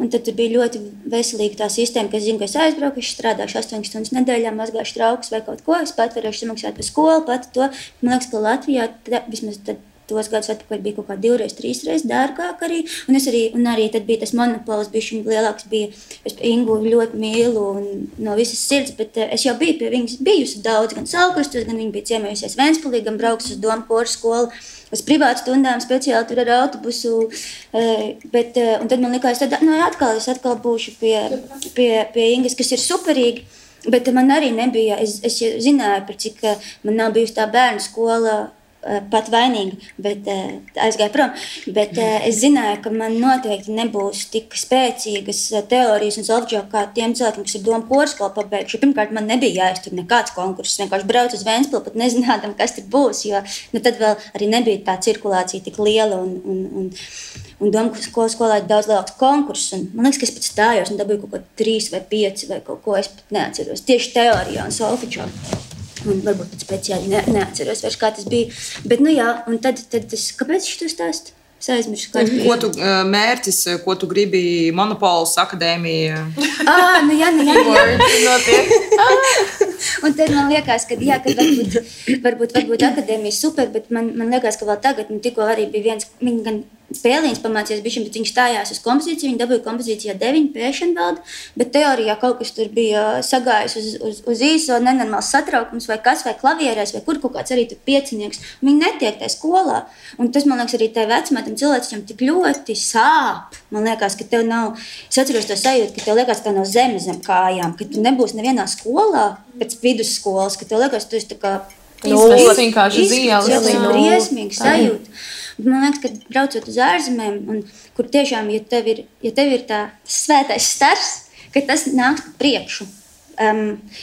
Un tad bija ļoti veselīga tā sistēma, ka es zinu, ka es aizbraucu, es strādāšu 8 stundas nedēļā, mazgāšu traukus vai kaut ko. Es pat varēšu samaksāt par skolu, pat to. Man liekas, ka Latvijā vismaz tos gadus atpakaļ bija kaut kā 2-3 reizes dārgāk arī. Un arī tad bija tas monopols, bija lielāks. Es Ingu ļoti mīlu un no visas sirds, bet es jau biju pie viņas bijusi daudz, gan Saulkrastos, gan viņa bija ciemējusies Ventspilī, gan braukus uz Domu koru skolu. Uz privātu stundām speciāli tur ar autobusu, un tad man likās, tad es atkal būšu pie Ingas, kas ir superīgi, bet man arī nebija, es zināju, par cik man nav bijusi tā bērnu skola pat vainīga, bet aizgāju prom, bet es zināju, ka man noteikti nebūs tik spēcīgas teorijas un solfedžo kā tiem cilvēkiem, kas ir Domu koru skolu pabeiguši. Pirmkārt, man nebija jāiztur nekāds konkurss, vienkārši braucu uz Ventspili, pat nezinādam, kas tur būs, jo tad vēl arī nebija tā cirkulācija tik liela un Domu koru skolā ir daudz lielāks konkurss. Man liekas, ka es pat stājos un dabūju kaut ko 3 vai 5 vai kaut ko, es pat neatceros. Tieši teorijā un solfedžo. Un varbūt pat speciāli neatceros vairs, kā tas bija. Bet, un tad kāpēc es to stāstu? Es aizmirsu, kāds bija. Ko tu mērķis, ko tu gribi monopols, akadēmija? Un tad man liekas, ka varbūt akadēmija super, bet man liekas, ka vēl tagad, tikko arī bija viens, viņa gan Pēliņš pamācījās bišķiņ, bet viņš stājās uz kompozīciju, viņa dabūja kompozīcijā 9 pēšana valda, bet teorijā kaut kas tur bija sagājis uz īso, nenormāls satraukums vai kas, vai klavierēs, vai kur kaut kāds arī tur piecinieks. Viņi netiek tajā skolā. Un tas, man liekas, arī tai vecmētam cilvēciņam tik ļoti sāp. Man liekas, ka tev nav, es atceros to sajūtu, ka tev liekas, ka tev nav zeme zem kājām, ka tu nebūsi nevienā skolā pēc vidusskolas, ka tev liekas, tu esi tā kā vienkārši zīles. Briesmīgi sajūta. Man liekas, ka braucot uz ārzemēm, kur tiešām, ja tev ir tā svētais stars, ka tas nāks priekšu.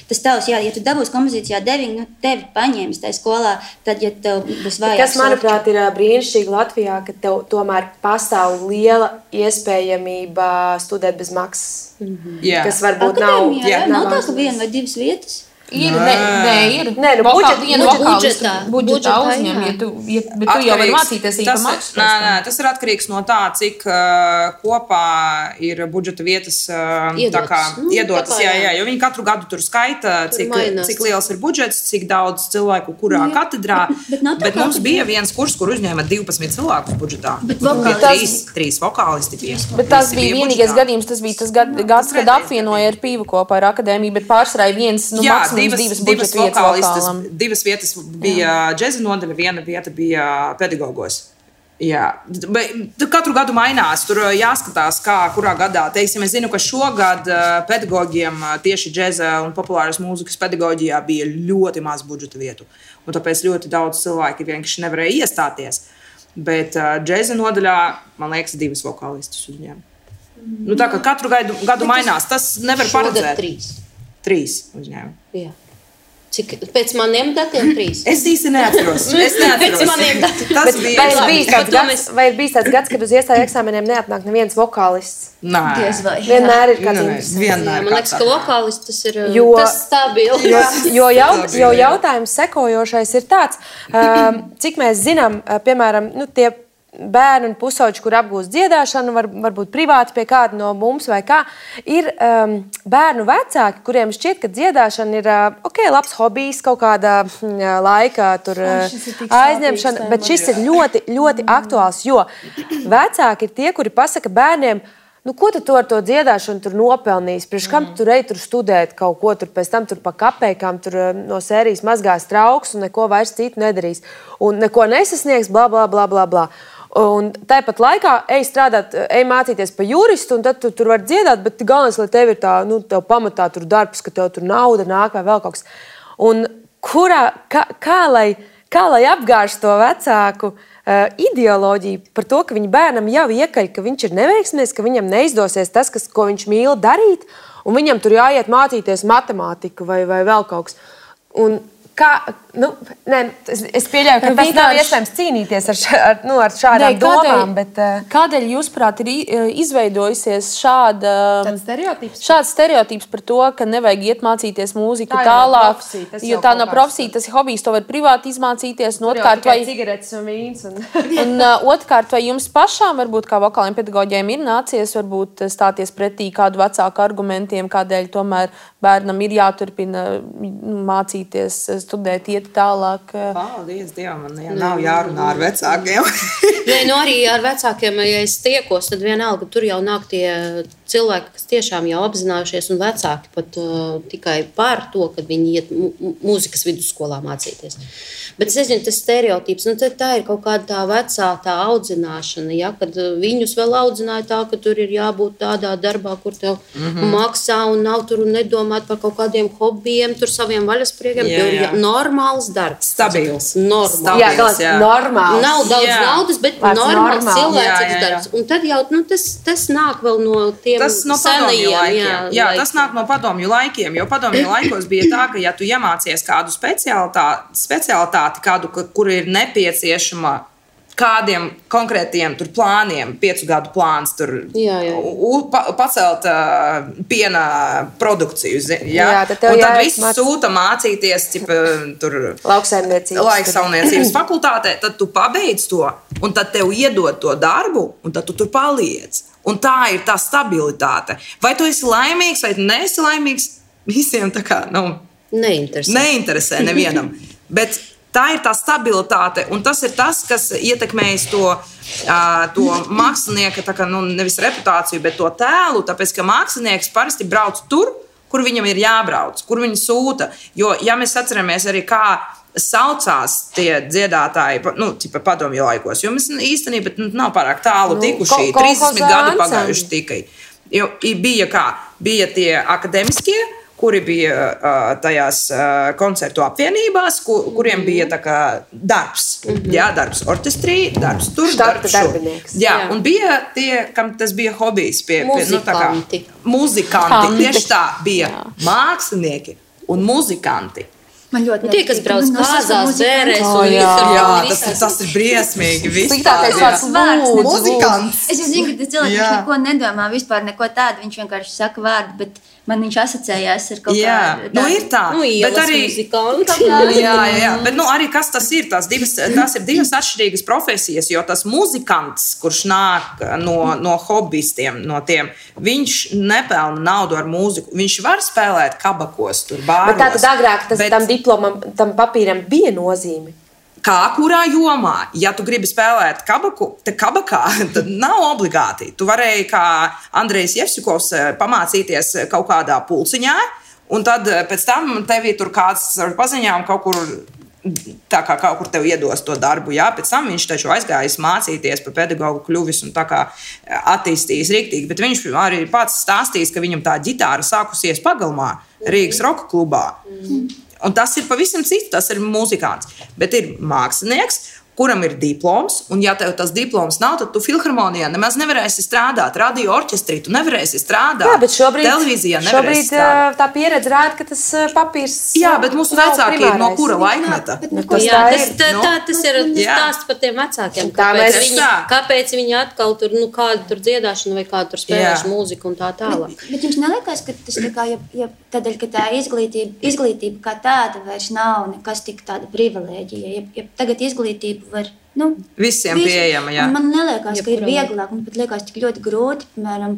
Tas tavs, ja tu dabūsi kompozīcijā 9, tevi paņēmis tajā skolā, tad, ja tev būs vajag. Kas, manuprāt, ir brīnišķīgi Latvijā, ka tev tomēr pastāv liela iespējamība studēt bez maksas. Kas varbūt Akadēmijā, nav tā, ka 1 vai 2 vietas. Ir. Nē, nu, budžetā uzņem, bet tu jau vari mācīties īpaši. Nē, tas ir atkarīgs no tā, cik kopā ir budžeta vietas iedotas. Jā, jo viņi katru gadu tur skaita, cik liels ir budžets, cik daudz cilvēku kurā katedrā. Bet mums bija viens kurs, kur uzņēma 12 cilvēkus budžetā. Trīs vokālisti bija. Bet tas bija vienīgais gadījums, tas bija tas gads, kad apvienoja ar Pīvu kopā ar akadēmiju, bet pārsvarā viens, divas vokālistas, divas vietas bija džeza nodaļa, viena vieta bija pedagogos. Jā, bet katru gadu mainās, tur jāskatās, kurā gadā. Teiksim, es zinu, ka šogad pedagogiem tieši džeza un populāras mūzikas pedagoģijā bija ļoti maz budžeta vietu. Un tāpēc ļoti daudz cilvēki vienkārši nevarēja iestāties. Bet džeza nodaļā, man liekas, 2 vokālistus uzņēma. Nu, tā kā katru gadu mainās, tas nevar paredzēt. 3 uzņēma. Jā. Cik, pēc maniem datiem 3? Es īsti neatceros. Pēc maniem datiem. Vai ir bijis tāds gads, kad uz iestāju eksāmeniem neatnāk neviens vokālists? Nē. Vienmēr ir kāds interesants. Man liekas, ka vokālists tas ir tas stabili. Jo jautājums sekojošais ir tāds, cik mēs zinām, piemēram, tie bērni un pusauģi, kur apgūst dziedāšanu, varbūt privāti pie kāda no mums vai kā, ir bērnu vecāki, kuriem šķiet, ka dziedāšana ir labs hobijs, kaut kāda laika aizņemšana, bet šis ir ļoti, ļoti aktuāls, jo vecāki ir tie, kuri pasaka bērniem, ko tu ar to dziedāšanu tur nopelnīs? Priekš kam tu tur studēt kaut ko, tur pēc tam tur pa kapēkām tur no sērijas mazgās trauks un neko vairs citu nedarīs. Un neko nesasniegs, bla, bla, bla, bla, bla. Un tāpat laikā ej strādāt, ej mācīties pa juristu, un tad tu tur var dziedāt, bet galvenais, lai tev ir tā, tev pamatā tur darbs, ka tev tur nauda nāk vai vēl kaut kas. Un kā lai apgāž to vecāku ideoloģiju par to, ka viņa bērnam jau iekaļ, ka viņš ir neveiksmies, ka viņam neizdosies tas, ko viņš mīl darīt, un viņam tur jāiet mācīties matemātiku vai vēl kaut kas. Un es pieļauju, ka tas nav iespējams cīnīties ar šādām domām. Kādēļ, jūsuprāt, ir izveidojusies šāds stereotips par to, ka nevajag iet mācīties mūziku tālāk, jo tā nav profesija, tas ir hobijs, to var privāti izmācīties. Cigaretes un vīns. Un otrkārt, vai jums pašām, varbūt kā vokāliem pedagoģiem, ir nācies varbūt stāties pretī kādu vecāku argumentiem, kādēļ tomēr bērnam ir jāturpina mācīties, studēt, iet tālāk. Paldies Dievam, man nav jārunā ar vecākiem. Arī ar vecākiem, ja es tiekos, tad vienalga tur jau nāk tie cilvēki, kas tiešām jau apzinājušies, un vecāki pat tikai par to, kad viņi iet mūzikas vidusskolā mācīties. Bet es nezinu, tas stereotips, tā ir kaut kāda tā vecā tā audzināšana, ja, kad viņus vēl audzināja tā, ka tur ir jābūt tādā darbā, kur tev maksā un nav tur un nedomāt par kaut kādiem hobijiem, tur saviem vaļaspriekiem, tur ir normāls darbs. Stabils. Normāls. Normāls. Nav daudz naudas, bet normāls cilvēcīgs darbs. Un tad jau tas nāk vēl no tiem senajiem laikiem. Jā, tas nāk no padomju laikiem, jo padomju laikos bija tā, ka ja tu iemācies kādu specialitāti, kur ir nepieciešama kādiem konkrētiem plāniem, 5 gadu plāns, pacelt piena produkciju. Un tad viss sūta mācīties lauksaimniecības fakultātē, tad tu pabeidz to, un tad tev iedod to darbu, un tad tu tur paliec. Un tā ir tā stabilitāte. Vai tu esi laimīgs, vai tu neesi laimīgs, visiem tā kā neinteresē nevienam. Bet tā ir tā stabilitāte, un tas ir tas, kas ietekmējas to mākslinieka, nevis reputāciju, bet to tēlu, tāpēc, ka mākslinieks parasti brauc tur, kur viņam ir jābrauc, kur viņi sūta. Jo, ja mēs atceramies arī, kā saucās tie dziedātāji, padomju laikos, jo mēs īstenībā nav pārāk tālu tikuši, 30 gadi pagājuši tikai. Jo bija tie akademiskie, kuri bija tajās koncertu apvienībās, kuriem bija darbs. Jā, darbs orķestrī, darbs tur, darbs šur. Jā, un bija tie, kam tas bija hobijs. Muzikanti. Tieši tā bija mākslinieki un muzikanti. Man ļoti tie, kas brauc kāzās, bērēs un visur. Tas ir briesmīgi. Sliktākais vārds muzikants. Es zinu, ka tas cilvēks neko nedomā, vispār neko tādu, viņš vienkārši saka vārdu, bet Man viņš asociējās ar kaut kādu. Nu, ir tā. Bet arī muzikanti. Jā. Bet arī kas tas ir? Tās ir divas atšķirīgas profesijas, jo tas muzikants, kurš nāk no hobbyistiem, no tiem, viņš nepelna naudu ar mūziku. Viņš var spēlēt kabakos, tur bāros. Bet tātad agrāk tam diplomam, tam papīram bija nozīme? Kā kurā jomā? Ja tu gribi spēlēt kabakā, tad nav obligāti. Tu varēji, kā Andrejs Jevsikovs, pamācīties kaut kādā pulciņā, un tad pēc tam tevī tur kāds ar paziņām kaut kur, tā kā kaut kur tev iedos to darbu. Jā? Pēc tam viņš taču aizgājis mācīties par pedagogu, kļuvis un tā kā attīstījis riktīgi. Bet viņš arī pats stāstījis, ka viņam tā ģitāra sākusies Pagalmā, Rīgas roka klubā. Un tas ir pavisam cits, tas ir muzikants. Bet ir mākslinieks, kuram ir diploms, un ja tev tas diploms nav, tad tu filharmonijā nemaz nevarēsi strādāt. Radio orķestrī tu nevarēsi strādāt. Jā, bet televīzijā nevarēsi strādāt. Tā pieredze rāda, ka tas papīrs. Jā, bet mūsu vecāki ir no kura laikmeta? Tas ir stāsts par tiem vecākiem. Kāpēc viņi atkal tur, kādu tur dziedāšanu vai kādu tur spēlēšanu mūziku un tā tālāk. Bet jums neliekas, ka tas tā kā, ja tādēļ, ka tā izglītība kā tāda vairs nav nekas tik tāda privilēģija. Ja tagad izglītība var visiem pieejama. Jā. Man neliekas, ka ir vieglāk. Man pat liekas tik ļoti grūti, piemēram,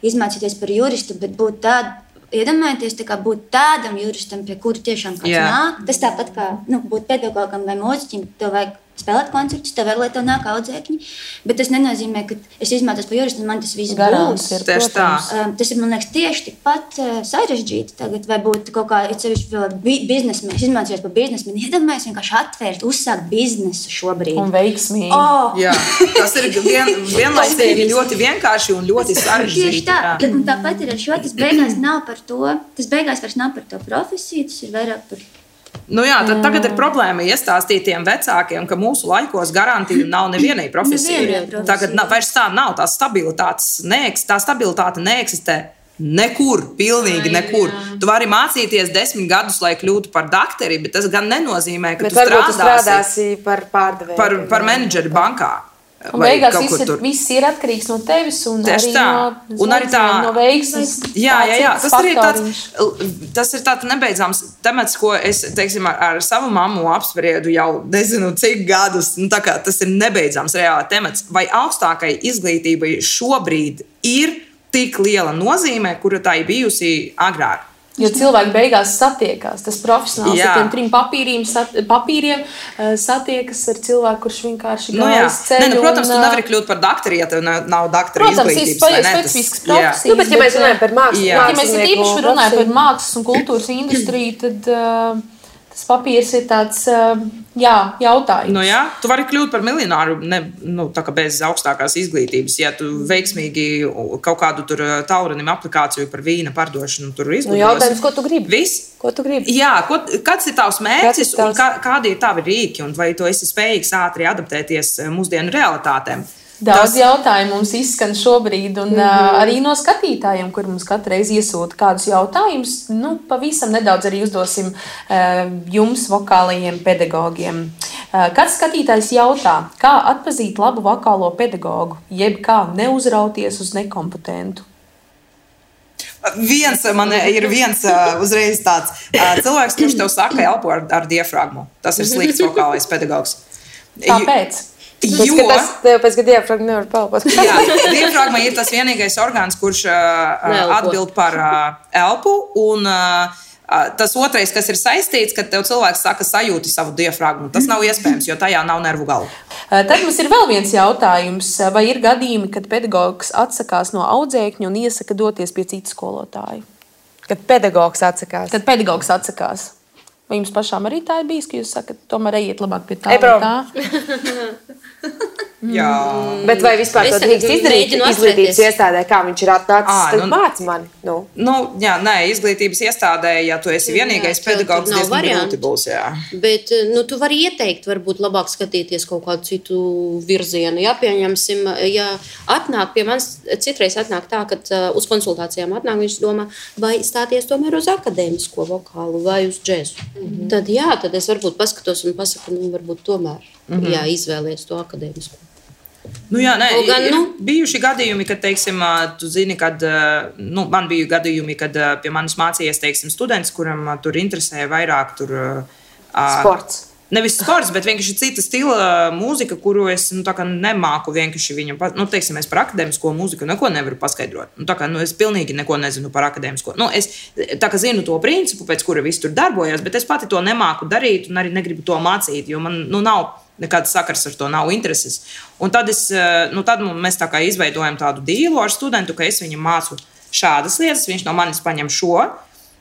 izmācīties par juristu, bet būt tādu, iedomājieties, būt tādam juristam, pie kura tiešām kāds nāk. Tas tāpat kā būt pedagogam vai mūziķim, tev vajag spēlēt koncertus, tev vēl, lai tev nāk audzēkņi, bet tas nenozīmē, ka es izmācos par juristu, un man tas viss būs. Tas ir, man liekas, tieši tikpat sarežģīti tagad, vai būt kaut kā, sevišķi vēl biznesmeni, izmācījos par biznesmeni, iedomājies vienkārši atvērt, uzsākt biznesu šobrīd. Un veiksmīgi. Jā, tas ir vienlaicīgi ļoti vienkārši un ļoti sarežģīti. Tieši tā, un tāpat ir ar šo, tas beigās nav par to, tas beigās vairs nav par to profesiju, tas ir vairāk par tad tagad ir problēma iestāstīt tiem vecākiem, ka mūsu laikos garantija nav nevienai profesijai. Tagad vairs tā nav, tā stabilitāte neeksistē nekur, pilnīgi nekur. Tu vari mācīties 10 gadus, lai kļūtu par dakteri, bet tas gan nenozīmē, ka tu strādāsi par pārdevēju. Par menedžeri bankā. Un beigās viss ir atkarīgs no tevis un arī no veiksmes. Jā. Tas ir tāds nebeidzams temats, ko es, teiksim, ar savu mammu apspriedu jau nezinu cik gadus. Tas ir nebeidzams reāli temats. Vai augstākai izglītībai šobrīd ir tik liela nozīme, kura tā ir bijusi agrāk? Jo cilvēki beigās satiekās. Tas profesionāls ar tiem 3 papīriem satiekas ar cilvēku, kurš vienkārši gājas ceļu. Protams, tu nevari kļūt par dakteru, ja tev nav dakteru izglītības. Protams, ir specifisks profesijas. Bet ja mēs runājam par mākslu, ja mēs īpaši runājam par mākslas un kultūras industriju, tad tas papīrs ir tāds jautājums. Tu vari kļūt par miljonāru bez augstākās izglītības. Ja tu veiksmīgi kaut kādu tur taurinim aplikāciju par vīna pardošanu tur izglītos. Jautājums, ko tu gribi? Viss? Ko tu gribi? Jā, kāds ir tavs mērķis un kādi ir tavi rīki un vai tu esi spējīgs ātri adaptēties mūsdienu realitātēm? Daudz jautājumu mums izskan šobrīd, un arī no skatītājiem, kur mums katru reizi iesūta kādus jautājumus. Pavisam nedaudz arī uzdosim jums, vokālajiem pedagogiem. Kāds skatītājs jautā, kā atpazīt labu vokālo pedagogu, jeb kā neuzrauties uz nekompetentu? Man ir viens uzreiz tāds cilvēks, kurš tev saka, elpo ar diafragmu. Tas ir slikts vokālais pedagogs. Kāpēc? Pēc ka diafragma nevar pelpot. Jā, diafragma ir tas vienīgais orgāns, kurš atbild par elpu, un tas otrais, kas ir saistīts, kad tev cilvēks saka sajūti savu diafragmu. Tas nav iespējams, jo tajā nav nervu galu. Tad mums ir vēl viens jautājums. Vai ir gadījumi, kad pedagogs atsakās no audzēkņa un iesaka doties pie citu skolotāju? Kad pedagogs atsakās. Vai jums pašām arī tā ir bijis, ka jūs sakat, tomēr ejiet labāk pie tā vai tā? Jā. Bet vai vispār to drīkst izdarīt izglītības iestādē, kā viņš ir atnācis, tad māc mani? Izglītības iestādē, ja tu esi vienīgais pedagogs, diezgan grūti būs, jā. Bet, tu vari ieteikt, varbūt labāk skatīties kaut kādu citu virzienu. Ja, pieņemsim, ja atnāk pie manis, citreiz atnāk tā, kad uz konsultācijām atnāk, viņš domā, vai stāties tomēr uz akadēmisko vokālu vai uz džezu. Tad es varbūt paskatos un pasaku, varbūt tomēr, izvēlies to akadēmisko. Jā, nē, ir bijuši gadījumi, kad, teiksim, tu zini, kad, man bija gadījumi, kad pie manis mācījies, teiksim, students, kuram tur interesēja vairāk sports. Nevis sports, bet vienkārši cita stila mūzika, kuru es nemāku vienkārši viņam. Teiksim, es par akadēmisko mūziku neko nevaru paskaidrot. Es pilnīgi neko nezinu par akadēmisko. Es zinu to principu, pēc kura viss tur darbojas, bet es pati to nemāku darīt un arī negribu to mācīt, jo man nav nekāds sakars ar to, nav intereses. Un tad mēs tā kā izveidojam tādu dīlu ar studentu, ka es viņam mācu šādas lietas, viņš no manis paņem šo.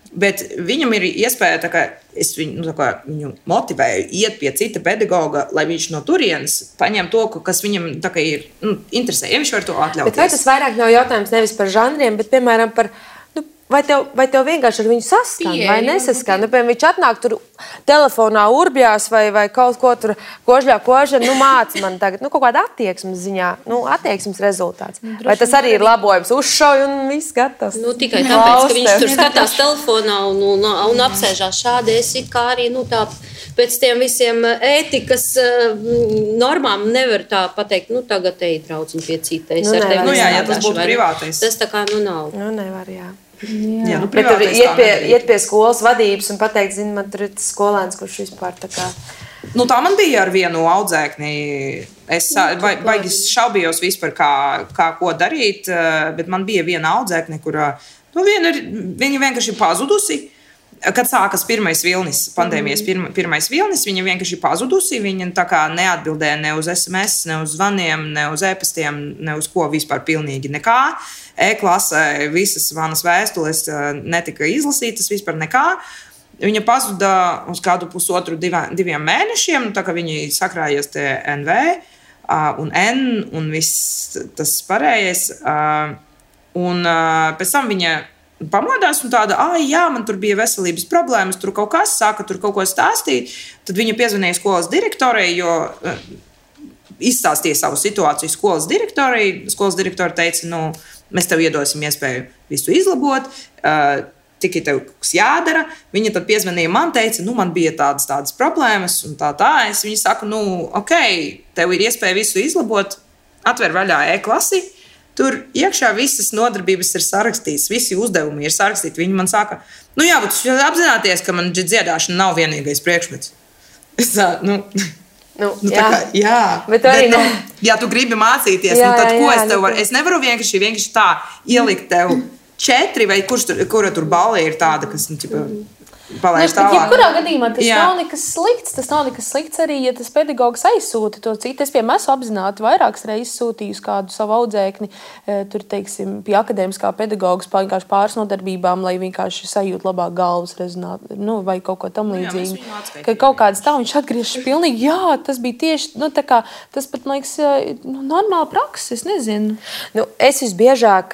Bet viņam ir iespēja, ka es viņu motivēju iet pie cita pedagoga, lai viņš no turienes paņem to, kas viņam ir interesē. Ja viņš var to atļauties. Bet vai tas vairāk nav jautājums nevis par žanriem, bet, piemēram, par vai tev vienkārši ar viņu saskan vai nesaskan? Piemēram, viņš atnāk tur telefonā urbjās vai kaut ko tur kožļā, māca man tagad, kaut kāda attieksmes ziņā, attieksmes rezultāts. Vai tas arī ir labojums? Uzšauj un viss gatavs. Tikai tāpēc, ka viņš tur skatās telefonā un apsēžās šādi, es it kā arī, tā pēc tiem visiem ētikas normām nevar tā pateikt, tagad ej draudziņ pie citais. Jā, tas būtu privātais. Tas tā kā, nav. Nevar, jā. Jā, bet tur iet pie skolas vadības un pateikt, man tur ir tas skolēns, kurš vispār tā kā... Tā man bija ar vienu audzēkni. Es baigi šaubījos vispār, kā ko darīt, bet man bija viena audzēkne, kurā viņa vienkārši pazudusi. Kad sākas pirmais vilnis, pandēmijas pirmais vilnis, viņa vienkārši pazudusi. Viņa tā kā neatbildēja ne uz SMS, ne uz zvaniem, ne uz e-pastiem, ne uz ko vispār pilnīgi nekā. E-klasē visas manas vēstules netika izlasītas, vispār nekā. Viņa pazuda uz kādu pusotru, diviem mēnešiem, tā kā viņi sakrājies te NV un N un viss tas pārējais. Un pēc tam viņa pamodās un tāda, jā, man tur bija veselības problēmas, tur kaut kas, sāka tur kaut ko stāstīt. Tad viņa piezvanīja skolas direktorei, jo izstāstīja savu situāciju skolas direktorei. Skolas direktori teica, mēs tev iedosim iespēju visu izlabot, tikai tev kas jādara. Viņa tad piezvanīja man, teica, man bija tādas problēmas un tā. Es viņai saku, ok, tev ir iespēja visu izlabot, atver vaļā e-klasi. Tur iekšā visas nodarbības ir sarakstītas, visi uzdevumi ir sarakstīti. Viņi man saka, jā, bet jūs apzināties, ka man dziedāšana nav vienīgais priekšmets. Es jā, bet ja tu gribi mācīties, tad ko es tev varu? Es nevaru vienkārši tā ielikt tev 4 vai kura tur balva ir tāda, kas palaiž tālāk. Jebkurā gadījumā tas nav nekas slikts. Tas nav nekas slikts arī, ja tas pedagogs aizsūta to citu. Es, piemēram, esmu apzināti vairākas reizes sūtījusi kādu savu audzēkni, tur, teiksim, pie akadēmiskā pedagogas vienkārši pāris nodarbībām, lai vienkārši sajūt labāk galvas rezonāt, vai kaut ko tam līdzīgi. Ka kaut kāds tā, viņš atgriežas pilnīgi, tas bija tieši, tā kā, tas pat, man liekas, normāla praksa, es nezinu. Es visbiežāk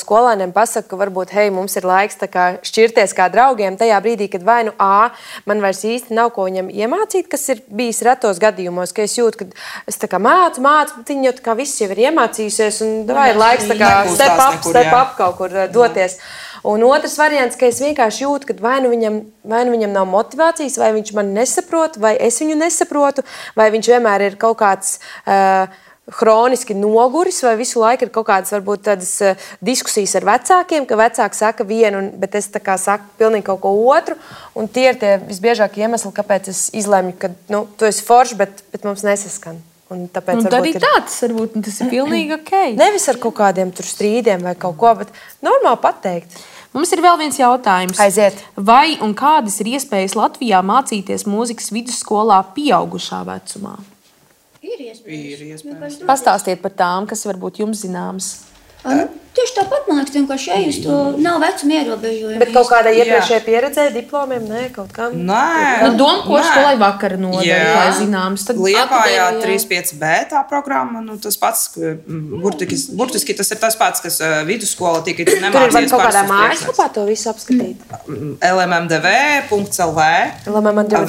skolēniem pasaku, ka varbūt, mums ir laiks tā kā šķirties kā draugiem tajā brīdī, kad vai man vairs īsti nav ko viņam iemācīt, kas ir bijis retos gadījumos, ka es jūtu, ka es tā kā mācu, bet viņi jau tā kā viss jau ir iemācījusies un vai ir laiks tā kā step up kaut kur doties. Un otrs variants, ka es vienkārši jūtu, ka vai nu viņam nav motivācijas, vai viņš mani nesaprot, vai es viņu nesaprotu, vai viņš vienmēr ir kaut kāds... hroniski noguris, vai visu laiku ir kaut kādas varbūt tādas diskusijas ar vecākiem, ka vecāki saka vienu, bet es tā kā saku pilnīgi kaut ko otru, un tie ir tie visbiežākie iemesli, kāpēc es izlemju, ka, tu esi foršs, bet mums nesaskan. Un tāpēc arī tāds varbūt tas ir pilnīgi ok. Nevis ar kaut kādiem tur strīdiem vai kaut ko, bet normāli pateikt. Mums ir vēl viens jautājums. Aiziet. Vai un kādas ir iespējas Latvijā mācīties mūzikas vidusskolā pieaugušā vecumā? Ir iespējams. Pastāstiet par tām, kas varbūt jums zināmas. Tieši tāpat, man liekas, vienkārši ejus to nav vecuma ierobežojumi. Bet kaut kādā iepriekšējā pieredzē, diplomiem, kaut kam? Nē. Domko skolai vakara nodaļa, lai zināms. Liepājā 3.5b tā programma, tas pats, burtiski tas ir tas pats, kas vidusskola tikai tu nemācies. Tur ir kaut kādā mājaslapā to visu apskatīt? lmmdv.lv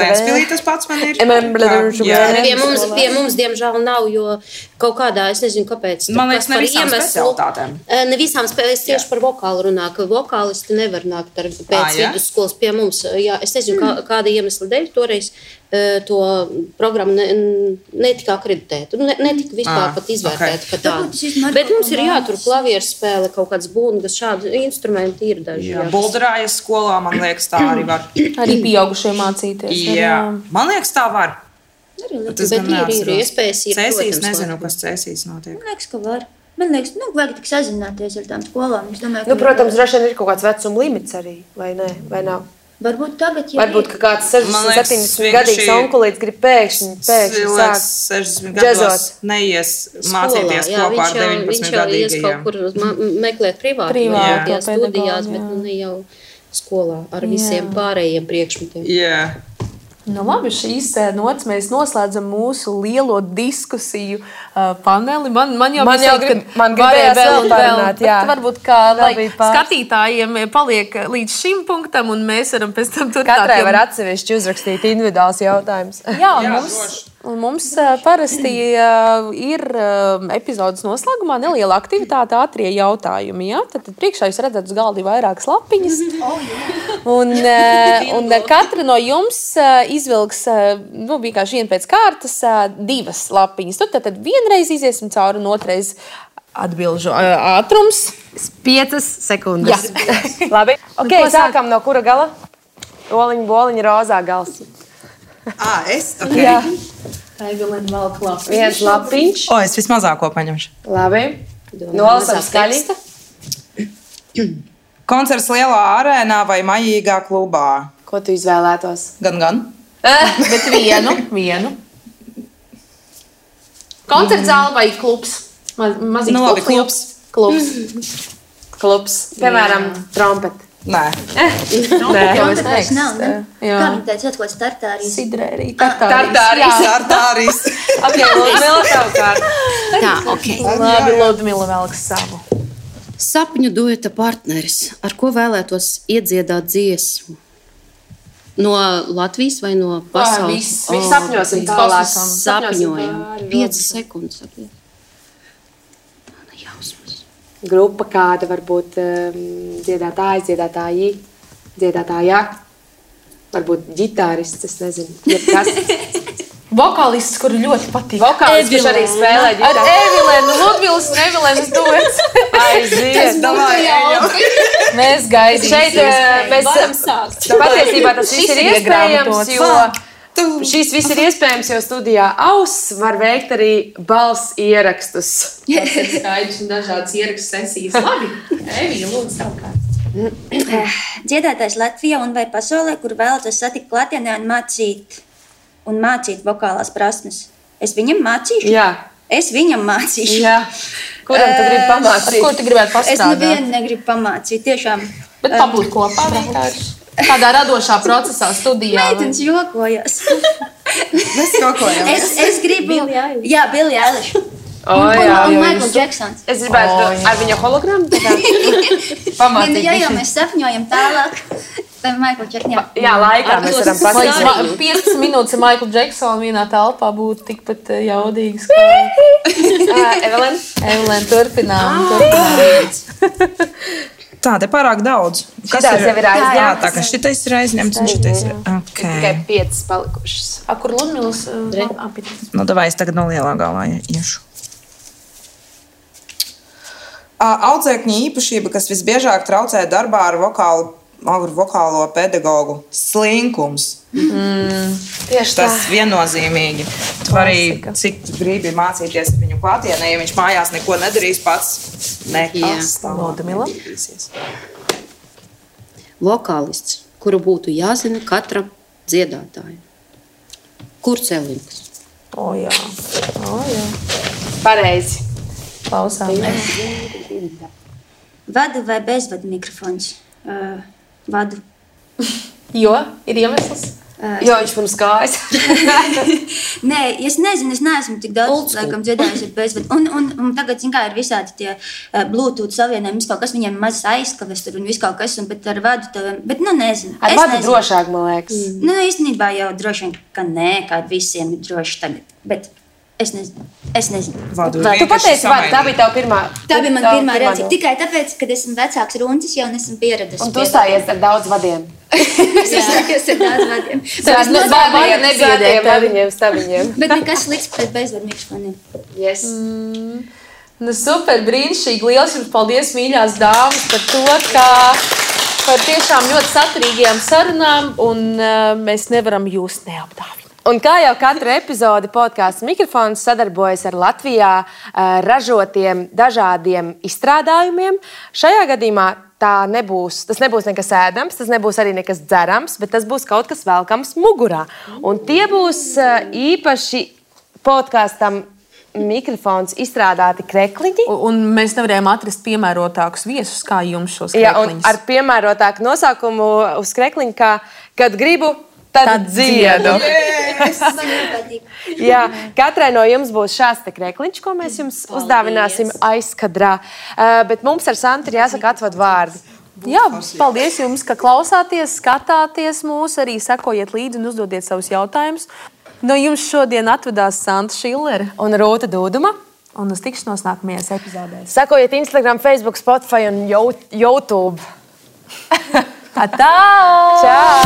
Vēnspilī tas pats man ir. Pie mums, diemžēl, nav, jo kaut kādā, es nezinu, kāpēc. Man liekas, ne visām specialitātēm. Ne visām spēlēs tieši par vokālu runā, ka vokālisti nevar nākt pēc vidusskolas pie mums. Jā, es nezinu, kāda iemesla dēļ toreiz to programmu netika akreditēta. Netika vispār pat izvērtēta kā tāda. Bet mums ir jātur klavieru spēle, kaut kāds bungas, šādi instrumenti ir daži. Jā, bulderājas skolā, man liekas, tā arī var. Arī pieaugušie mācīties. Jā, man liekas, tā var. Bet ir iespējas. Cēsīs, nezinu, kas cēsīs notiek. Man liekas, ka var. Man liekas, vajag tik sazināties ar tām skolām. Es domāju, Protams, droši vien ir kaut kāds vecuma limits arī, vai ne? Vai nav? Varbūt tagad, ja Varbūt, ka kāds 60-70 gadīgs onkulīts grib pēkšņi sāk 60 gados neies mācīties kopā ar 19 viņš jau ies kaut kur meklēt privātās studijās, bet ne jau skolā ar visiem pārējiem priekšmetiem. Jā. Nu, labi, šīs nots mēs noslēdzam mūsu lielo diskusiju paneli. Man jau gribējās vēl parunāt, jā. Varbūt kā skatītājiem paliek līdz šim punktam, un mēs varam pēc tam turpināt. Katrai var atsevišķi uzrakstīt individuāls jautājums. Jā, mums parasti ir epizodes noslēgumā neliela aktivitāte, ātrie jautājumi. Ja? Tad priekšā jūs redzat uz galda vairākas lapiņas. Un katra no jums izvilks vienkārši vienu pēc kārtas 2 lapiņas. Tad vienreiz iziesim cauri un otrais atbilžu ātrums. 5 sekundes. Labi. Ok, sākam no kura gala? Oliņa, boliņa, rozā gals. Es? Okay. Jā. Evelina vēl klāst. 1 lapiņš. Es vismazāko paņemšu. Labi. Nolasam skaļi. Koncerts lielā arēnā vai maļīgā klubā? Ko tu izvēlētos? Gan. Bet vienu. Koncerts zāle vai klubs? Mazīgs klubs. Klubs. Piemēram, trompeti. Nē. Koncerts nav, ne? Kā viņi teica, kaut ko startārijas? Sidrērī. Tartārijas. Ok, Ludmila, tev kārt. Tā, ok. Labi, Ludmila velks savu. Sapņu dueta partneris. Ar ko vēlētos iedziedāt dziesmu? No Latvijas vai no pasaules? Viss sapņosim tālāk. Sapņojam. 5 sekundes. Grupa kāda varbūt dziedātājs, dziedātāji, dziedātājā. Varbūt ģitārists, es nezinu. Jebkas. Vokālists, kuru ļoti patīk. Vokālists, kurš arī spēlē ģitāru. Ar Evilenu, Ludmilas un Evilenas duets. Aiziet. Mēs gaidīsim. Šeit mēs patiesībā tas viss ir iespējams, jo šīs viss ir iespējams, jo studijā Auss var veikt arī balss ierakstus. Tas ir skaidrs un dažādas ierakstu sesijas. Labi, Evija, lūdzu, savukārt. Dziedātājs Latvijā un vai pasaulē, kur vēlaties satikt klātienē un mācīt vokālās prasmes. Es viņam mācīšu? Jā. Es viņam mācīšu. Jā. Kuram tu gribi pamācīt? Ko tu gribētu pastrādāt? Es nevienu negribu pamācīt, tiešām. Bet pabūt kopā vienkārši. Kādā radošā procesā, studijā? Meitenes jokojas. Mēs jokojam. Es gribu... Jā, Billie Eilish. Jā, Un Michael Jacksons. Es gribētu ar viņa hologramu pamācīt. Ja mēs sapņojam tālāk, tad Michael Jackson. Jā, laikā mēs varam pasīt. 15 minūtes ar Michael Jacksonu vienā telpā būtu tikpat jaudīgas. Evelina, turpinām. Tā, te pārāk daudz. Šitās jau ir aizņemtas. Jā, tā, ka šitais ir aizņemts un šitais ir. Tikai 5 palikušas. Kur Ludmilas? Davai, es tagad no lielā galvā iešu. Audzēkņa īpašība, kas visbiežāk traucē darbā ar vokālo pedagogu - slinkums. Tieši tā. Tas viennozīmīgi. Tu arī, cik tu gribi mācīties ar viņu klātienē, ja viņš mājās neko nedarīs pats, nekas tam nedarīsies. Vokālists, kuru būtu jāzina katram dziedātājam. Kurcelinks. Jā. Pareizi. Klausāmies. Vadu vai bezvadu mikrofons? Vadu. Jo ir iemesls. Jo viņš mums kājas. Nē, es nezinu, es neesmu tik daudz laikam dziedājis ar bezvadu. Un tagad, zin kā, ir visādi tie Bluetooth savienojumi, viss kaut kas viņiem maz aizkaves tur un viss kaut kas, bet ar vadu tev, bet nezinu. Ar vadu drošāk, man liekas. Īstenībā jau droši vien, ka nē, kā visiem ir droši tagad, bet es nezinu. Tu pateici vadu, tā bija tava pirmā. Tā bija man pirmā reakcija. Tikai tāpēc, kad esmu vecāks runcis, jau nesmu pieredzis. Un tu stājies ar daudz vadiem. Es izsakos ar daudz vadiem. Stabiņiem. Bet nekas slikts pret bezvadu mikrofoniem. Yes. Nu, super, brīnišķīgi. Lielas jums paldies, mīļās dāmas, par to, ka par tiešām ļoti saturīgajām sarunām, un mēs nevaram jūs neapdāvināt. Un kā jau katru epizodi podkāsts Mikrofons sadarbojas ar Latvijā ražotiem dažādiem izstrādājumiem, šajā gadījumā tas nebūs nekas ēdams, tas nebūs arī nekas dzerams, bet tas būs kaut kas velkams mugurā. Un tie būs īpaši podkāstam Mikrofons izstrādāti krekliņi. Un mēs nevarējām atrast piemērotākus viesus, kā jums šos krekliņus. Jā, ar piemērotāku nosaukumu uz krekliņu, kā kad gribu, tad dziedu. Jā, katrai no jums būs šāds te krekliņš, ko mēs jums uzdāvināsim aizkadrā. Bet mums ar Santu ir jāsaka atvadu vārdi. Jā, paldies jums, ka klausāties, skatāties mūs, arī sekojiet līdzi un uzdodiet savus jautājumus. No jums šodien atvedās Santa Šillere un Rūta Dūduma. Un uz tikšanos nākamajās epizodēs. Sekojiet Instagram, Facebook, Spotify un YouTube. Atā! Čau!